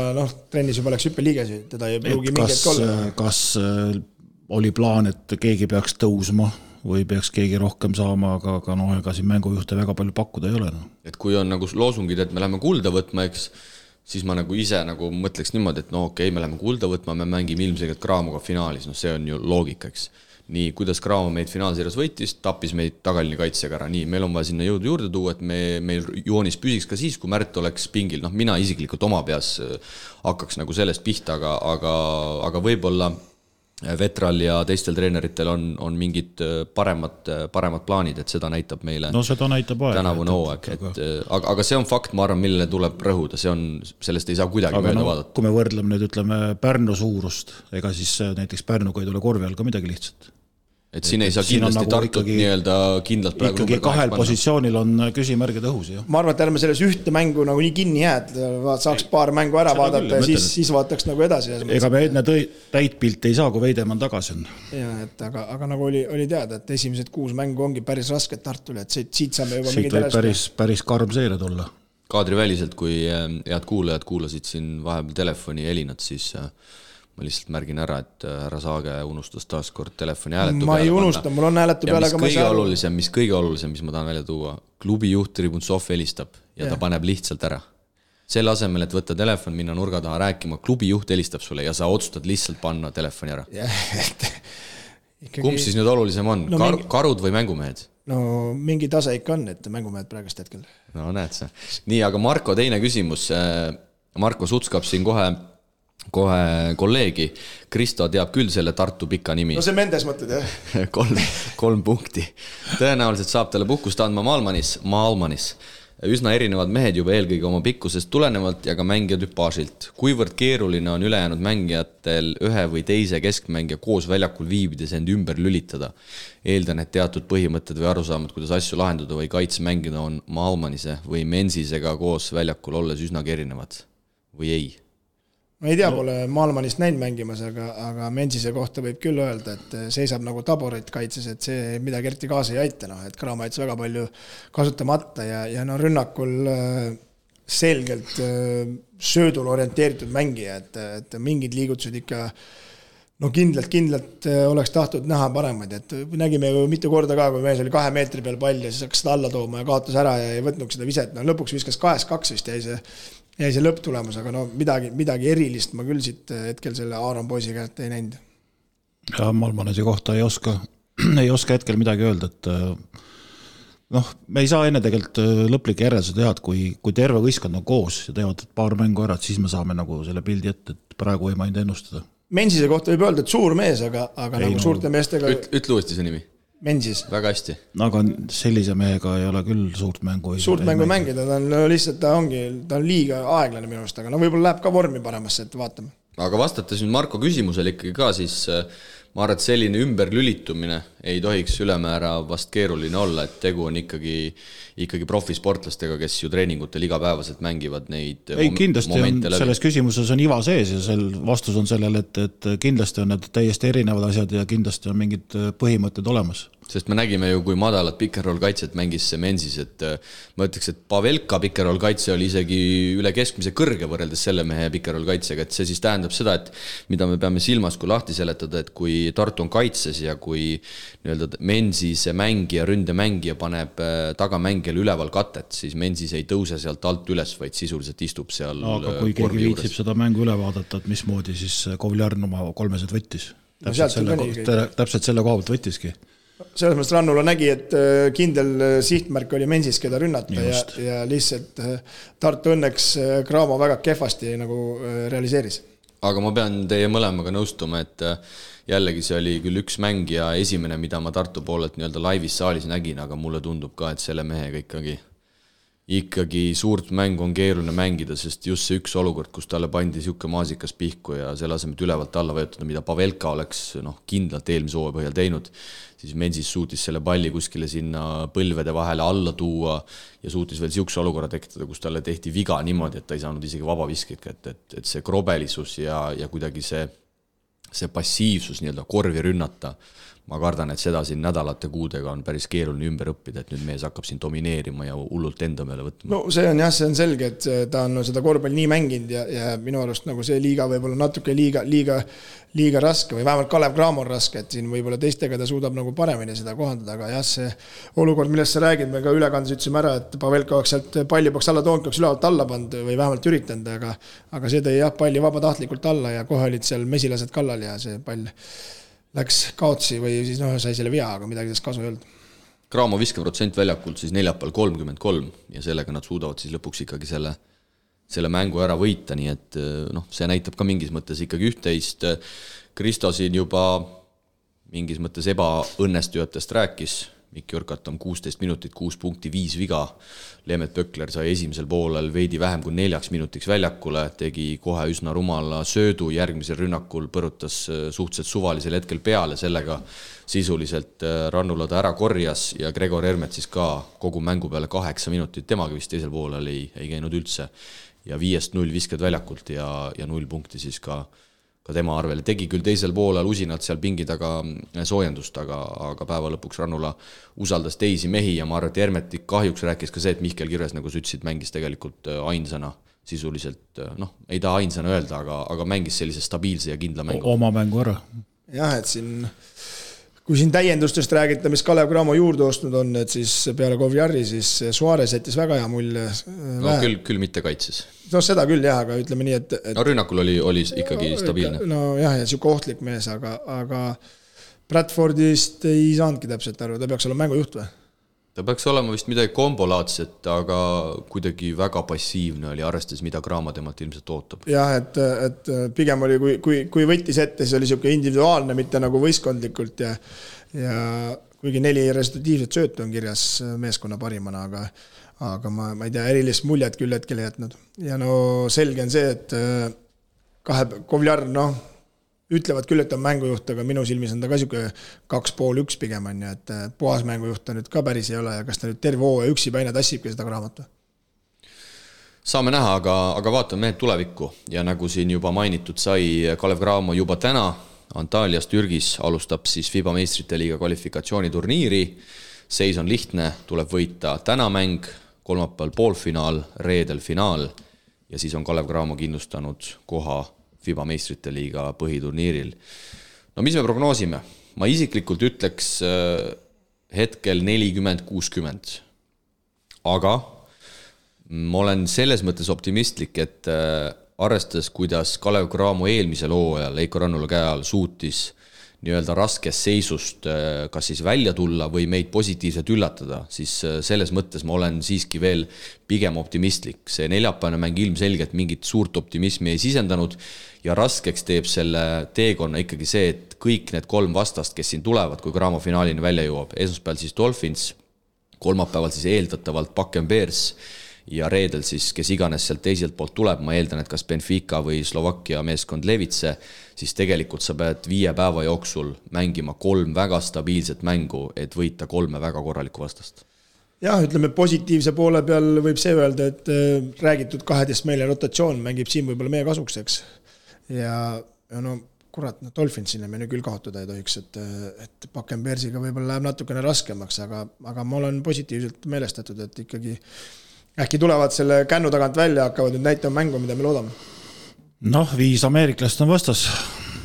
trennis juba läks hüppeliigesi, teda ei pruugi mingit kolla. Kas oli plaan, et keegi peaks tõusma või peaks keegi rohkem saama, aga ega siin mängujuhte väga palju pakkuda ei ole. Et kui on nagu loosungid, et me läheme kulda võtma, eks, siis ma nagu ise nagu mõtleks niimoodi, et okei, me läheme kulda võtma, me mängime ilmselgelt Cramoga finaalis, see on ju loogika, eks. nii, kuidas Cramo meid finaalseerias võitis, tappis meid tagaline kaitsega ära, nii, meil on vaja sinna jõudu juurde tuua, et meil joonis püsiks ka siis, kui Märt oleks pingil, noh, mina isiklikult oma peas hakkaks nagu sellest pihta, aga võib-olla Vetral ja teistel treeneritel on mingid paremad plaanid, et seda näitab meile seda näitab aeg. Tänavune hooaeg, aga see on fakt, ma arvan, millele tuleb rõhuda, sellest ei saa kuidagi mööda vaadata. Kui me võrdleme nüüd, ütleme, Pärnu suurust, ega siis näiteks Pärnuga ei tule korvi all ka midagi lihtsat. Et siin ei saa kindlasti nagu Tartut nii-öelda kindlalt praegu ikkagi kahel positsioonil on küsimärgid õhus. Jah. Ma arvan, et ärme selles ühte mängu nagu nii kinni jääd, saaks paar mängu ära vaadata ja siis vaataks nagu edasi. Ega me enne täit pilti ei saa, kui Veidemann tagasi on. Ja, et aga nagu oli teada, et esimesed 6 mängu ongi päris rasked Tartule, et siit saame juba siit võib päris karm seeria tulla. Kaadriväliselt, kui head kuulajad kuulasid siin vahepeal telefoni helinat, siis ma lihtsalt märgin ära, et härra Saage unustas taas kord telefoni hääletu peale. Ma ei unusta, mul on hääletu peale, aga mis kõige olulisem, mis ma tahan välja tuua, klubi juht Tribuntsov helistab ja ta paneb lihtsalt ära. Selle asemel, et võtta telefon, minna nurga taha rääkima, klubi juht helistab sulle ja sa otsustad lihtsalt panna telefoni ära. Kumb siis nüüd olulisem on? Karud või mängumehed? No mingi tase ikka on, et mängumehed praegust hetkel. No näed sa. Nii, aga Marko teine küsimus. Marko Sutskab siin kohe kolleegi. Kristo teab küll selle Tartu pika nimi. No see Mendes mõtled, jah? 3 punkti. Tõenäoliselt saab talle puhkust andma Maalmanis. Üsna erinevad mehed juba eelkõige oma pikkusest tulenevalt ja ka mängija tüpaažilt. Kuivõrd keeruline on ülejäänud mängijatel ühe või teise keskmängija koos väljakul viibides end ümber lülitada? Eeldan, et teatud põhimõtted või arusaamad, kuidas asju lahendada või kaitse mängida on Maalmanise või Mensisega koos väljakul olles üsnagi erinevad või ei? Ma ei tea, pole Maalmanist näinud mängimas, aga Mensise kohta võib küll öelda, et seisab nagu taborit kaitses, et see midagi eriti kaasa ei aita, et Cramo jättis väga palju kasutamata ja rünnakul selgelt söödul orienteeritud mängija, et mingid liigutused ikka kindlalt oleks tahtnud näha paremaid, et nägime ju mitu korda ka, kui mees oli 2 meetri peal pall ja siis hakkas seda alla tooma ja kaotas ära ja ei võtnud seda viset, lõpuks viskas 2-2 vist jäi see lõpptulemus, aga midagi erilist ma küll siit hetkel selle Aaron poisi käelt ei näinud. Ja Malmanesi kohta ei oska hetkel midagi öelda, et me ei saa enne tegelikult lõplik järjelse teha, et kui terve võistkond on koos ja teevad paar mängu ära, siis me saame nagu selle pildi ette, et praegu ei maininud ennustada. Mensise kohta võib öelda, et suur mees, aga nagu suurte meestega... Ütle uuesti see nimi. Mensis. Väga hästi. Aga sellise mehega ei ole küll suurt mängu. Suurt mängu mängida, ta on lihtsalt, ta on liiga aeglane minu arust, aga võib-olla läheb ka vormi paremasse, et vaatame. Aga vastates nüüd Marko küsimusele ikkagi ka, siis ma arvan, et selline ümberlülitumine ei tohiks ülemäära vast keeruline olla, et tegu on ikkagi profisportlastega, kes ju treeningutel igapäevaselt mängivad neid kindlasti selles küsimuses on iva sees ja vastus on sellele, et kindlasti on need täiesti erinevad asjad ja kindlasti on mingid põhimõtted olemas. Sest me nägime ju, kui madalat pick-and-roll kaitset mängis see Mensis, et ma ütleks, et Pavelka pick-and-roll kaitse oli isegi üle keskmise kõrge võrreldes selle mehe pick-and-roll kaitsega, et see siis tähendab seda, et mida me peame silmas, kui lahti seletada, et kui Tartu on kaitses ja kui nii-öelda Mensise mängija, ründemängija paneb tagamängijale üleval katet, siis Mensis ei tõuse sealt alt üles, vaid sisuliselt istub seal. Aga kui keegi viitsib seda mängu üle vaadata, et mismoodi siis Kovliarn oma 3 võttis. Täpselt selle koha pealt võttiski. Selles mõttes Rannula nägi, et kindel sihtmärk oli Mensis, keda rünnata ja lihtsalt Tartu õnneks Cramo väga kehvasti nagu realiseeris. Aga ma pean teie mõlemaga nõustuma, et jällegi see oli küll üks mäng ja esimene, mida ma Tartu poolelt nii-öelda laivis saalis nägin, aga mulle tundub ka, et selle mehega ikkagi suurt mängu on keeruline mängida, sest just see üks olukord, kus talle pandi siuke maasikas pihku ja selle asemel ülevalt alla võetada, mida Pavelka oleks kindlalt eelmise hooaja põhjal teinud, siis Mensis suutis selle palli kuskile sinna põlvede vahele alla tuua ja suutis veel siukse olukorra tekitada, kus talle tehti viga niimoodi, et ta ei saanud isegi vabaviskit, et see krobelisus ja kuidagi see passiivsus nii-öelda korvi rünnata, ma kardan, et seda siin nädalate kuudega on päris keeruline ümber õppida, et nüüd mees hakkab siin domineerima ja hullult enda meele võtma. No see on selge, et ta on seda korvpalli nii mänginud ja minu arust nagu see liiga võib-olla natuke liiga raske või vähemalt Kalev Cramo on raske, et siin võib-olla teistega ta suudab nagu paremini seda kohandada, aga jah, see olukord, millest sa räägid, me ka ülekandes ütlesime ära, et Pavelka oleks sealt palli peaks alla toonud, peaks ülevalt alla pand või vähemalt üritanud, aga see tõi jah palli vabatahtlikult alla ja kohe olid seal mesilased kallal ja see pall läks kaotsi või siis sai selle vea, aga midagi sellest kasu ei olnud. Cramo viskeprotsent väljakult siis neljapäeval 33 ja sellega nad suudavad siis lõpuks ikkagi selle mängu ära võita, nii et see näitab ka mingis mõttes ikkagi üht-teist. Kristo siin juba mingis mõttes ebaõnnestujatest rääkis, Mikk Jürkat on 16 minutit, 6 punkti, 5 viga. Leemet Pökler sai esimesel poolel veidi vähem kui 4 minutiks väljakule, tegi kohe üsna rumala söödu, järgmisel rünnakul põrutas suhteliselt suvalisel hetkel peale, sellega sisuliselt Rannula ta ära korjas ja Gregor Hermet siis ka kogu mängu peale 8 minutit, temaga vist teisel poolel ei käinud üldse ja 5-0 viskad väljakult ja 0 punkti siis ka tema arvel. Tegi küll teisel poolel usinalt seal pingi taga soojendust, aga päeva lõpuks Rannula usaldas teisi mehi ja ma arvan, et Hermeti kahjuks rääkis ka see, et Mihkel Kirves, nagu sa ütlesid, mängis tegelikult ainsana sisuliselt, ei taha ainsana öelda, aga mängis sellise stabiilse ja kindla mängu. Oma mängu ära. Jah, et kui siin täiendustest räägita, mis Kalev Cramo juurde ostnud on, et siis peale Kovjari siis Suarez jättis väga hea mulje. No küll mitte kaitses. No seda küll jah, aga ütleme nii, et no rünnakul oli ikkagi stabiilne. No jah, ja siuke ohtlik mees, aga Bradfordist ei saanudki täpselt aru, ta peaks olema mängujuht või? Ta peaks olema vist midagi kombolaadset, aga kuidagi väga passiivne oli, arvestades, mida Cramo temalt ilmselt ootab. Jah, et pigem oli, kui võttis ette, siis oli siuke individuaalne, mitte nagu võistkondlikult ja kuigi 4 resultatiivset söötu on kirjas meeskonna parimana, aga ma ei tea, erilist muljet küll hetkel ei jätnud. Ja selge on see, et Kovjar, ütlevad küll, et on mängujuht, aga minu silmis on ta ka siuke 2,5-1 pigem on, et puhas mängujuht on nüüd ka päris ei ole ja kas ta nüüd terve hooaja üksi päine tassibki seda Cramot? Saame näha, aga vaatame mehed tulevikku ja nagu siin juba mainitud sai, Kalev Cramo juba täna Antalyas Türgis alustab siis FIBA meistrite liiga kvalifikatsiooniturniiri. Seis on lihtne, tuleb võita täna mäng, kolmapäeval poolfinaal, reedel finaal ja siis on Kalev Cramo kindlustanud koha FIBA meistrite liiga põhiturniiril. No mis me prognoosime? Ma isiklikult ütleks hetkel 40-60. Aga ma olen selles mõttes optimistlik, et arvestades, kuidas Kalev Cramo eelmisel hooajal Eiko Rannula käe all suutis nii-öelda raskest seisust kas siis välja tulla või meid positiivselt üllatada, siis selles mõttes ma olen siiski veel pigem optimistlik. See neljapäevane mäng ilmselgelt mingit suurt optimismi ei sisendanud ja raskeks teeb selle teekonna ikkagi see, et kõik need 3 vastast, kes siin tulevad, kui Cramo finaalini välja jõuab, esmaspäeval siis Dolphins, kolmapäeval siis eeldatavalt Bakken Bears ja reedel siis, kes iganes sealt teiselt poolt tuleb, ma eeldan, et kas Benfica või Slovakkia meeskond Levitse, siis tegelikult sa pead 5 päeva jooksul mängima 3 väga stabiilset mängu, et võita 3 väga korralikku vastast. Jah, ütleme positiivse poole peal võib see öelda, et räägitud 12 meile rotatsioon mängib siin võib-olla meie kasuks, eks. Ja kurat, Dolphinsile me nüüd küll kaotada ei tohiks, et Bakken Bearsiga võib-olla läheb natukene raskemaks, aga ma olen positiivselt meelestatud, et ikkagi äkki tulevad selle kännu tagant välja, hakkavad nüüd näitama mängu, mida me loodame. 5 ameeriklast on vastas,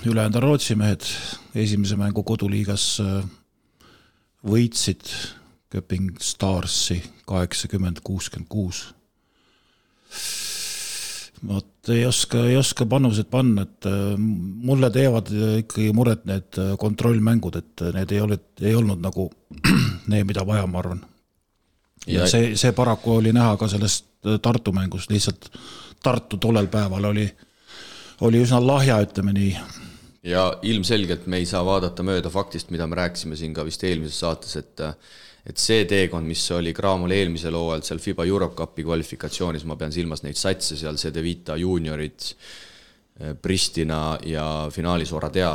ülejäänud on Rootsi mehed. Esimese mängu koduliigas võitsid Köping Starsi 80-66. Ei oska panused panna, et mulle teevad ikkagi muret need kontrollmängud, et need ei olnud nagu need, mida vaja, ma arvan. Ja see paraku oli näha ka sellest Tartu mängust, lihtsalt Tartu tollel päeval oli üsna lahja, ütleme nii. Ja ilmselgelt me ei saa vaadata mööda faktist, mida me rääkisime siin ka vist eelmises saates, et see teekond, mis oli Cramol eelmisel hooajal seal FIBA Europe Cupi kvalifikatsioonis, ma pean silmas neid satse seal, CD Vita juniorid, Pristina ja finaalis Oradea,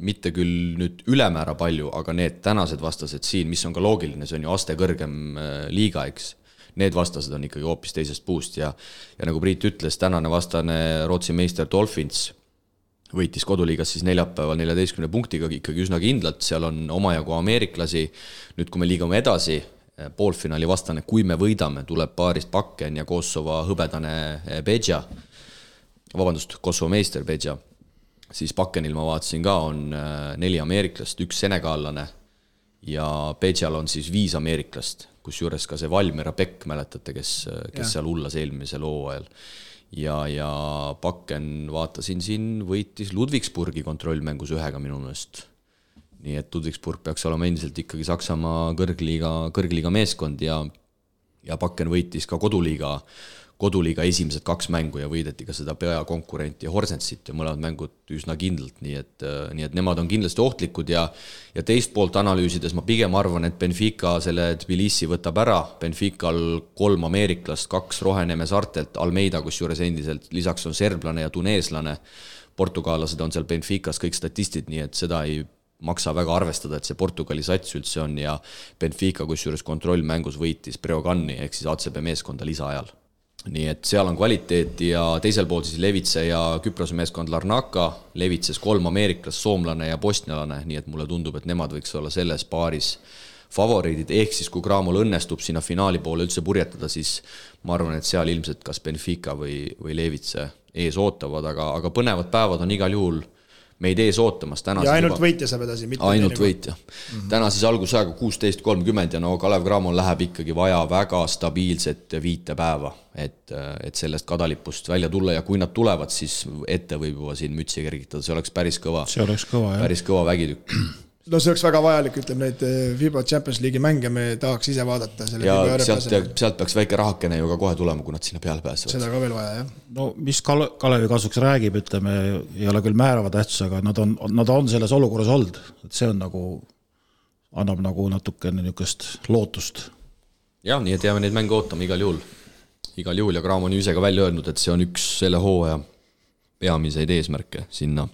mitte küll nüüd ülemäära palju, aga need tänased vastased siin, mis on ka loogiline, see on ju aste kõrgem liiga, eks. Need vastased on ikkagi hoopis teisest puust ja nagu Priit ütles, tänane vastane Rootsi meister Dolphins võitis koduliigas siis neljapäeval 14 punktiga ikkagi üsna kindlalt, seal on omajagu ameeriklasi. Nüüd, kui me liigume edasi, poolfinaali vastane, kui me võidame, tuleb paarist Bakken ja Kosovo hõbedane Bedja, Kosovo meister Bedja. Siis Bakkenil ma vaatasin ka, on 4 ameeriklast, 1 senegaalane ja Bedjal on siis 5 ameeriklast, kus juures ka see Valmira Pekk, mäletate, kes seal hullas eelmisel hooajal. ja Bakken vaatasin siin, võitis Ludwigsburgi kontrollmängus 1 minu meelest. Nii et Ludwigsburg peaks olema endiselt ikkagi Saksamaa kõrgliiga meeskond ja Bakken võitis ka koduliiga esimesed 2 mängu ja võideti ka seda peakonkurenti Horsensit ja mõlemad mängud üsna kindlalt, nii et nemad on kindlasti ohtlikud ja teist poolt analüüsides ma pigem arvan, et Benfica selle Tbilisi võtab ära, Benfical 3 ameeriklast, 2 Roheneme saartelt, Almeida kusjuures endiselt, lisaks on serblane ja tuneeslane, portugaalased on seal Benficas kõik statistid, nii et seda ei maksa väga arvestada, et see Portugali sats üldse on ja Benfica kusjuures kontrollmängus võitis Breogani ehk siis ACB meeskonda lisaajal. Nii et seal on kvaliteet ja teisel pool siis Levitse ja Küprose meeskond Larnaka, Levitses 3 ameeriklas, soomlane ja bosnialane, nii et mulle tundub, et nemad võiks olla selles paaris favoriidid, ehk siis kui Cramol õnnestub sinna finaali poole üldse purjetada, siis ma arvan, et seal ilmselt kas Benfica või Levitse ees ootavad, aga põnevad päevad on igal juhul meid ees ootamas. Ja ainult võitja saab edasi. Ainult võitja. Täna siis algusajaga 16.30 ja Kalev Cramol läheb ikkagi vaja väga stabiilset 5 päeva, et sellest kadalipust välja tulla ja kui nad tulevad, siis ette võib juba siin mütsi kergitada, see oleks päris kõva. See oleks kõva, jah. Päris kõva vägitükk. No see oleks väga vajalik, ütleme neid FIBA Champions League'i mänge me tahaks ise vaadata. Ja sealt peaks väike rahakene ju ka kohe tulema, kui nad sinna peale pääsevad. Seda ka veel vaja, jah. No mis Kalevi kasuks räägib, ütleme, ei ole küll määrava tähtsus, aga nad on selles olukorras olnud. Et see on nagu, annab nagu natukene niukest lootust. Jah, nii et jääme neid mänge ootama igal juhul. Igal juhul ja Cram on ju ise ka välja öelnud, et see on üks selle hooaja peamiseid eesmärke sinna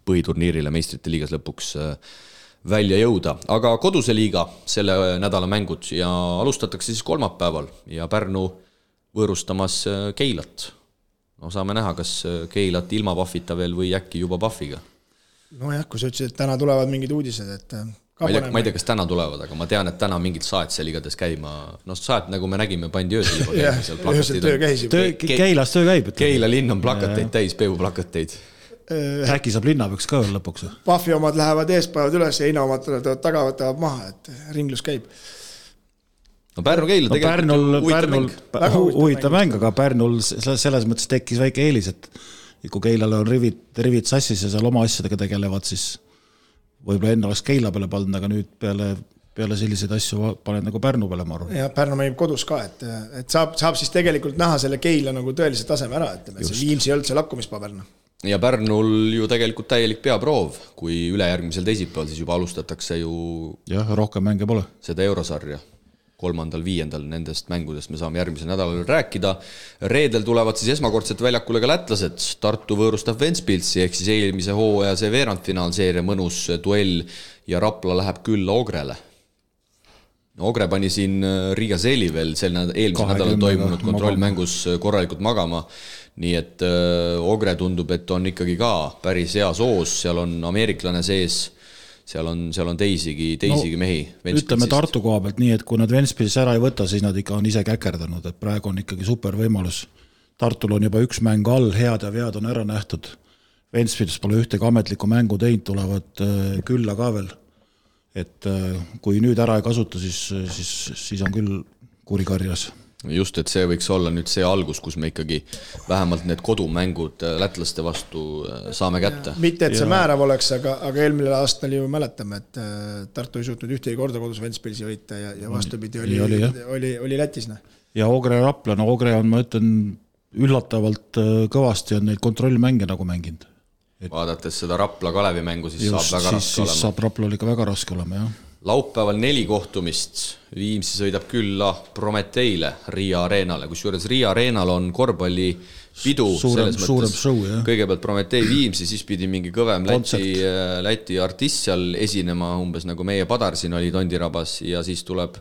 põhiturniirile meistrite liigas lõpuks välja jõuda, aga koduse liiga selle nädala mängud ja alustatakse siis kolmapäeval ja Pärnu võõrustamas Keilat. No saame näha, kas Keilat ilma Pahvita veel või äkki juba Pahviga. No jah, kui sa ütlesid, et täna tulevad mingid uudised, et ma ei tea, kas täna tulevad, aga ma tean, et täna mingid saet seal igades käima, no saet, nagu me nägime, pandi öösel juba Keilas töö käib. Keila linn on plakateid täis, peevuplakateid. Äkki saab linnapäevaks ka veel lõpuks. Pahvi omad lähevad eespäevad üles ja Heina omad taga võtavad maha, et ringlus käib. No Pärnu-Keila tegelikult huvitav mäng, aga Pärnul selles mõttes tekkis väike eelis, et kui Keilale on rivid sassis ja seal oma asjadega tegelevad, siis võib-olla enne oleks Keila peale pandud, aga nüüd peale selliseid asju paned nagu Pärnu peale, ma arvan. Ja Pärnu mängib kodus ka, et saab siis tegelikult näha selle Keila nagu tõelise taseme ära, et see Viimsi ei olnud see lakkumispaberna. Ja Pärnul ju tegelikult täielik peaproov, kui ülejärgmisel teisipäeval siis juba alustatakse ju rohkem mänge pole. Seda eurosarja 3.–5. nendest mängudest me saame järgmisel nädalal rääkida. Reedel tulevad siis esmakordselt väljakule ka lätlased, Tartu võõrustab Ventspilsi ehk siis eelmise hooaja see veerandfinaalseeria mõnus duell ja Rapla läheb külla Ogrele. Ogre pani siin Riga Seeli veel eelmise nädalal toimunud kontrollmängus korralikult magama, nii et Ogre tundub, et on ikkagi ka päris hea soos, seal on ameeriklane sees, seal on teisigi mehi. Ütleme Tartu koha pealt nii, et kui nad Ventspilsis ära ei võta, siis nad ikka on ise käkerdanud, et praegu on ikkagi super võimalus. Tartul on juba 1 mäng all, head ja vead on ära nähtud. Ventspils pole ühtegi ametlikku mängu teinud, tulevad külla ka veel. Et kui nüüd ära ei kasuta, siis on küll kurikarjas. Just, et see võiks olla nüüd see algus, kus me ikkagi vähemalt need kodumängud lätlaste vastu saame kätte. Mitte, et see määrav oleks, aga eelmine aastal ju mäletame, et Tartu ei suutnud ühtegi korda kodus Ventspilsi võita ja vastupidi oli Lätis. Ja Ogre Rapla, no Ogre on, ma ütlen, üllatavalt kõvasti on neid kontrollmänge nagu mänginud. Vaadates seda Rapla Kalevi mängu, siis saab väga raske olema. Siis saab Raplal ikka väga raske olema, jah. Laupäeval 4 kohtumist. Viimsi sõidab külla Prometeile Riia Areenale, kusjuures Riia Areenal on korvpalli pidu suurem show, jah. Kõigepealt Prometei Viimsi, siis pidi mingi kõvem Läti artist seal esinema, umbes nagu meie Padar siin oli Tondirabas ja siis tuleb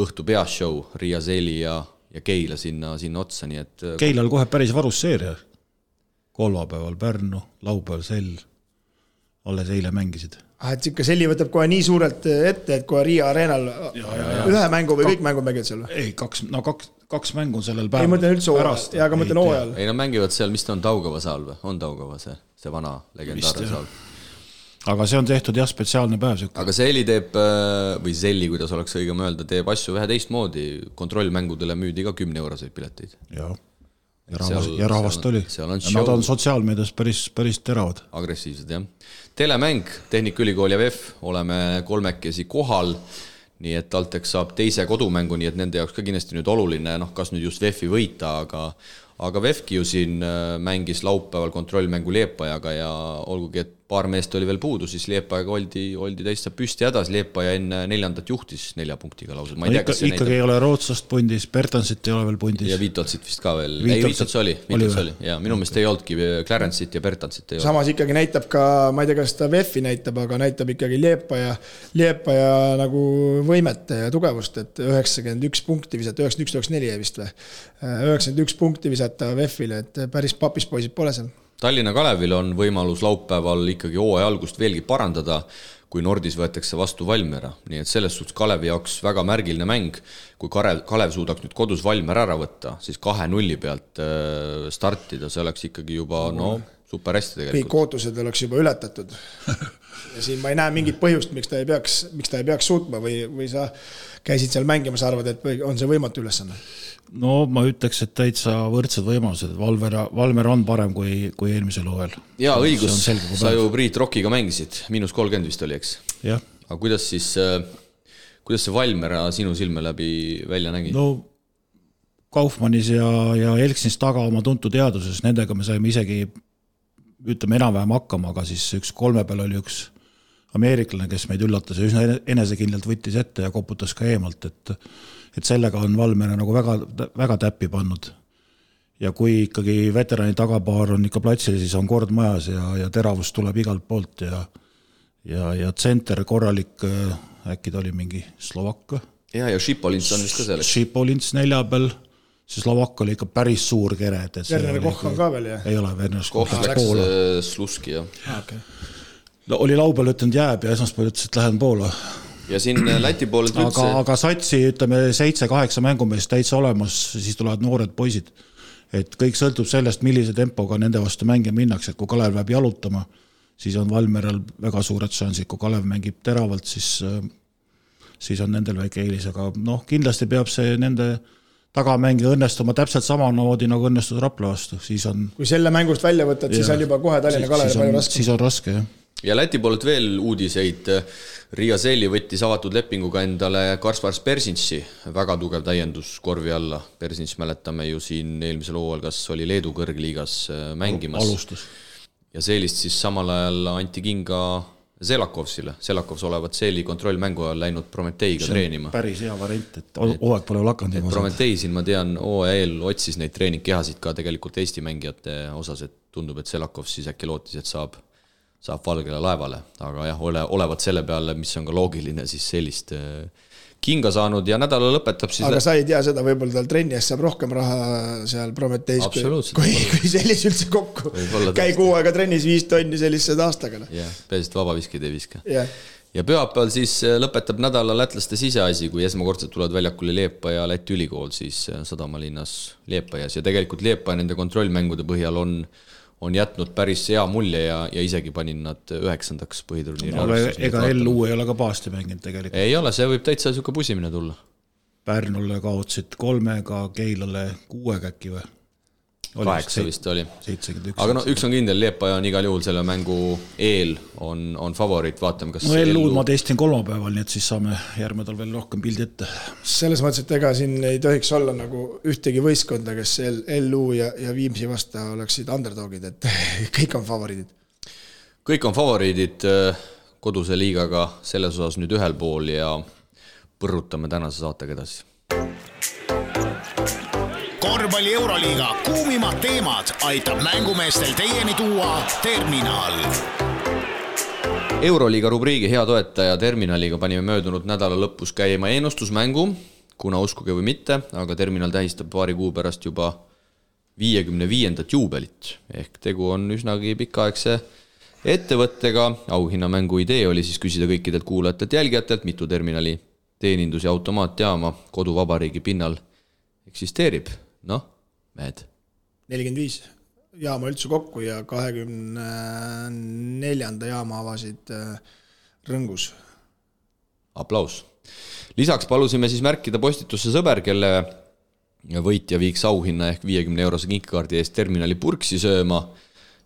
õhtu peashow Riia Seeli ja Keila sinna otsa, nii et Keilal kohe päris varus seeria. Kolmapäeval Pärnu, laupäeval Sell, alles eile mängisid. Et ikka Selli võtab kohe nii suurelt ette, et kohe Riia Areenal ühe mängu või kõik mängud mängivad seal? Ei, kaks mängu on sellel päeval. Ei mõtlen üldse pärast. Ja aga mõtlen hooajal. Ei, nad mängivad seal, mis ta on Taugava saal või? On Taugava see vana legendaarne saal. Aga see on tehtud jah spetsiaalne päev. Aga Selli teeb, või Selli, kuidas oleks õigem öelda, teeb asju vähe teistmoodi. Kontrollmängudele müüdi ka 10 euroseid pileteid. Jah. ja rahvast oli. Nad on sotsiaalmeedias päris teravad. Agressiivsed, jah. Telemäng, Tehnikaülikool ja VEF, oleme kolmekesi kohal, nii et TalTech saab teise kodumängu, nii et nende jaoks ka kindlasti nüüd oluline, kas nüüd just VEF-i võita, aga VEF-ki ju siin mängis laupäeval kontrollmängu Liepajaga ja olgugi, et paar meest oli veel puudu, siis Liepajaga oldi täitsa püsti hädas, Liepaja enne 4. juhtis 4 punktiga lausa. Ikkagi ei ole Rootsast pundis, Bertansit ei ole veel pundis. Ja Vitotsit vist ka veel. Vitots oli. Ja minu meelest ei olnudki Clarence'it ja Bertansit ei ole. Samas ikkagi näitab ka, ma ei tea, kas ta VEF-i näitab, aga näitab ikkagi Liepaja nagu võimet ja tugevust, et 91 punkti visata, 91-94 vist või. 91 punkti visata VEF-ile, et päris papis poisid pole seal. Tallinna Kalevil on võimalus laupäeval ikkagi hooaja algust veelgi parandada, kui Nordis võetakse vastu Valmiera. Nii et selles suhtes Kalevi jaoks väga märgiline mäng. Kui Kalev suudaks nüüd kodus Valmiera ära võtta, siis 2-0 pealt startida, see oleks ikkagi juba super hästi tegelikult. Kõik ootused oleks juba ületatud. Ja siin ma ei näe mingit põhjust, miks ta ei peaks suutma või sa käisid seal mängimas, arvad, et on see võimatu ülesanne? No ma ütleks, et täitsa võrdsed võimalused. Valmer on parem kui eelmisel hooajal. Jaa, õigus. Sa ju Priit Rockiga mängisid. -30 vist oli, eks? Jah. Aga kuidas see Valmera sinu silme läbi välja nägi? No Kaufmannis ja Elksinis taga oma tuntud teaduses, nendega me saime isegi enam-vähem hakkama, aga siis üks 3 peal oli üks ameeriklane, kes meid üllatas ja üsna enesekindlalt võttis ette ja koputas ka eemalt, et sellega on Valmera nagu väga täppi pannud. Ja kui ikkagi veterani tagapaar on ikka platsil, siis on kord majas ja teravus tuleb igalt poolt ja tsenter korralik, äkki ta oli mingi Slovakk. Ja Šipolins on vist ka selleks. Šipolins 4 peal, see Slovakk oli ikka päris suur kere. Werner Koch on ka veel, jah? Ei ole, Werner Koch läks Sluski, jah. Okay. No, oli laupäeval ütlenud jääb ja esmaspäeval ütles, et lähen Poola. Ja siin Läti poolelt üldse... Aga satsi, 7-8 mängumeest täitsa olemas, siis tulevad noored poisid. Et kõik sõltub sellest, millise tempoga nende vastu mänge minnakse, et kui Kalev läheb jalutama, siis on Valmeral väga suured šansid, kui Kalev mängib teravalt, siis on nendel väike eelis, aga kindlasti peab see nende tagamängija õnnestuma täpselt samamoodi nagu õnnestus Rapla vastu. Kui selle mängust välja võtad, siis on juba kohe Tallinna Kalev palju raske. Siis on raske, jah. Ja Läti poolelt veel uudiseid. Riia Seeli võttis avatud lepinguga endale Kaspars Persinsi, väga tugev täiendus korvi alla. Persins mäletame ju siin eelmisel hooajal, kas oli Leedu kõrgliigas mängimas. Alustus. Ja Seelist siis samal ajal anti kinga Selakovsile. Selakovs olevat Seeli kontrollmängu ajal läinud Prometeiga treenima. Päris hea variant, et hooaeg pole lakanud. Prometei siin, ma tean, OEL otsis neid treeningkehasid ka tegelikult Eesti mängijate osas, et tundub, et Selakovs siis äkki lootis, et saab Valgele laevale, aga jah, olevat selle peale, mis on ka loogiline, siis sellist kinga saanud ja nädala lõpetab siis... Aga sa ei tea seda, võib-olla tal trenni eest saab rohkem raha seal Prometeis, kui sellis üldse kokku. Käi 6 aega trennis 5 tonni sellised aastaga. Jah, peasid vabaviskid ei viska. Yeah. Ja pühapäeval siis lõpetab nädala lätlaste siseasi, kui esmakordselt tulevad väljakule Liepa ja Läti ülikool, siis Sadamalinnas Liepajas ja tegelikult Liepa nende kontrollmängude põhjal on jätnud päris hea mulje ja isegi panin nad 9. põhiturniiri. Ega LU ei ole ka paasti mänginud tegelikult. Ei ole, see võib täitsa siuke pusimine tulla. Pärnule kaotsid 3-ga, Keilale 6-ga äkki või? 8 vist oli. 71. Aga üks on kindel, Liepaja on igal juhul selle mängu eel on favoriit, vaatame kas... No LU-d ma testin 3 päeval, nii et siis saame järgmedal veel rohkem pildi ette. Selles mõttes, et ega siin ei tohiks olla nagu ühtegi võistkonda, kes LU ja Viimsi vasta oleksid underdogid, et kõik on favoriidid. Kõik on favoriidid koduse liigaga selles osas nüüd ühel pool ja põrrutame tänase saatega edasi. Korvpalli Euroliiga kuumimad teemad aitab mängumeestel teieni tuua Terminal. Euroliiga rubriigi hea toetaja Terminaliga panime möödunud nädala lõpus käima ennustusmängu, kuna uskuge või mitte, aga Terminal tähistab paari kuu pärast juba 55. juubelit. Ehk tegu on üsnagi pikaaegse ettevõttega. Auhinnamängu idee oli siis küsida kõikidelt kuulajatelt jälgijatelt, mitu Terminali teenindus- ja automaatjaama koduvabariigi pinnal eksisteerib. Mehed. 45 jaama üldse kokku ja 24. jaama avasid Rõngus. Aplaus. Lisaks palusime siis märkida postitusse sõber, kelle võitja viiks auhinna ehk 50-eurose kinkekaardi eest terminali purksi sööma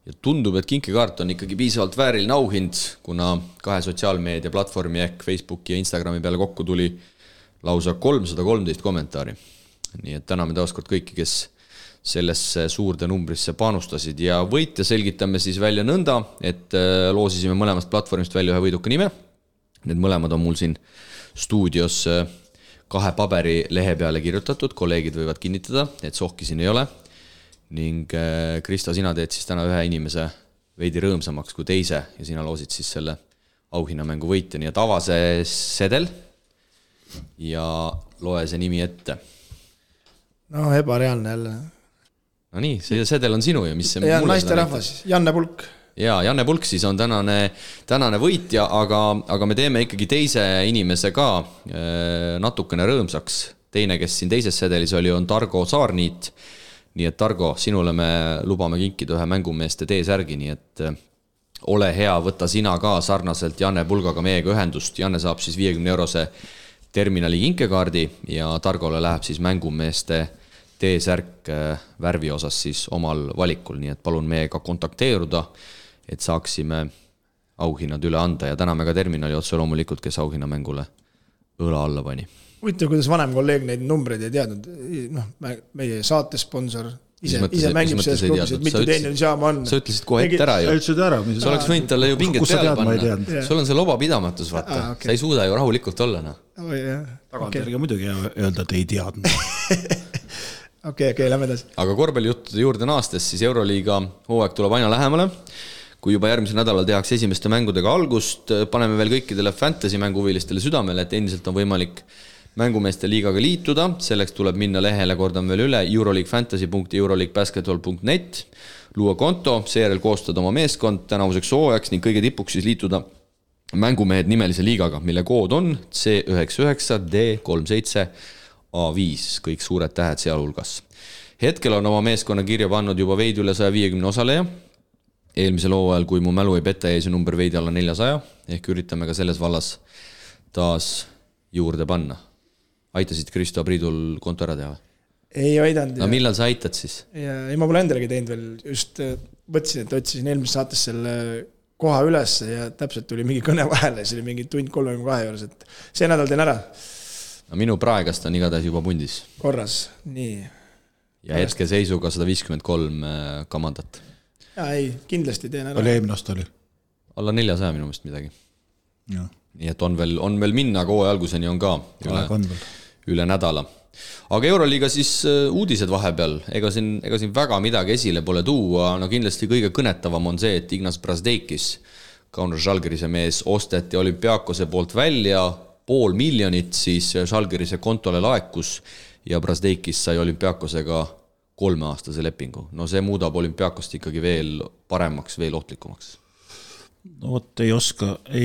ja tundub, et kinkekaart on ikkagi piisavalt vääriline auhind, kuna 2 sotsiaalmeedia platvormi ehk Facebooki ja Instagrami peale kokku tuli lausa 313 kommentaari. Nii et täname taaskord kõiki, kes sellesse suurde numbrisse panustasid ja võitja selgitame siis välja nõnda, et loosisime mõlemast platvormist välja ühe võiduka nime. Need mõlemad on mul siin stuudios 2 paberi lehe peale kirjutatud, kolleegid võivad kinnitada, et sohki siin ei ole. Ning Krista, sina teed siis täna ühe inimese veidi rõõmsamaks kui teise ja sina loosid siis selle auhinnamängu võitja, nii et ava see sedel ja loe see nimi ette. No ebareaalne jälle. No nii, see sedel on sinu ja mis see ja naiste rahvas, Janne Pulk. Ja Janne Pulk siis on tänane võitja, aga me teeme ikkagi teise inimese ka natukene rõõmsaks. Teine, kes siin teises sedelis oli, on Targo Saarniit. Nii et Targo, sinule me lubame kinkida ühe mängumeeste T-särgi, nii et ole hea, võta sina ka sarnaselt Janne Pulgaga meiega ühendust. Janne saab siis 50-eurose terminali kinkekaardi ja Targole läheb siis mängumeeste T-särk värvi osas siis omal valikul, nii et palun meiega kontakteeruda, et saaksime auhinnad üle anda ja täname ka terminali otse loomulikult, kes auhinnamängule õla alla pani. Huvitav, kuidas vanem kolleeg neid numbreid ei teadnud. Meie saatesponsor ise mängib selles klubis, et mitu teenindusjaama on. Sa ütlesid kohe ette ära ju. Sa oleks võinud talle ju pinget peale panna. Sul on see lobapidamatus, vaata. Sa ei suuda ju rahulikult olla. Tagantjärgi muidugi öelda, et ei teadnud. Okei, lähme edasi. Aga korvpallijuttude juurde naastes, siis Euroliiga hooaeg tuleb aina lähemale. Kui juba järgmisel nädalal tehakse esimeste mängudega algust, paneme veel kõikidele fantasy mänguhuvilistele südamele, et endiselt on võimalik mängumeeste liigaga liituda. Selleks tuleb minna lehele, kordan veel üle, euroleaguefantasy.euroleaguebasketball.net, luua konto, seejärel koostada oma meeskond tänavuseks hooajaks ning kõige tipuks siis liituda mängumehed nimelise liigaga, mille kood on C99D37A5, kõik suured tähed sealhulgas. Hetkel on oma meeskonna kirja pannud juba veidi üle 150 osaleja. Eelmisel hooajal, kui mu mälu ei peta, jäi see number veidi alla 400, ehk üritame ka selles vallas taas juurde panna. Aitasid Kristo Priidul konto ära teha? Ei aidanud. No millal sa aitad siis? Ei, ma pole endalegi teinud veel. Just võtsin, et otsisin eelmises saates selle koha üles ja täpselt tuli mingi kõne vahele. See oli mingi tund 32 juures, et see nädal teen ära. No minu praegast on igatahes juba pundis. Korras, nii. Ja hetke seisuga 153 kamandat. Ja ei, kindlasti teen ära. Oli eelmine aasta oli? Alla 400 minu meelest midagi. Ja. Nii et on veel minna, kohe alguseni on ka üle nädala. Aga Euroliiga siis uudised vahepeal, ega siin väga midagi esile pole tuua, no kindlasti kõige kõnetavam on see, et Ignas Brasdeikis, Kaunas Žalgirise mees, osteti Olümpiakose poolt välja, 500 000 siis Žalgirise kontole laekus ja Brasdeikis sai Olümpiakosega 3-aastase lepingu. No see muudab Olümpiakost ikkagi veel paremaks, veel ohtlikumaks. No vot, ei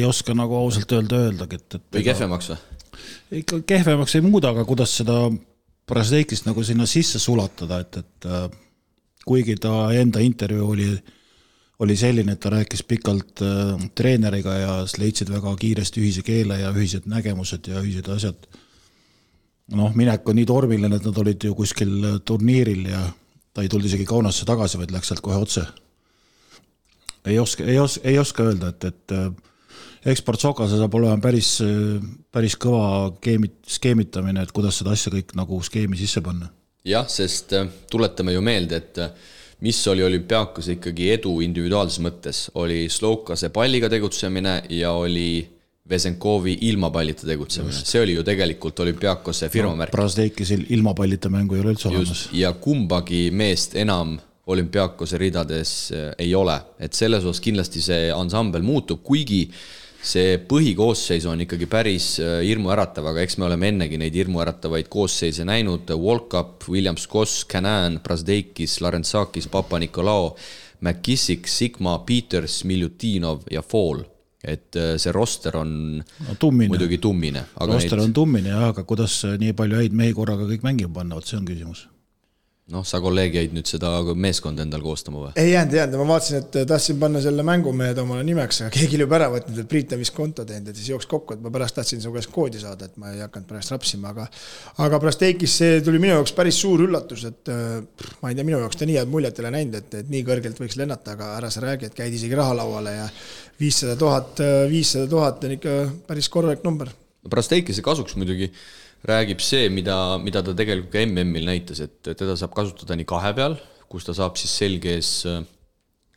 oska nagu ausalt öeldagi. Või kehvemaks või? Ikka kehvemaks ei muuda, aga kuidas seda Brasdeikist nagu sinna sisse sulatada, et kuigi ta enda intervjuu oli selline, et ta rääkis pikalt treeneriga ja leidsid väga kiiresti ühise keele ja ühised nägemused ja ühised asjad. Minek on nii tormiline, et nad olid ju kuskil turniiril ja ta ei tulnud isegi Kaunasse tagasi, vaid läks sealt kohe otse. Ei oska öelda, et Eksport Sokase saab olema päris kõva skeemitamine, et kuidas seda asja kõik nagu skeemi sisse panna. Jah, sest tuletame ju meelde, et mis oli Olümpiakos ikkagi edu individuaalses mõttes, oli Slokase palliga tegutsemine ja oli Vesenkovi ilma pallita tegutsemine. Just. See oli ju tegelikult Olümpiakose firmamärk. Brasdeikis ilma pallita mängu ei ole üldse olemas. Ja kumbagi meest enam Olümpiakose ridades ei ole. Et selles osas kindlasti see ansambel muutub, kuigi see põhikoosseis on ikkagi päris hirmuäratav, aga eks me oleme ennegi neid hirmuäratavaid koosseise näinud. Volkap, Williams Koss, Canan, Brasdeikis, Larensakis, Papa-Nikolao, McKissick, Sigma, Peters, Miljutinov ja Fall. Et see roster on muidugi tummine. Roster on tummine, aga kuidas nii palju häid mehi korraga kõik mängima panna, see on küsimus. Noh, sa kolleeg jäid nüüd seda meeskonda endal koostama või? Ei jäänud, ma vaatasin, et tahtsin panna selle mängumehed omale nimeks, aga keegi oli juba ära võtnud, et Priit on vist konto teinud, et siis jooks kokku, et ma pärast tahtsin su käest koodi saada, et ma ei hakanud pärast rapsima, aga pärast Eikis see tuli minu jaoks päris suur üllatus, et ma ei tea, minu jaoks ta nii head muljet ei ole näinud, et nii kõrgelt võiks lennata, aga ära sa räägi, et käid isegi rahalauale ja 500 000 on ikka päris korralik number. Pärast Eikise kasuks muidugi räägib see, mida ta tegelikult ka MM-il näitas, et teda saab kasutada nii kahe peal, kus ta saab siis selges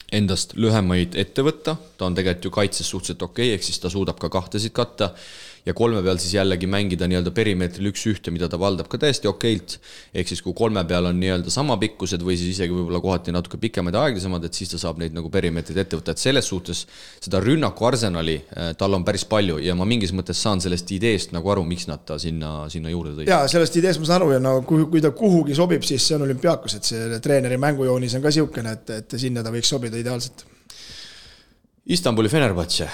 endast lühemaid ette võtta, ta on tegelikult ju kaitses suhteliselt okei, ehk siis ta suudab ka kahtesid katta ja kolme peal siis jällegi mängida nii-öelda perimeetril 1-1, mida ta valdab ka täiesti okeilt, ehk siis kui kolme peal on nii-öelda sama pikkused või siis isegi võib-olla kohati natuke pikemad ja aeglasemad, et siis ta saab neid nagu perimeetrid ette võtta, et selles suhtes seda rünnaku arsenali tal on päris palju ja ma mingis mõttes saan sellest ideest nagu aru, miks nad ta sinna juurde tõid. Jaa, sellest ideest ma saan aru ja no, kui ta kuhugi sobib, siis see on olümpiaakos, et see treeneri mängujoonis on ka siukene, et sinna ta võiks sobida ideaalselt. Istanbuli Fenerbahce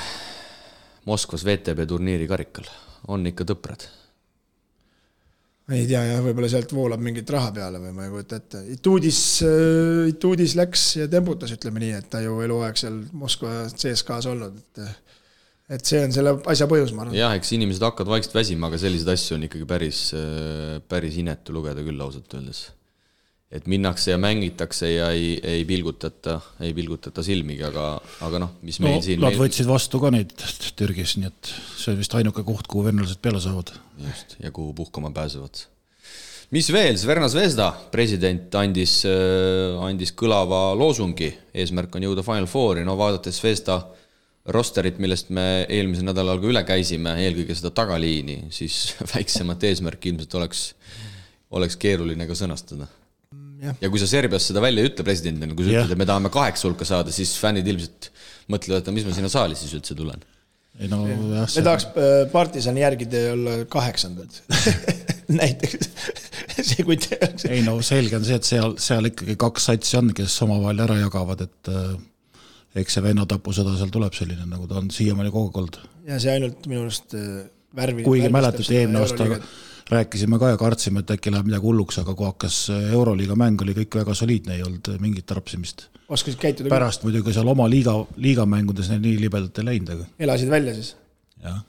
Moskvas VTB turniiri karikal. On ikka tõprad? Ei tea, jah, võib-olla sealt voolab mingit raha peale või ma ei kujuta ette. Ituudis läks ja tembutas, ütleme nii, et ta ju eluaeg seal Moskva CSKs olnud. Et see on selle asja põhjus, ma arvan. Jah, eks inimesed hakkavad vaikselt väsima, aga sellised asju on ikkagi päris inetu lugeda küll ausalt öeldes. Et minnakse ja mängitakse ja ei pilgutata silmigi, aga noh, mis meil siin... Nad võtsid vastu ka neid Türgis, nii et see on vist ainuke koht, kuhu vennelased peale saavad. Just, ja kuhu puhkama pääsevad. Mis veel? Sverna Zvezda president andis kõlava loosungi. Eesmärk on jõuda Final Fouri. No vaadates Zvezda rosterit, millest me eelmise nädalal ka üle käisime, eelkõige seda tagaliini, siis väiksemat eesmärk ilmselt oleks keeruline ka sõnastada. Ja kui sa Serbias seda välja ütle presidendina, kui sa ütled, et me tahame 8 hulka saada, siis fännid ilmselt mõtlevad, et mis ma sinna saali siis üldse tulen. Ei, no, jah, me tahaks Partisani järgide olla 8. näiteks. See, kui tehakse. Ei, no selge on see, et seal ikkagi 2 satsi on, kes omavahel ära jagavad, et eks see vennatapusõda seal tuleb selline, nagu ta on siiamaani kogu olnud. Ja see ainult minu arust värvi. Kuigi mäletad, eelmine aasta rääkisime ka ja kartsime, et äkki läheb midagi hulluks, aga kui hakkas Euroliiga mäng, oli kõik väga soliidne, ei olnud mingit tarpsimist. Oskasid käituda? Pärast muidugi seal oma liigamängudes nii libedalt ei läinud. Aga... Elasid välja siis? Jah.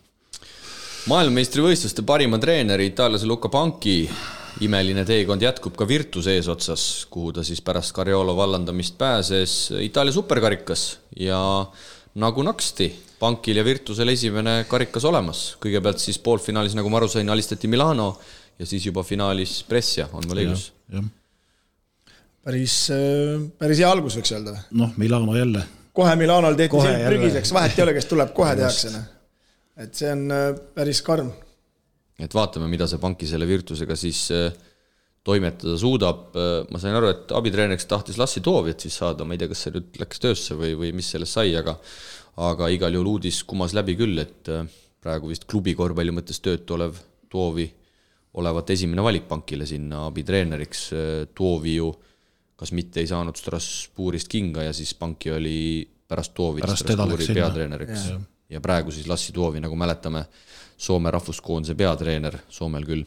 Maailmameistrivõistluste parima treeneri Itaaliase Luca Panchi imeline teekond jätkub ka Virtus eesotsas, kuhu ta siis pärast Cariolo vallandamist pääses Itaalia superkarikas ja nagu naksti Pankil ja Virtusel esimene karikas olemas. Kõigepealt siis poolfinaalis, nagu ma aru sain, alistati Milano ja siis juba finaalis Brescia, on mul õigus. Päris hea algus võiks öelda. Noh, Milano jälle. Kohe Milanol tehti selg prügiseks, vahet ei ole, kes tuleb, kohe tehakse. Et see on päris karm. Et vaatame, mida see Panki selle Virtusega siis toimetada suudab. Ma sain aru, et abitreeneriks tahtis Lassi Toovjat siis saada, ma ei tea, kas see nüüd läks töösse või mis sellest sai, aga igal juhul uudis kumas läbi küll, et praegu vist klubi korvpalli mõttes töötu olev Toovi olevat esimene valik Pankile sinna abitreeneriks. Toovi ju kas mitte ei saanud Strasbourgist kinga ja siis Panki oli pärast Toovi Strasbourgi peatreeneriks. Ja praegu siis Lassi Toovi, nagu mäletame, Soome rahvuskoondise peatreener, Soomel küll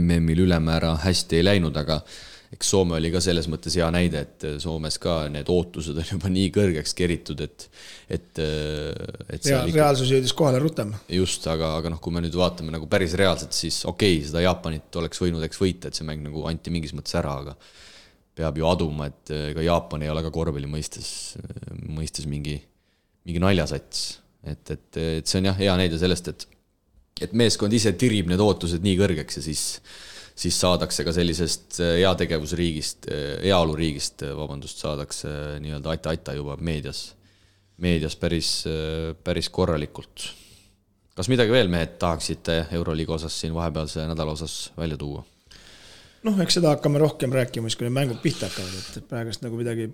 MM-il ülemäära hästi ei läinud, aga eks Soome oli ka selles mõttes hea näide, et Soomes ka need ootused on juba nii kõrgeks keritud, et reaalsus jõudis kohale rutem. Just, aga noh, kui me nüüd vaatame nagu päris reaalselt, siis okei, seda Jaapanit oleks võinud võita, et see mäng nagu anti mingis mõttes ära, aga peab ju aduma, et ka Jaapan ei ole ka korvpalli mõistes mingi naljasats. Et see on jah hea näide sellest, et meeskond ise tirib need ootused nii kõrgeks ja siis saadakse ka sellisest heategevusriigist, heaoluriigist, saadakse nii-öelda aita juba meedias päris korralikult. Kas midagi veel mehed tahaksite Euroliiga osas siin vahepealse nädala osas välja tuua? Noh, eks seda hakkame rohkem rääkima, kui need mängud pihta hakkavad, et praegust nagu midagi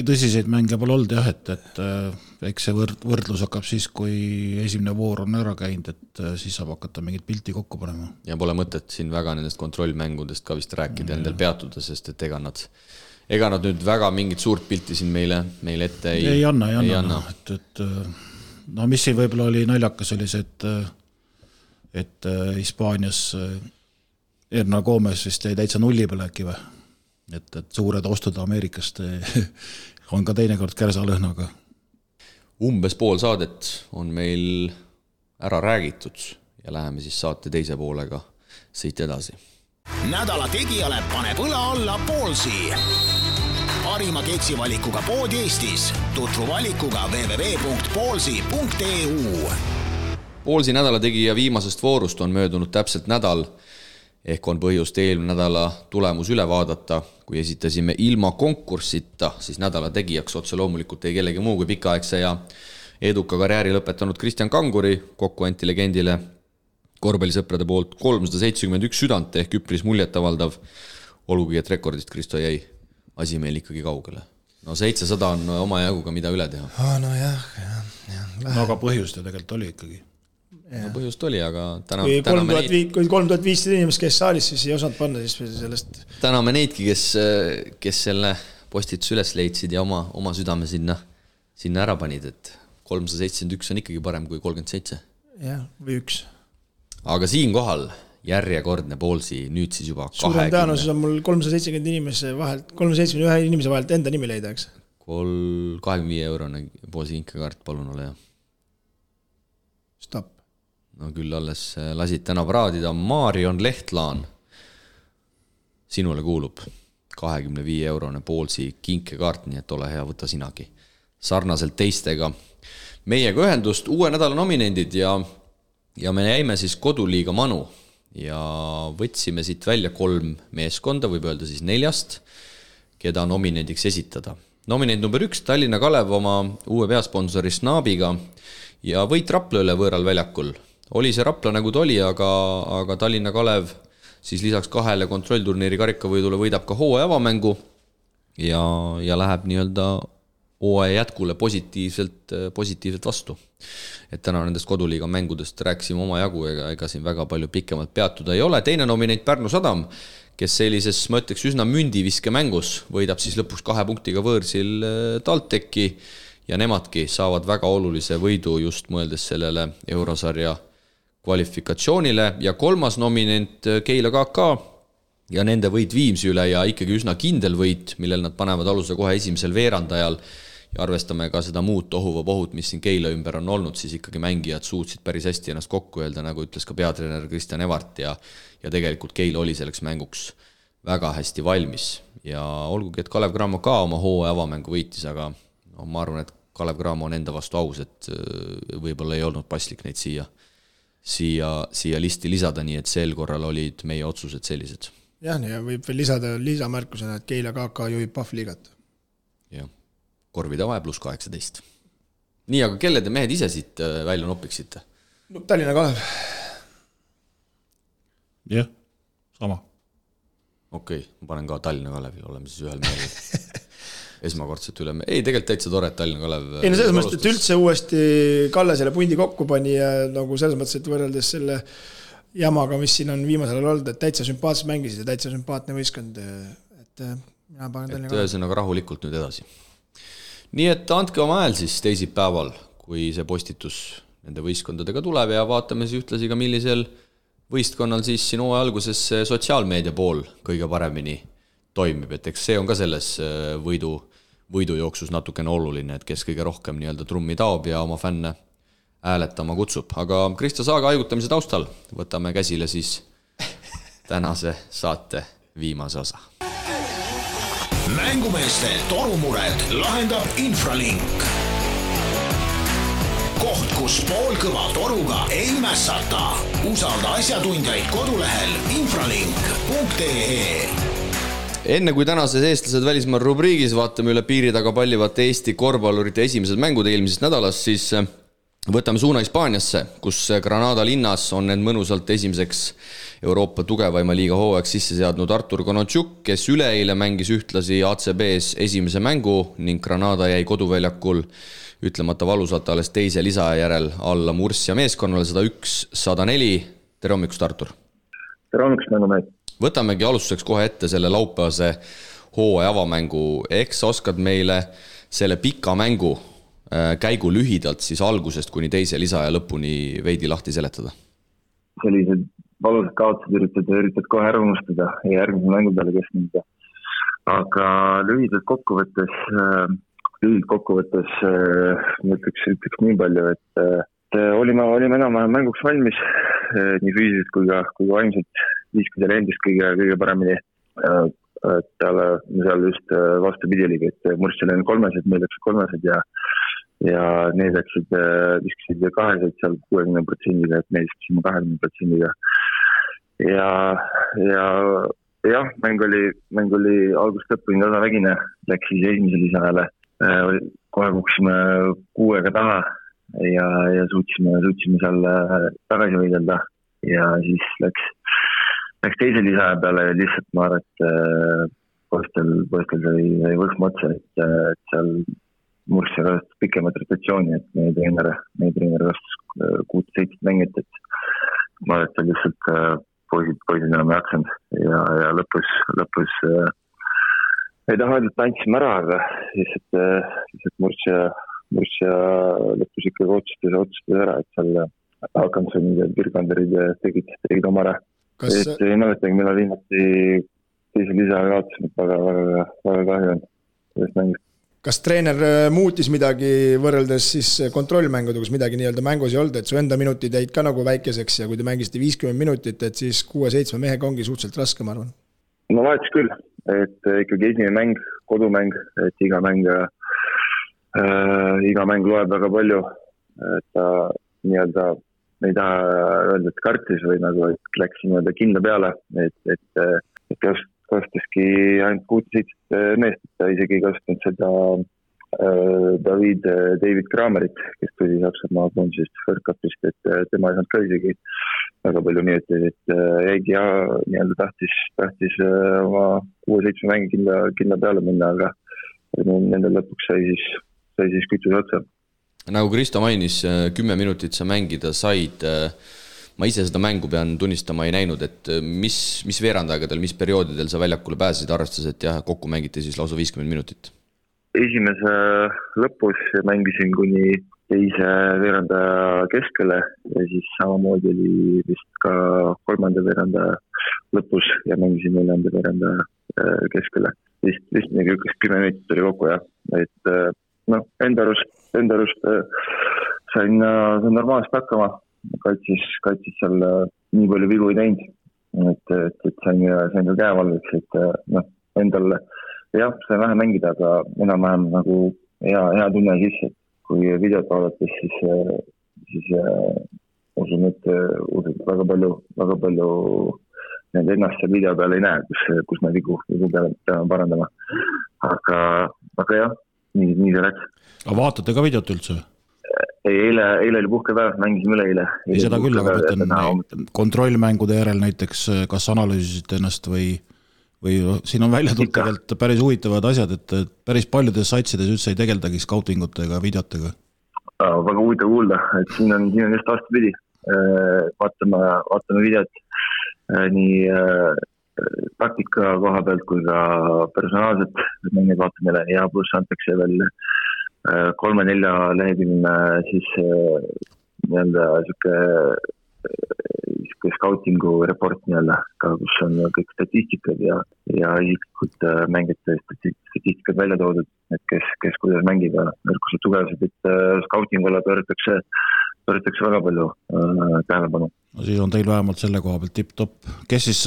tõsiseid mänge pole olnud jah, et eks see võrdlus hakkab siis, kui esimene voor on ära käinud, et siis saab hakata mingit pilti kokku panema. Ja pole mõtet siin väga nendest kontrollmängudest ka vist rääkida endal peatuda, sest et ega nad nüüd väga mingit suurt pilti siin meile ette ei anna. No mis siin võib-olla oli naljakas oli see, et Hispaanias Erna Gomes vist jäi täitsa nulli peale äkki või? et suured ostud Ameerikast on ka teinekord kärsalõhnaga. Umbes pool saadet on meil ära räägitud ja läheme siis saate teise poolega siit edasi. Nädala tegijale paneb õla alla Poolsi. Parima keksivalikuga pood Eestis. Tutvu valikuga www.poolsi.eu. Poolsi nädala tegija viimasest voorust on möödunud täpselt nädal, ehk on põhjust eelmine nädala tulemus üle vaadata. Kui esitasime ilma konkursita, siis nädala tegijaks otse loomulikult ei kellegi muu kui pikaaegse ja eduka karjääri lõpetanud Kristjan Kanguri, kokku anti legendile korvpallisõprade poolt 371 südant ehk üpris muljetavaldav, olgugi et rekordist Kristo jäi asi meil ikkagi kaugele. No 700 on oma jaguga mida üle teha. No aga põhjust ju tegelikult oli ikkagi. No põhjust oli, aga kui 3500 inimest käis saalis, siis ei osanud panna siis sellest. Täname neidki, kes selle postitus üles leidsid ja oma südame sinna ära panid, et 371 on ikkagi parem kui 37. Jah, või 1. Aga siin kohal järjekordne Poolsi, nüüd siis juba 20. Suurem tõenäosus on mul 370 inimese vahelt, 371 inimese vahelt enda nimi leida, eks? 25 eurone Poolsi inkekaart, palun ole hea. Stop. No küll alles lasid täna praadida. Marion Lehtlaan. Sinule kuulub 25 eurone Poolsi kinkekaart, nii et ole hea, võta sinagi. Sarnaselt teistega. Meiega ühendust uue nädala nominendid ja me jäime siis koduliiga Manu ja võtsime siit välja 3 meeskonda, võib öelda siis 4, keda nominendiks esitada. Nominend number 1, Tallinna Kalev oma uue peasponsori Snaabiga ja võit Rapla üle võõral väljakul. Oli see Rapla nagu ta oli, aga Tallinna Kalev siis lisaks 2 kontrollturniiri karikavõidule võidab ka hooaja avamängu ja läheb nii-öelda hooaja jätkule positiivselt vastu. Et täna nendest koduliiga mängudest rääksime oma jagu, ega siin väga palju pikemalt peatuda ei ole. Teine nominent Pärnu Sadam, kes sellises, ma ütleks, üsna mündiviske mängus võidab siis lõpuks 2 punktiga võõrsil TalTechi ja nemadki saavad väga olulise võidu just mõeldes sellele eurosarja kvalifikatsioonile. Ja 3. nominent Keila KK ja nende võit Viimsi üle ja ikkagi üsna kindel võit, millel nad panevad aluse kohe esimesel veerandajal ja arvestame ka seda muud tohuvapohut, mis siin Keila ümber on olnud, siis ikkagi mängijad suutsid päris hästi ennast kokku öelda, nagu ütles ka peatreener Kristjan Evart ja tegelikult Keila oli selleks mänguks väga hästi valmis ja olgugi, et Kalev Cramo ka oma hooaja avamängu võitis, aga no, ma arvan, et Kalev Cramo on enda vastu aus, et võib-olla ei olnud paslik neid siia listi lisada, nii et sel korral olid meie otsused sellised. Jah, ja võib veel lisada lisamärkusena, et Keila KK juhib Pahvliigat. Jah. Korvide vahe pluss 18. Nii, aga kelle te mehed ise siit välja nopiksite? No, Tallinna Kalev. Jah, sama. Okei, ma panen ka Tallinna Kalevil, oleme siis ühel meelel. Esmakordselt üle. Ei, tegelikult täitsa tore, et Tallinna Kalev. Ei, no selles mõttes, et üldse uuesti Kalle selle pundi kokku pani ja nagu selles mõttes, et võrreldes selle jamaga, mis siin on viimasel olnud, et täitsa sümpaatselt mängisid ja täitsa sümpaatne võistkond. Et mina panen Tallinna Kalev. Ühesõnaga rahulikult nüüd edasi. Nii et andke oma hääl siis teisipäeval, kui see postitus nende võistkondadega tuleb ja vaatame siis ühtlasi ka millisel võistkonnal siis siin hooaja alguses sotsiaalmeedia pool kõige paremini toimib, et eks see on ka selles võidujooksus natukene oluline, et kes kõige rohkem nii-öelda trummi taob ja oma fänne hääletama kutsub. Aga Kristo Saaga haigutamise taustal võtame käsile siis tänase saate viimase osa. Mängumeeste torumured lahendab Infralink. Koht, kus poolkõva toruga ei mässata. Usalda asjatundjaid kodulehel infralink.ee. Enne kui tänases eestlased välismaal rubriigis vaatame üle piiri taga pallivate Eesti korvpallurite esimesed mängud eelmisest nädalast, siis võtame suuna Hispaaniasse, kus Granada linnas on end mõnusalt esimeseks Euroopa tugevaima liiga hooajaks sisse seadnud Artur Konotšuk, kes üleeile mängis ühtlasi ACB-s esimese mängu ning Granada jäi koduväljakul ütlemata valusalt alles teise lisaja järel alla Murcia meeskonnale 101-104. Tere hommikust, Artur! Tere hommikust, mängumehed! Võtamegi alustuseks kohe ette selle laupäevase hooaja avamängu. Eks oskad meile selle pika mängu käigu lühidalt siis algusest kuni teise lisaja lõpuni veidi lahti seletada? Sellised valusad kaotused üritad kohe ära unustada ja järgmise mängu peale keskenduda. aga lühidalt kokkuvõttes ma ütleks nii palju, et olime enam-vähem mänguks valmis nii füüsiliselt kui ka vaimselt, viiskusel endist kõige paremini. Seal just vastupidi oligi, et Murssel on 3-sed, meil läksid 3-sed ja need viskasid 2-sed seal 60%-ga, et meil viskasime 20%-ga. Ja mäng oli algust lõpuni tasavägine, läks siis esimese lisajale. Kohe kuksime 6-ga taha ja suutsime seal tagasi võidelda ja siis läks teise lisaja peale ja lihtsalt ma arvan, et poistel sai võhma otsa, et seal Mursse kastas pikemat rotatsiooni, et meie treener kastas 6-7 mängit, et ma arvan, et seal lihtsalt poisid enam ei jaksanud ja lõpus ei taha öelda, et andsime ära, aga lihtsalt Mursse lõpus ikkagi otsustas ära, et seal Hakanssonid ja Birganderid tegid oma ära. Et ei mäletagi, millal viimati teise lisaga kaotasime, väga kahju on sellest mängust. Kas treener muutis midagi võrreldes siis kontrollmängudega, kus midagi nii-öelda mängus ei olnud, et su enda minutid jäid ka nagu väikeseks ja kui te mängisite 50 minutit, et siis 6-7 mehega ongi suhteliselt raske, ma arvan? No vahetus küll, et ikkagi esimene mäng, kodumäng, et iga mäng loeb väga palju, et ta nii-öelda ei taha öelda, et kartis või nagu, et läks nii-öelda kindla peale, et kasustaski ainult 6-7 meest, ta isegi kasutanud seda David Kramerit, kes tuli Saksamaa koondisest First Cupist, et tema ei saanud ka isegi väga palju minuteid, et jäigi ja nii-öelda tahtis oma 6-7 mängi kindla peale minna, aga nendel lõpuks sai siis kütus otsa. Nagu Kristo mainis, 10 minutit sa mängida said. Ma ise seda mängu pean tunnistama ei näinud, et mis veerandaegadel, mis perioodidel sa väljakule pääsesid, arvestades, et kokku mängiti siis lausa 50 minutit? Esimese lõpus mängisin kuni teise veerandaja keskele ja siis samamoodi oli vist ka kolmanda veerandaja lõpus ja mängisin neljanda veerandaja keskele. Vist 10 minutit oli kokku, jah. Et enda arust sain normaalselt hakkama. Kaitsis seal nii palju vigu ei teinud, et sain ka käevalveks, et endal sain vähe mängida, aga enam-vähem nagu hea tunne sisse, et kui videot vaadates, siis usun, et väga palju ennast seal video peal ei näe, kus me vigu peame parandama. Aga jah, nii see läks. Aga vaatate ka videot üldse? Eile oli puhkepäev, mängisime üle eile. Ei seda küll, aga mõtlen kontrollmängude järel näiteks, kas analüüsisite ennast või siin on välja tulnud tegelikult päris huvitavad asjad, et päris paljudes satsides üldse ei tegeldagi scoutingute ega videotega. Väga huvitav kuulda, et siin on just vastupidi. Vaatame videot nii taktika koha pealt kui ka personaalselt mängid vaatame ja pluss antakse veel 3-4 lehekülgne siis nii-öelda siuke scoutingu report nii-öelda, kus on kõik statistikad ja isiklikud mängijate statistikad välja toodud, et kes kuidas mängib ja nõrkused tugevused, et scoutingule pööratakse väga palju tähelepanu. No siis on teil vähemalt selle koha pealt tipp-top. Kes siis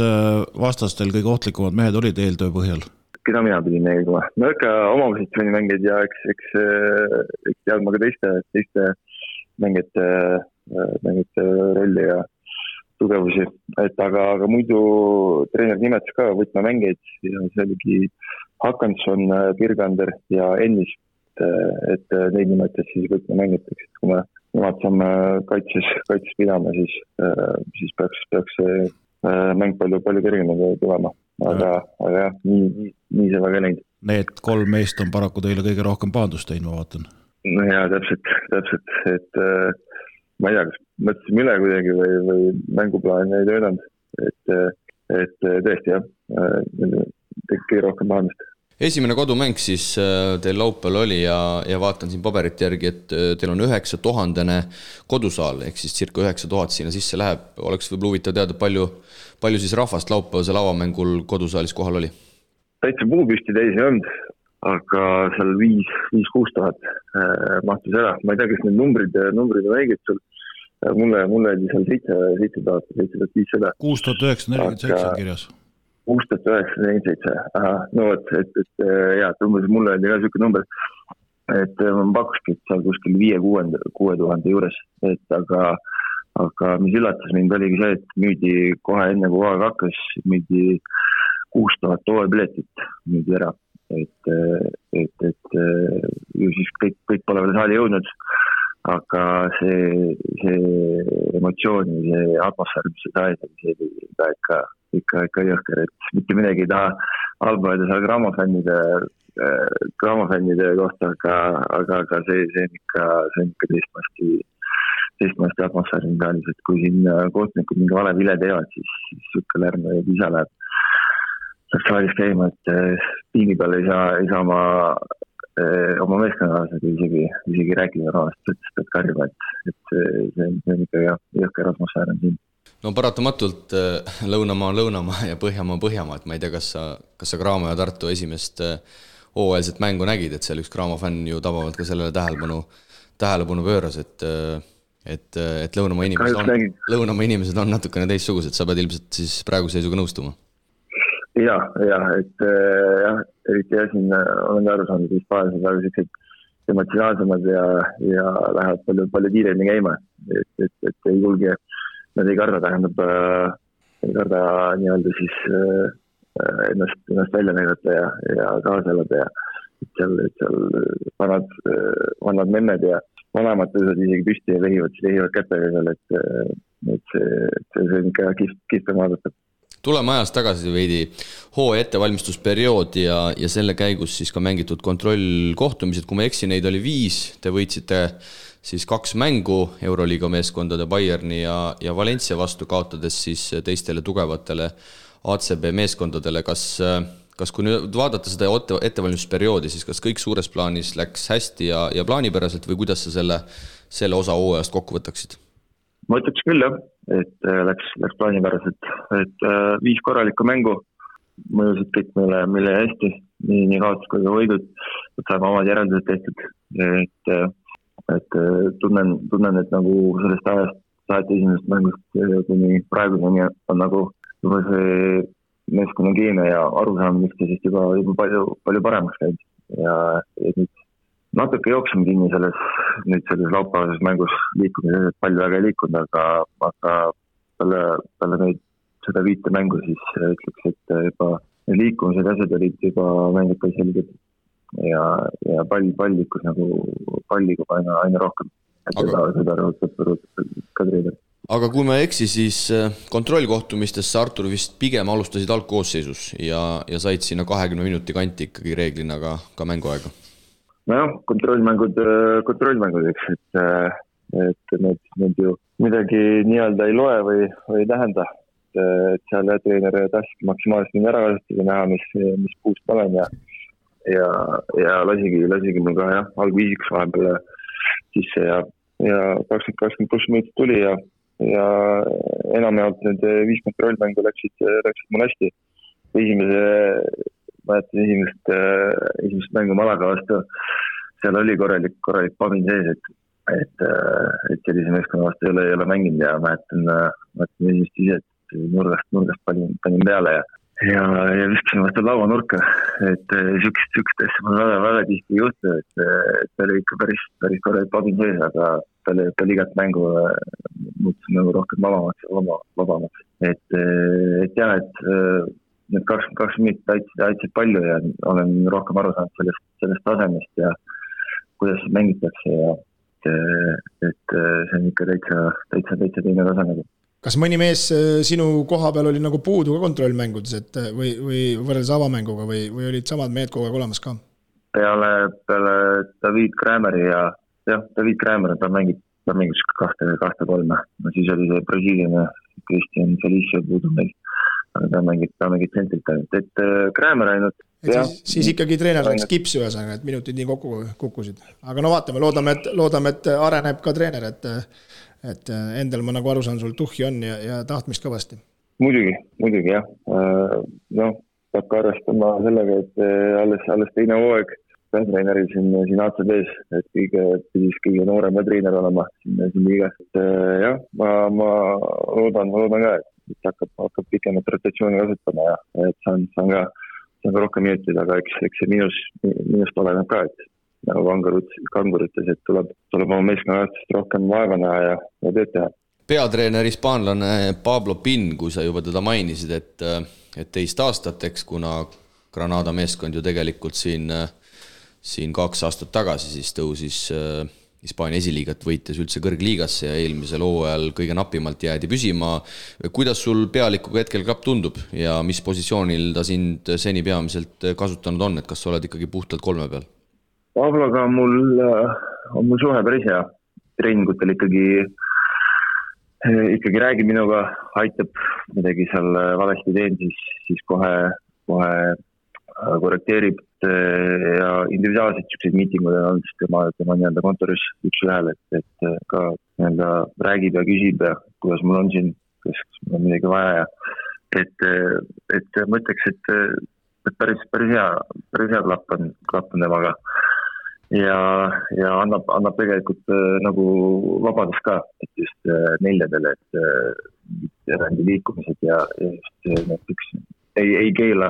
vastastel kõige ohtlikumad mehed olid eeltöö põhjal? Keda mina pidin nägema. No ikka oma positsiooni mängid ja eks teadma ka teiste mängijate rolli ja tugevusi. Aga muidu treener nimetas ka võtmemängeid ja see oligi Hakansson, Birgander ja Ennis, et neid nimetas siis võtmemängiteks. Kui me nemad saame kaitses pidama, siis peaks see mäng palju kergemini tulema. Aga jah, nii see väga läinud. Need 3 meest on paraku teile kõige rohkem pahandust teinud, ma vaatan. No jaa, täpselt, et ma ei tea, kas mõtlesime üle kuidagi või mänguplaani ei töödanud, et tõesti jah, kõige rohkem pahandust. Esimene kodumäng siis teil laupäeval oli ja vaatan siin paberite järgi, et teil on 9000 kodusaal, ehk siis circa 9000 sinna sisse läheb. Oleks võib-olla huvitav teada, palju siis rahvast laupäevasel avamängul kodusaalis kohal oli? täitsa puupüsti täis ei olnud, aga seal 5-6 tuhat mahtus ära. Ma ei tea, kas need numbrid on õiged sul. Mulle oli seal 7,500. 6947 on kirjas. 6947. Aha, no vot, et umbes mulle oli ka selline number, et ma pakkuski, et seal kuskil 5-6 tuhande juures, et aga mis üllatas mind oligi see, et müüdi kohe enne kui hooaeg hakkas, müüdi 6000 hooajapiletit müüdi ära, et ju siis kõik pole veel saali jõudnud, aga see emotsioon, see atmosfäär, mis see sai, see oli ikka jõhker, et mitte midagi ei taha halba öelda seal grammofännide kohta, aga see on ikka teistmasti atmosfääri saalis, et kui siin kohtunikud mingi vale vile teevad, siis sükka lärm ja isa läheb saalis käima, et piini peal ei saa oma meeskonnakaaslased isegi rääkida rahast, et karjuma, et see on ikka jõhker atmosfäär on siin. No paratamatult Lõunamaa on Lõunamaa ja Põhjamaa on Põhjamaa, et ma ei tea, kas sa Graamo ja Tartu esimest hooajalset mängu nägid, et seal üks Graamo fänn ju tabavalt ka sellele tähelepanu pööras, et Lõunamaa inimesed on natukene teistsugused, sa pead ilmselt siis praeguse seisuga nõustuma. Ja, et eriti siin olen aru saanud, et Hispaanias on väga sellised emotsionaalsemad ja lähevad palju kiiremini käima, et ei julge, nad ei karda, nii-öelda siis ennast välja näidata ja kaasa elada ja seal vanad memmed ja vanemad tõusvad isegi püsti ja vehivad kätega seal, et see on ikka kihvem vaadata. Tuleme ajas tagasi veidi hooaja ettevalmistusperiood ja selle käigus siis ka mängitud kontrollkohtumised, kui ma eksin, neid oli 5, te võitsite siis 2 mängu Euroliiga meeskondade Bayerni ja Valencia vastu, kaotades siis teistele tugevatele ACB meeskondadele. Kas kui nüüd vaadata seda ettevalmistusperioodi, siis kas kõik suures plaanis läks hästi ja plaanipäraselt või kuidas sa selle osa hooajast kokku võtaksid? Ma ütleks küll jah, et läks plaanipäraselt, et 5 korralikku mängu mõjusid kõik meile hästi, nii kaotus kui ka võidud, et saame omad järeldused tehtud, et tunnen, et nagu sellest ajast saati esimesest mängust kuni praeguseni on nagu juba see meeskonna keemia ja arusaam, mis see siis juba palju paremaks käib ja nüüd natuke jooksime kinni selles laupäevases mängus liikumises, et palju väga ei liikunud, aga peale neid seda 5 mängu siis ütleks, et juba liikumised asjad olid juba mängid ka selged ja pall liikus nagu palliga aina rohkem. Seda rõhutab ka treener. Aga kui ma eksi, siis kontrollkohtumistesse Artur vist pigem alustasid algkoosseisus ja said sinna 20 minuti kanti ikkagi reeglina ka mänguaega. Nojah, kontrollmängud, eks, et need ju midagi nii-öelda ei loe või ei tähenda, et seal treener tahtski maksimaalselt mind ära kasutada, näha, mis puust olen ja lasigi mul ka algviisiks vahepeal sisse ja 20 pluss minutit tuli ja enamjaolt need 5 kontrollmängu läksid mul hästi. Esimest mängu Malaga vastu, seal oli korralik pamin sees, et sellise meeskonna vastu ei ole mänginud ja mäletan esimest ise, et nurgast panin peale ja viskasin vastu laua nurka, et sükst asja mul väga tihti ei juhtu, et ta oli ikka päris korralik pamin sees, aga peale igat mängu muutus nagu rohkem vabamaks. Et jah, et need 22 minutit aitasid palju ja olen rohkem aru saanud sellest tasemest ja kuidas mängitakse ja et see on ikka täitsa teine tase nagu. Kas mõni mees sinu koha peal oli nagu puudu ka kontrollmängudes, et või võrreldes avamänguga või olid samad mehed kogu aeg olemas ka? Peale David Krämeri ja David Krämer, ta mängis 2-3, no siis oli see Brasiiliane Christian Felicio puudu meil, aga ta mängib tsentrilt ainult, et Krämer ainult. Siis ikkagi treener läks kipsi ühesõnaga, et minutid nii kokku kukkusid. Aga no vaatame, loodame, et areneb ka treener, et endal ma nagu aru saan, sul tuhhi on ja tahtmist kõvasti. Muidugi jah. peab ka arvestama sellega, et alles teine hooaeg peatreeneril siin ACB-s, et kõige noorem treener olema siin liigas. Jah, ma loodan ka, et hakkab pikemat rotatsiooni kasutama ja et saan ka rohkem minutit, aga eks see minust oleneb ka, et nagu Kangur ütles, et tuleb oma meeskonnast rohkem vaeva näha ja tööd teha. Peatreener hispaanlane Pablo Pin, kui sa juba teda mainisid, et teist aastateks, kuna Granada meeskond ju tegelikult siin 2 aastat tagasi siis tõusis Hispaania esiliigat võites üldse kõrgliigasse ja eelmisel hooajal kõige napimalt jäädi püsima. Kuidas sul pealikuga hetkel klapp tundub ja mis positsioonil ta sind seni peamiselt kasutanud on, et kas sa oled ikkagi puhtalt 3 peal? Pabloga on mul suhe päris hea. Treeningutel ikkagi räägib minuga, aitab midagi seal valesti teen, siis kohe korrekteerib ja individuaalselt siukseid miitingud on olnud, siis tema nii- öelda kontoris üks ühel, et ka nii-enda räägib ja küsib ja kuidas mul on siin, kas mul on midagi vaja ja et ma ütleks, et päris hea klapp on temaga ja annab tegelikult nagu vabadust ka, et just neljadele, et erandi liikumised ja just näiteks ei keela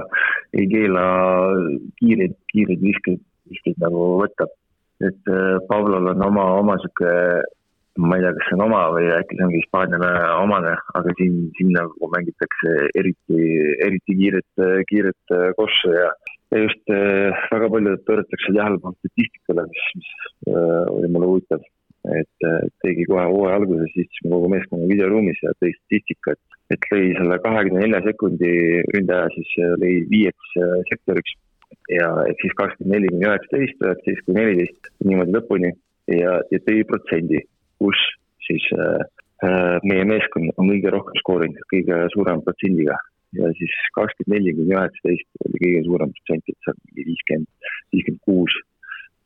kiireid viskeid nagu võtta. Et Pablol on oma siuke, ma ei tea, kas see on oma või äkki see ongi Hispaaniale omane, aga siin nagu mängitakse eriti kiiret kossu ja just väga palju pööratakse tähelepanu statistikale, mis oli mulle huvitav. Et tegi kohe hooaja alguses, siis kogu meeskonna videoruumis ja tõi statistika, et lõi selle 24 sekundi ründaja, siis lõi 5 sektoriks ja et siis 24-19, 19-14 niimoodi lõpuni ja tõi protsendi, kus siis meie meeskond on kõige rohkem skoorinud, kõige suurem protsendiga ja siis 24-19 oli kõige suurem protsent, et see on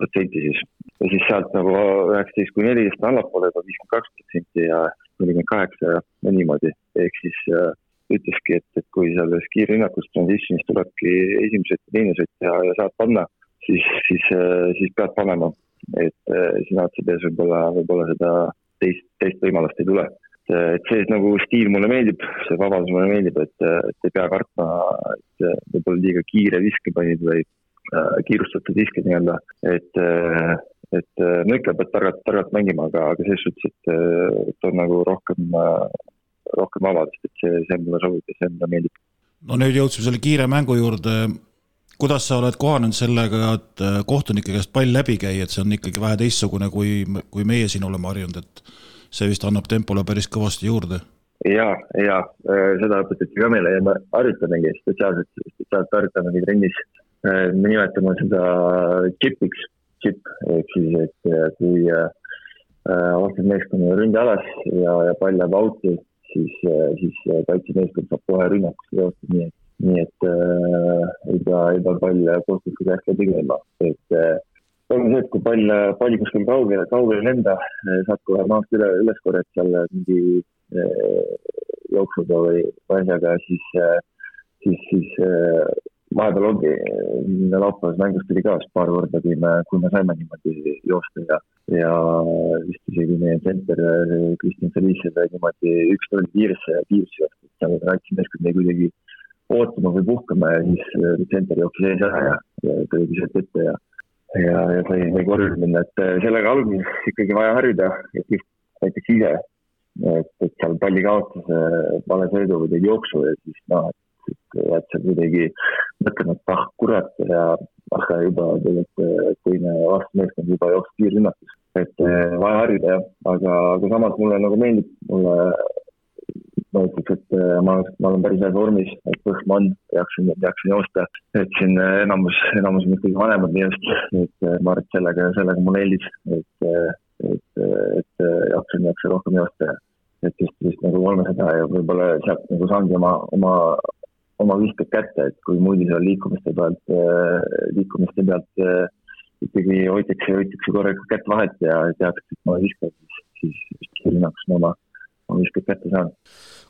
56% siis. Ja siis sealt nagu 19-14 allapoole 52% ja 48% ja niimoodi. Ehk siis ütleski, et kui selles kiirrünnakus transitionis tulebki esimesed ja teine sõtt ja saad panna, siis pead panema. Et siin ACB-s võib-olla seda teist võimalust ei tule. Et see nagu stiil mulle meeldib, see vabadus mulle meeldib, et ei pea kartma, et võib-olla liiga kiire viske panid või kiirustatud viske nii-öelda, et no ikka pead targalt mängima, aga selles suhtes, et on nagu rohkem vabadust, et see mulle sobib ja see mulle meeldib. No nüüd jõudsime selle kiire mängu juurde. Kuidas sa oled kohanenud sellega, et kohtunike käest pall läbi käi, et see on ikkagi vähe teistsugune, kui meie siin oleme harjunud, et see vist annab tempole päris kõvasti juurde? Ja, seda õpetati ka meile ja me harjutamegi spetsiaalselt harjutamegi trennis. Me nimetame seda chip, ehk siis, et kui vastab meeskonna ründe alas ja pall läheb auti, siis kaitsemeeskond saab kohe rünnakusse joosta, nii et ei pea pall kohtuliku käest läbi käima. Et on see, et kui pall kuskil kaugele lenda, saad kohe maast üles korjad seal mingi jooksuga või asjaga, siis vahepeal ongi laupäevas mängust tuli ka paar korda, kui me saime niimoodi joosta ja vist isegi meie center Kristjan Felice niimoodi 1-0 kiiresse joosta, et seal kaitsemeeskond ei kuidagi ootama või puhkama ja siis center jooksis ees ära ja tõi sealt ette ja sai korjus minna, et sellega alguses ikkagi vaja harjuda, et just näiteks ise, et seal palli kaotas vale sõidu või teid jooksu ja siis et see kuidagi mõtlema, et kurat ja juba tegelikult teine vastumeeskond juba jooks kiirrünnakus. Et vaja harjuda, aga samas mulle nagu meeldib, ma ütleks, et ma olen päris hea vormis, et põhma on, jaksin joosta, et siin enamus on ikkagi vanemad nii just, et ma arvan, et sellega mulle eelis, et jaksin rohkem joosta, et just nagu 300 ja võib-olla sealt nagu saangi oma viskad kätte, et kui muidu seal liikumiste pealt ikkagi hoitakse korraga kätt vahet ja teaks, et ma viskan, siis kiirrünnakus oma viskad kätte saan.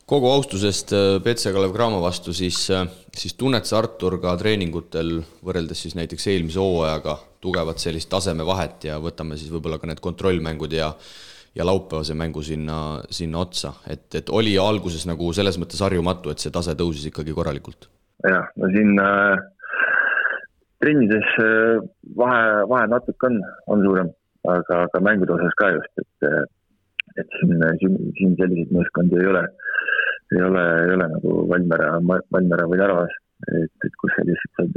Kogu austusest Petse Kalev Cramo vastu, siis tunned sa, Artur, ka treeningutel võrreldes siis näiteks eelmise hooajaga tugevat sellist tasemevahet ja võtame siis võib-olla ka need kontrollmängud ja laupäevase mängu sinna otsa, et oli alguses nagu selles mõttes harjumatu, et see tase tõusis ikkagi korralikult? Jah, no siin trennides vahe natuke on suurem, aga mängude osas ka just, et siin selliseid meeskondi ei ole nagu Valmiera või Tarvas, et kus sa lihtsalt saad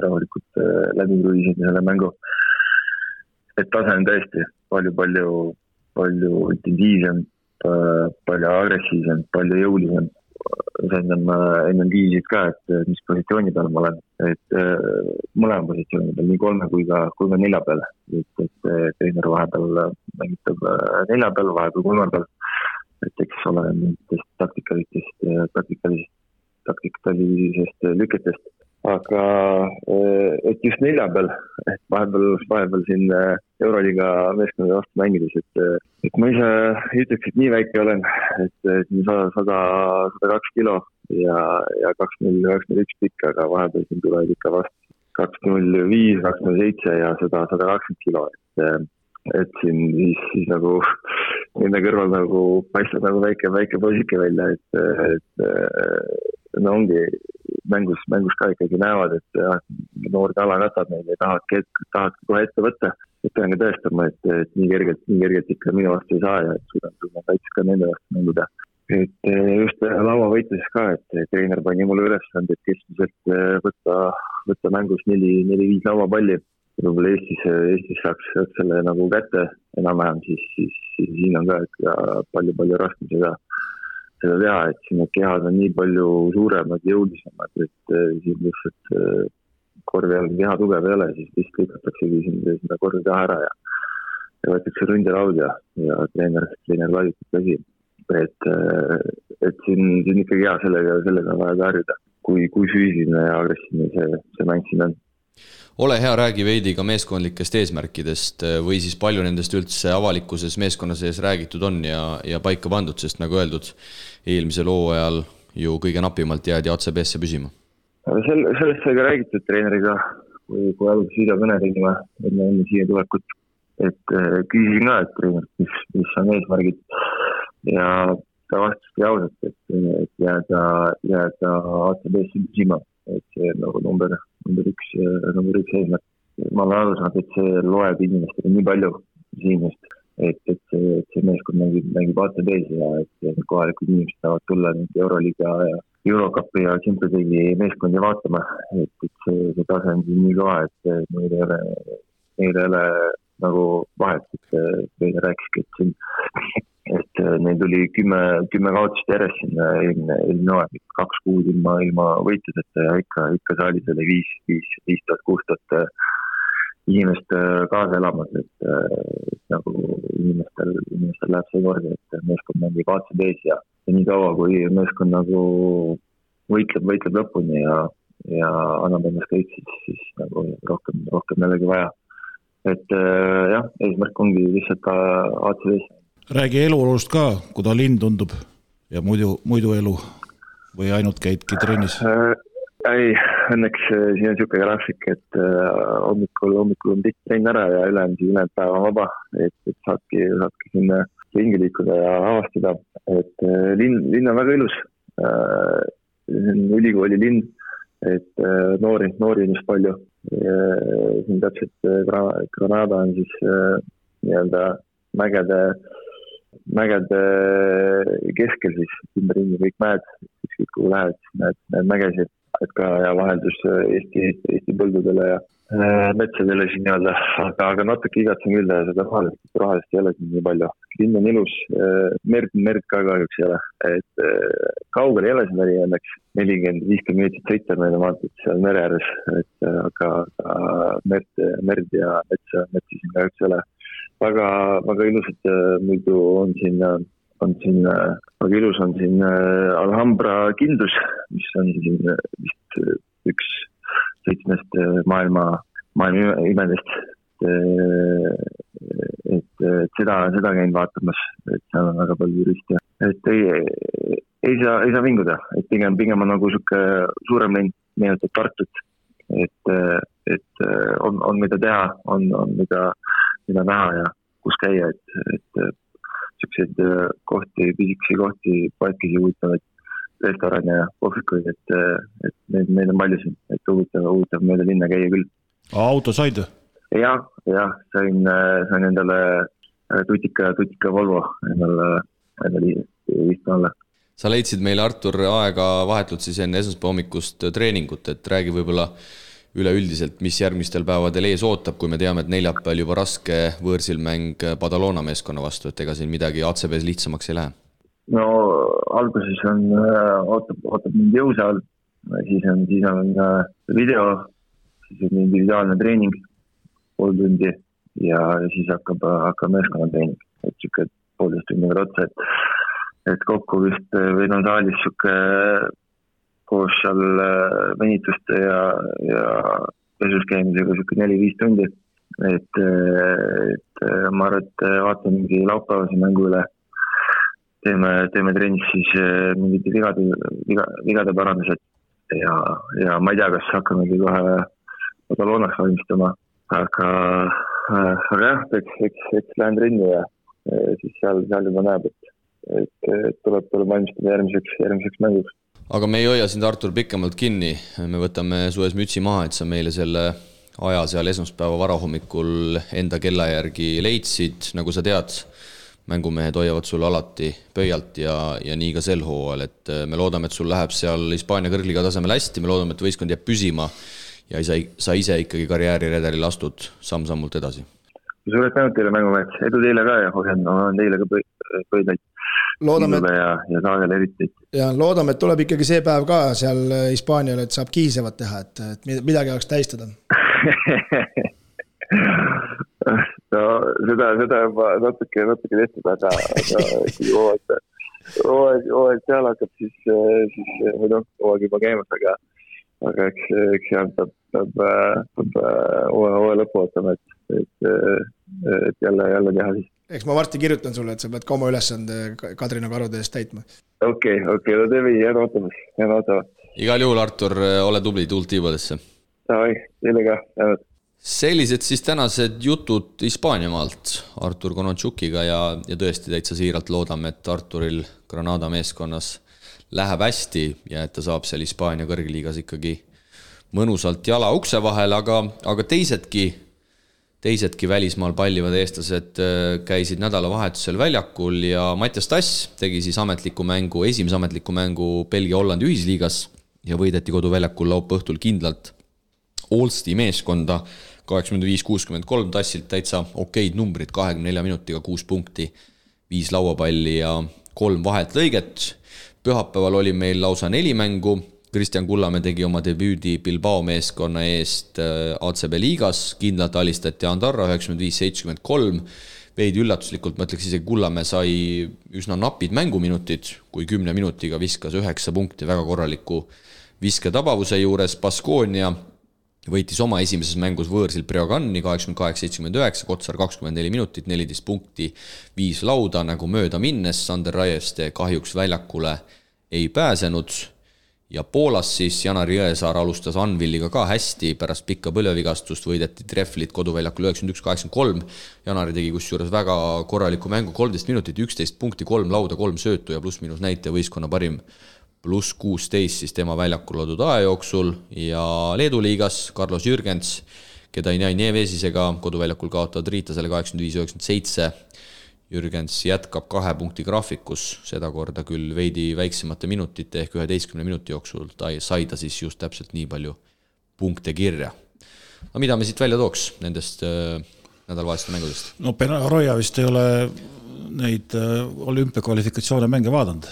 rahulikult läbi kruiisida selle mängu. Et tase on tõesti palju intensiivsem, palju agressiivsem, palju jõulisem. Enne viisid ka, et mis positsiooni peal ma olen, et mõlema positsiooni peal, nii 3 kui ka 4 peal, et treener vahepeal mängitab 4 peal, vahepeal 3 peal, et eks ole mingitest taktikalisest lüketest, aga et just 4 peal, et vahepeal siin Euroliiga meeskonna vastu mängides, et ma ise ütleks, et nii väike olen, et 102 kilo ja 201 pikk, aga vahepeal siin tulevad ikka vastu 205, 207 ja 120 kilo, et siin siis nagu nende kõrval nagu paistab nagu väike poisike välja, et no ongi mängus ka ikkagi näevad, et noor tala katab neid ja tahad kohe ette võtta, et pean ka tõestama, et nii kergelt ikka minu vastu ei saa ja et suudan kaitses ka nende vastu mänguda. Et just lauavõitluses ka, et treener pani mulle ülesande, et keskmiselt võtta mängus 4-5 lauapalli. Võib-olla Eestis saaks selle nagu kätte enam-vähem, siis siin on ka palju raskem seda teha, et siin need kehad on nii palju suuremad, jõulisemad, et siin lihtsalt korvi all keha tugev ei ole, siis vist lõikataksegi seda korvi taha ära ja võetakse ründelaud ja treener laiutab käsi. Et siin ikkagi hea sellega vaja harjuda, kui füüsiline ja agressiivne see mäng siin on. Ole hea, räägi veidi ka meeskondlikest eesmärkidest või siis palju nendest üldse avalikkuses meeskonna sees räägitud on ja paika pandud, sest nagu öeldud, eelmisel hooajal ju kõige napimalt jäädi ACB-sse püsima. Sellest sai ka räägitud treeneriga, kui alguses videokõne tegime enne siia tulekut, et küsisin ka, et treener, mis on eesmärgid ja ta vastuski ausalt, et jääda ACB-sse püsima. Et see nagu number üks eesmärk. Ma olen aru saanud, et see loeb inimestele nii palju siin just, et see meeskond mängib ACB-s ja et kohalikud inimesed saavad tulla Euroliiga ja Eurocupi ja Champions League'i meeskondi vaatama, et see tase on siin nii kõva, et meil ei ole nagu vahet, et meile rääkiski, et neil tuli 10 kaotust järjest sinna eelmine aeg, 2 kuud ilma võitluseta ja ikka saalis oli 5,000-6,000 inimest kaasa elamas, et nagu inimestel läheb see kordi, et meeskond mängib ACB-s ja nii kaua, kui meeskond nagu võitleb lõpuni ja annab ennast kõik, siis nagu rohkem jällegi vaja. Et jah, eesmärk ongi lihtsalt ka ACB-s. Räägi eluolust ka, kuda linn tundub ja muidu elu või ainult käidki trennis? Ei, õnneks siin on niisugune graafik, et hommikul on pikk trenn ära ja ülejäänud päeva on vaba, et saadki sinna ringi liikuda ja avastada, et linn on väga ilus, see on ülikooli linn, et noori on just palju, siin täpselt Granada on siis nii-öelda mägede keskel siis ümberringi kõik mäed, ükskõik kuhu lähed, näed mägesid, et ka ja vaheldus Eesti põldudele ja metsadele siin nii-öelda, aga natuke igatsen küll seda rohelist ei ole siin nii palju. Linn on ilus, merd ka kahjuks ei ole, et kaugel ei ole siin õnneks 40-50 minutit sõita meile maantud seal mere ääres, et aga merd ja metsa siin kahjuks ei ole. Väga ilusad muidu on siin väga ilus on siin Alhambra kindlus, mis on siin vist üks 7 maailma imedest, et seda käin vaatamas, et seal on väga palju turiste. Et ei saa vinguda, et pigem on nagu siuke suurem linn, meenutab Tartut, et on mida teha, on mida näha ja kus käia, et siukseid kohti, pisikesi kohti, paikisi huvitavaid restorane ja kohvikuid, et neid on palju siin, et huvitav mööda linna käia küll. Auto said? Jah, sain endale tutika Volvo endale istma alla. Sa leidsid meile, Artur, aega vahetult siis enne esmaspäeva hommikust treeningut, et räägi võib-olla üleüldiselt, mis järgmistel päevadel ees ootab, kui me teame, et neljapäeval juba raske võõrsil mäng Badalona meeskonna vastu, et ega siin midagi ACB-s lihtsamaks ei lähe. No alguses ootab mind jõusaal, siis on video, siis on individuaalne treening, pool tundi ja siis hakkab meeskonna treening, et siuke 1,5 tundi otsa, et kokku vist või saalis siuke koos seal venituste ja pesus käimisega siuke 4-5 tundi, et ma arvan, et vaatan mingi laupäevase mängu üle, teeme trennis siis mingid vigade parandused ja ma ei tea, kas hakkamegi kohe Badalonas valmistama, aga jah, eks lähen trenni ja siis seal juba näeb, et tuleb valmistada järgmiseks mänguks. Aga me ei hoia sind, Artur, pikemalt kinni, me võtame su ees mütsi maha, et sa meile selle aja seal esmaspäeva varahommikul enda kella järgi leidsid, nagu sa tead, mängumehed hoiavad sul alati pöialt ja nii ka sel hooajal, et me loodame, et sul läheb seal Hispaania kõrgliga tasemel hästi, me loodame, et võistkond jääb püsima ja sa ise ikkagi karjääriredelil astud samm-sammult edasi. Suured tänud teile mängumehed, edu teile ka ja hoian teile ka pöidlaid. Loodame, ja saagel eriti. Ja loodame, et tuleb ikkagi see päev ka seal Hispaanial, et saab kihisevat teha, et midagi oleks tähistada. No seda juba natuke tehtud, aga kui hooaeg seal hakkab, siis hooaeg juba käimas, aga eks seal peab hooaja lõpu ootama, et jälle teha siis. Eks ma varsti kirjutan sulle, et sa pead ka oma ülesande Kadrina karude eest täitma. Okei, no teeme, jään ootama. Igal juhul, Artur, ole tubli, tuult tiibadesse. Davai, teile ka, jäänud. Sellised siis tänased jutud Hispaaniamaalt Artur Konotšukiga ja tõesti täitsa siiralt loodame, et Arturil Granada meeskonnas läheb hästi ja et ta saab seal Hispaania kõrgliigas ikkagi mõnusalt jala ukse vahel, aga teisedki välismaal pallivad eestlased käisid nädalavahetusel väljakul ja Mattias Tass tegi siis esimese ametliku mängu Belgia-Hollandi ühisliigas ja võideti koduväljakul laupäeva õhtul kindlalt Olsti meeskonda 85-63, Tassilt täitsa okeid numbrid, 24 minutiga 6 punkti, 5 lauapalli ja 3 vahet lõiget. Pühapäeval oli meil lausa 4 mängu, Kristjan Kullamäe tegi oma debüüdi Bilbao meeskonna eest ACB liigas, kindlalt alistati Andorra 95-73, veidi üllatuslikult, ma ütleks isegi Kullamäe sai üsna napid mänguminutid, kui 10 minutiga viskas 9 punkti väga korraliku visketabavuse juures. Baskonia võitis oma esimeses mängus võõrsil Breoganni 88-79, Kotsar 24 minutit, 14 punkti, 5 lauda, nagu mööda minnes Sander Raieste kahjuks väljakule ei pääsenud. Ja Poolas siis Janar Jõesaar alustas Anvilliga ka hästi, pärast pikka põlvevigastust võideti Trefflit koduväljakul 91-83. Janari tegi kusjuures väga korraliku mängu, 13 minutit, 11 punkti, 3 lauda, 3 söötu ja pluss-miinus näite võistkonna parim pluss 16 siis tema väljakul loodud aja jooksul ja Leedu liigas Carlos Jürgens, keda ei näi Nevesisega koduväljakul kaotavad Riitasele 85-97. Jürgens jätkab 2 punkti graafikus, seda korda küll veidi väiksemate minutite ehk 11 minuti jooksul sai ta siis just täpselt nii palju punkte kirja. No mida me siit välja tooks nendest nädalavaheliste mängudest? No Roja vist ei ole neid olümpiakvalifikatsioone mänge vaadanud,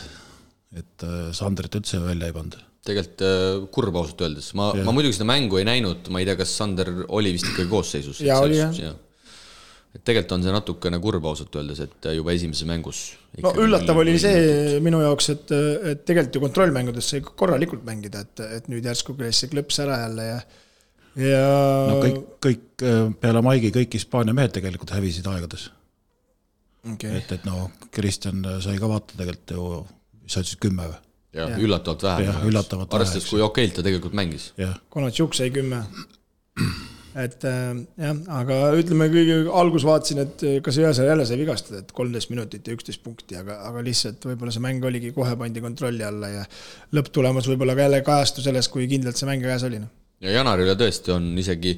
et Sanderit üldse välja ei pannud. Tegelikult kurb ausalt öeldes. Ma muidugi seda mängu ei näinud, ma ei tea, kas Sander oli vist ikkagi koosseisus. Ja oli jah. Et tegelikult on see natukene kurb ausalt öeldes, et juba esimeses mängus no üllatav oli see minu jaoks, et tegelikult ju kontrollmängudes sai korralikult mängida, et nüüd järsku käis see klõps ära jälle ja no kõik peale Maigi kõik Hispaania mehed tegelikult hävisid aegades. Okay. Et no Kristjan sai ka vaata tegelikult ju mis sa ütlesid 10 või? Ja, üllatavalt vähe. Arvestades, kui okeilt ta tegelikult mängis. Konatšuk sai 10. Et jah, aga ütleme kõige algus vaatasin, et kas Jõesaar jälle sai vigastada, et 13 minutit ja 11 punkti, aga lihtsalt võib-olla see mäng oligi kohe pandi kontrolli alla ja lõpptulemus võib-olla ka jälle kajastu selles, kui kindlalt see mäng käes oli. Ja Janarile tõesti on isegi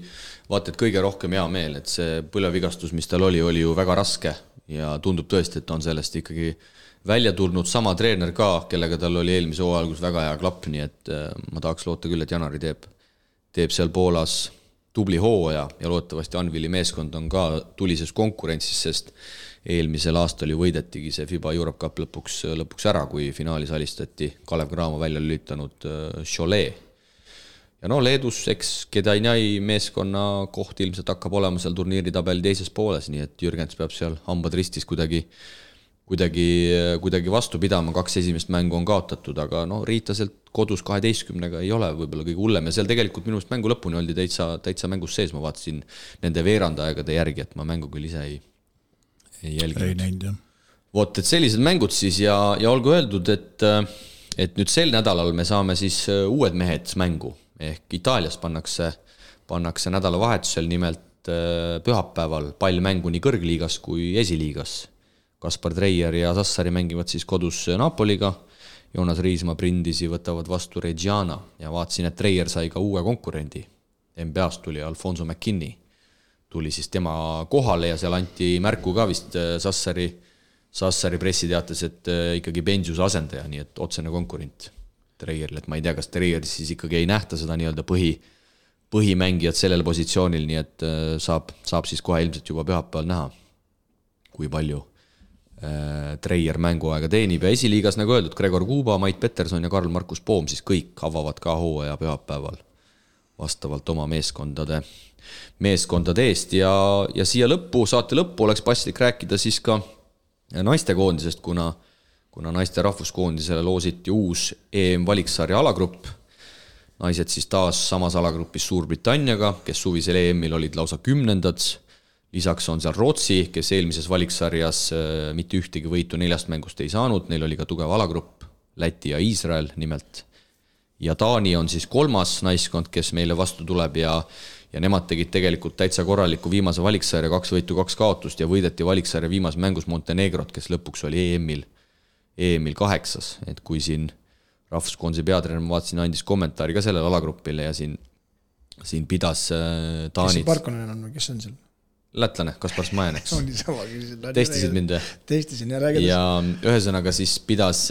vaata, et kõige rohkem hea meel, et see põlevigastus, mis tal oli ju väga raske ja tundub tõesti, et on sellest ikkagi välja tulnud sama treener ka, kellega tal oli eelmise hooaja algus väga hea klapp, nii et ma tahaks loota küll, et Janari teeb seal Poolas tubli hooaja ja loodetavasti Anvili meeskond on ka tulises konkurentsis, sest eelmisel aastal ju võidetigi see FIBA Europe Cup lõpuks ära, kui finaalis alistati Kalev Cramo välja lülitanud Cholet. Ja Leedus, eks Kedainai meeskonna koht ilmselt hakkab olema seal turniiritabeli teises pooles, nii et Jürgens peab seal hambad ristis kuidagi vastu pidama, 2 esimest mängu on kaotatud, aga Riitaselt kodus 12-ga ei ole võib-olla kõige hullem ja seal tegelikult minu mängu lõpuni oldi täitsa mängus sees, ma vaatasin nende veerandaegade järgi, et ma mängu küll ise ei jälginud. Ei näinud, jah. Vot, et sellised mängud siis ja olgu öeldud, et nüüd sel nädalal me saame siis uued mehed mängu. Ehk Itaalias pannakse nädalavahetusel nimelt pühapäeval pall mängu nii kõrgliigas kui esiliigas. Kaspar Treier ja Sassari mängivad siis kodus Napoliga, Joonas Riismaa Brindisi võtavad vastu Reggiana ja vaatasin, et Treier sai ka uue konkurendi. NBA-st tuli Alfonso McKinney, tuli siis tema kohale ja seal anti märku ka vist Sassari pressiteates, et ikkagi Benjuse asendaja, nii et otsene konkurent Treieril, et ma ei tea, kas Treier siis ikkagi ei nähta seda nii-öelda põhimängijat sellel positsioonil, nii et saab siis kohe ilmselt juba pühapäeval näha, kui palju Treier mänguaega teenib ja esiliigas, nagu öeldud, Gregor Kuuba, Mait Peterson ja Karl-Markus Poom siis kõik avavad ka hooaja pühapäeval vastavalt oma meeskondade eest ja siia saate lõppu oleks paslik rääkida siis ka naistekoondisest, kuna naiste rahvuskoondisele loositi uus EM-valiksarja alagrupp. Naised siis taas samas alagrupis Suurbritanniaga, kes suvisel EM-il olid lausa 10. Lisaks on seal Rootsi, kes eelmises valiksarjas mitte ühtegi võitu 4 mängust ei saanud, neil oli ka tugev alagrupp, Läti ja Iisrael nimelt. Ja Taani on siis 3. naiskond, kes meile vastu tuleb ja nemad tegid tegelikult täitsa korraliku viimase valiksarja 2 võitu, 2 kaotust ja võideti valiksarja viimase mängus Montenegrot, kes lõpuks oli EM-il 8, et kui siin rahvuskoondise peatreener, ma vaatasin, andis kommentaari ka sellele alagrupile ja siin pidas Taanit. Kes Parkonen on või kes on seal? Lätlane, Kaspar Smajan, eks. Testisid mind. Testisin ja räägides. Ja ühesõnaga siis pidas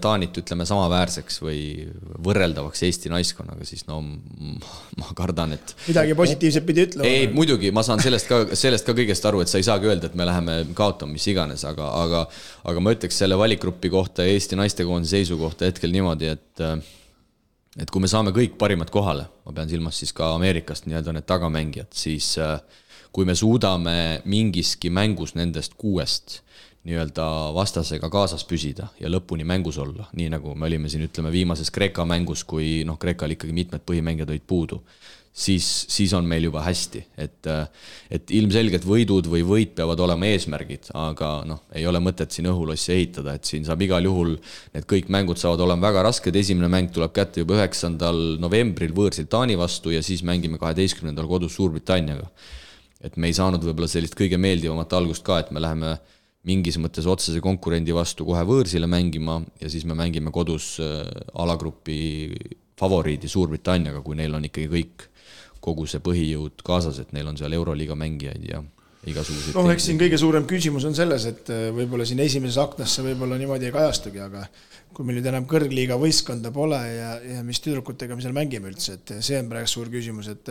Taanit, ütleme, samaväärseks või võrreldavaks Eesti naiskonnaga, siis ma kardan, et midagi positiivset pidi ütlema. Ei, muidugi, ma saan sellest ka kõigest aru, et sa ei saagi öelda, et me läheme kaotama mis iganes, aga ma ütleks selle valikgruppi kohta ja Eesti naistekoondise seisu kohta hetkel niimoodi, et kui me saame kõik parimad kohale, ma pean silmas siis ka Ameerikast nii-öelda need tagamängijad, siis kui me suudame mingiski mängus nendest 6 nii-öelda vastasega kaasas püsida ja lõpuni mängus olla, nii nagu me olime siin, ütleme, viimases Kreeka mängus, kui Kreekal ikkagi mitmed põhimängijad olid puudu, siis on meil juba hästi, et ilmselgelt võidud või võit peavad olema eesmärgid, aga ei ole mõtet siin õhulossi ehitada, et siin saab igal juhul, need kõik mängud saavad olema väga rasked, esimene mäng tuleb kätte juba 9. novembril võõrsil Taani vastu ja siis mängime 12. kodus Suurbritanniaga. Et me ei saanud võib-olla sellist kõige meeldivamat algust ka, et me läheme mingis mõttes otsese konkurendi vastu kohe võõrsile mängima ja siis me mängime kodus alagrupi favoriidi Suurbritanniaga, kui neil on ikkagi kogu see põhijõud kaasas, et neil on seal Euroliiga mängijaid ja igasuguseid. Eks siin kõige suurem küsimus on selles, et võib-olla siin esimeses aknasse võib-olla niimoodi ei kajastugi, aga kui meil nüüd enam kõrgliiga võistkonda pole ja mis tüdrukutega me seal mängime üldse, et see on praegu suur küsimus, et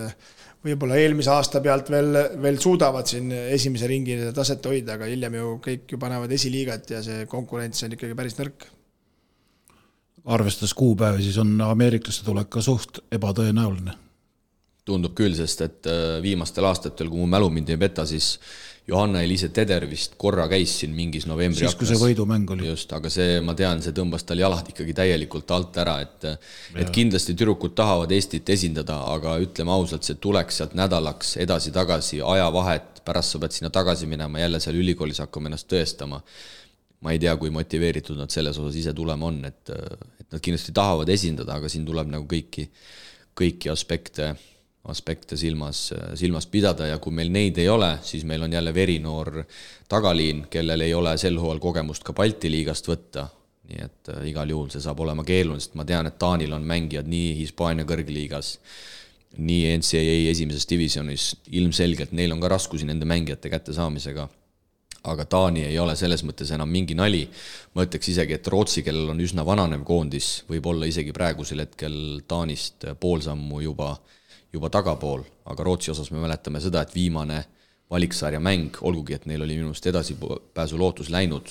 võib-olla eelmise aasta pealt veel suudavad siin esimese ringi taset hoida, aga hiljem ju kõik ju panevad esiliigat ja see konkurents on ikkagi päris nõrk. Arvestades kuupäevi, siis on ameeriklaste tulek ka suht ebatõenäoline. Tundub küll, sest et viimastel aastatel, kui mu mälu mind ei peta, siis Johanna-Eliise Teder vist korra käis siin mingis novembri siis, kui see võidumäng oli. Just, aga see, ma tean, see tõmbas tal jalad ikkagi täielikult alt ära, et kindlasti tüdrukud tahavad Eestit esindada, aga ütleme ausalt, see tuleks sealt nädalaks edasi-tagasi, ajavahet, pärast sa pead sinna tagasi minema, jälle seal ülikoolis hakkama ennast tõestama. ma ei tea, kui motiveeritud nad selles osas ise tulema on, et nad kindlasti tahavad esindada, aga siin tuleb nagu kõiki aspekte silmas pidada ja kui meil neid ei ole, siis meil on jälle verinoor tagaliin, kellel ei ole sel hooajal kogemust ka Balti liigast võtta, nii et igal juhul see saab olema keeruline, sest ma tean, et Taanil on mängijad nii Hispaania kõrgliigas, nii NCAA esimeses divisionis, ilmselgelt neil on ka raskusi nende mängijate kätte saamisega, aga Taani ei ole selles mõttes enam mingi nali. Ma ütleks isegi, et Rootsi, kellel on üsna vananev koondis, võib olla isegi praegusel hetkel Taanist poolsammu juba tagapool, aga Rootsi osas me mäletame seda, et viimane valiksarja mäng, olgugi et neil oli minust edasipääsu lootus läinud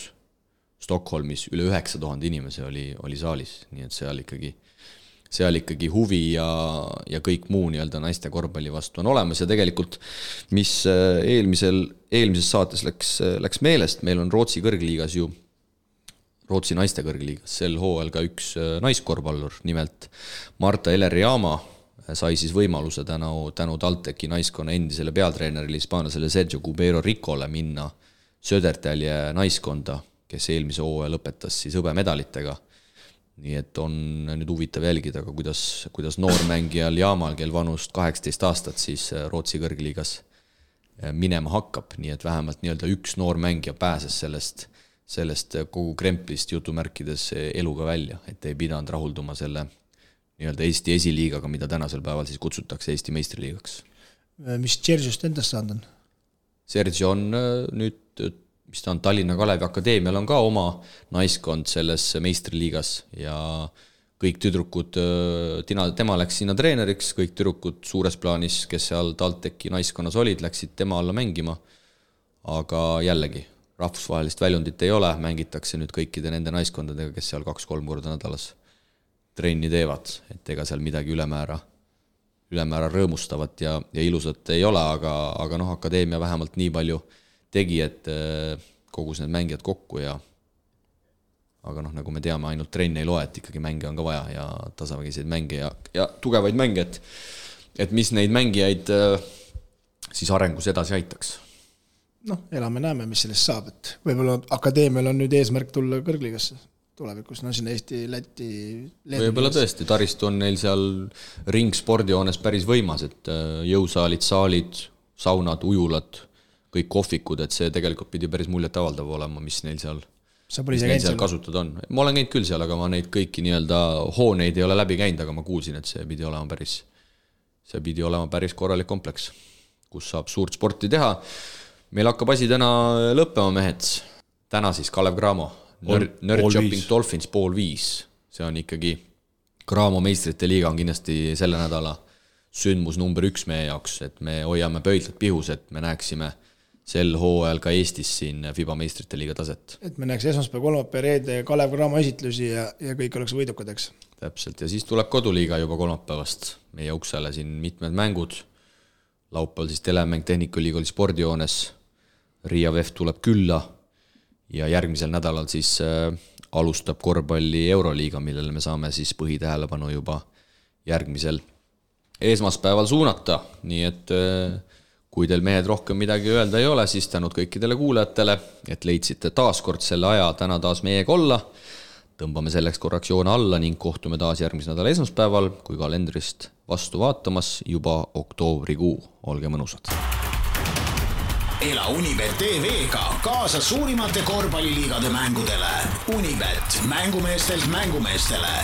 Stockholmis, üle 9000 inimese oli saalis, nii et seal ikkagi huvi ja kõik muu nii-öelda naiste korvpalli vastu on olemas ja tegelikult, mis eelmises saates läks meelest, meil on Rootsi kõrgliigas ju, Rootsi naiste kõrgliigas, sel hooajal ka üks naiskorvpallur, nimelt Marta Eler-Jaama sai siis võimaluse tänu TalTechi naiskonna endisele peatreenerile hispaanlasele Sergio Cubero Ricole minna Södertälje naiskonda, kes eelmise hooaja lõpetas siis hõbemedalitega. Nii et on nüüd huvitav jälgida, aga kuidas noormängijal Jaamal, kel vanust 18 aastat, siis Rootsi kõrgliigas minema hakkab, nii et vähemalt nii-öelda üks noormängija pääses sellest kogu kremplist jutumärkides eluga välja, et ei pidanud rahulduma selle nii-öelda Eesti esiliigaga, mida tänasel päeval siis kutsutakse Eesti meistriliigaks. Mis Sergiust endast saanud on? Sergio on nüüd, mis ta on Tallinna Kalevi Akadeemial on ka oma naiskond selles meistriliigas ja kõik tüdrukud, tema läks sinna treeneriks, kõik tüdrukud suures plaanis, kes seal TalTechi naiskonnas olid, läksid tema alla mängima, aga jällegi, rahvusvahelist väljundit ei ole, mängitakse nüüd kõikide nende naiskondadega, kes seal 2-3 korda nädalas trenni teevad, et ega seal midagi ülemäära rõõmustavat ja ilusat ei ole, aga akadeemia vähemalt nii palju tegi, et kogus need mängijad kokku aga nagu me teame, ainult trenni ei loe, et ikkagi mänge on ka vaja ja tasavägiseid mänge ja tugevaid mänge, et mis neid mängijaid siis arengus edasi aitaks. Elame-näeme, mis sellest saab, et võib-olla akadeemial on nüüd eesmärk tulla kõrgliigasse tulevikus, sinna Eesti, Läti, Leedu. Võib-olla tõesti, taristu on neil seal ringspordihoones päris võimas, et jõusaalid, saalid, saunad, ujulad, kõik kohvikud, et see tegelikult pidi päris muljet avaldav olema, mis neil seal kasutada on. Ma olen käinud küll seal, aga ma neid kõiki nii-öelda hooneid ei ole läbi käinud, aga ma kuulsin, et see pidi olema päris korralik kompleks, kus saab suurt sporti teha. Meil hakkab asi täna lõppema, mehed. Täna siis Kalev Cramo, Nerdchopping Dolphins 4:30. See on ikkagi Cramo meistrite liiga on kindlasti selle nädala sündmus number 1 meie jaoks, et me hoiame pöidlad pihus, et me näeksime sel hooajal ka Eestis siin FIBA meistrite liiga taset. Et me näeks esmaspäev, kolmapäev, reede Kalev Cramo esitlusi ja kõik oleks võidukad, eks? Täpselt, ja siis tuleb koduliiga juba kolmapäevast meie uksele siin mitmed mängud. Laupäeval siis telemäng Tehnikaliigoli spordihoones, Riia VEF tuleb külla ja järgmisel nädalal siis alustab korvpalli Euroliiga, millele me saame siis põhitähelepanu juba järgmisel esmaspäeval suunata, nii et kui teil mehed rohkem midagi öelda ei ole, siis tänud kõikidele kuulajatele, et leidsite taas kord selle aja täna taas meiega olla. Tõmbame selleks korraks joone alla ning kohtume taas järgmise nädala esmaspäeval, kui kalendrist vastu vaatamas juba oktoobrikuu. Olge mõnusad! Ela Unibet TV-ga kaasa suurimate korvpalliliigade mängudele. Unibet, mängumeestelt mängumeestele.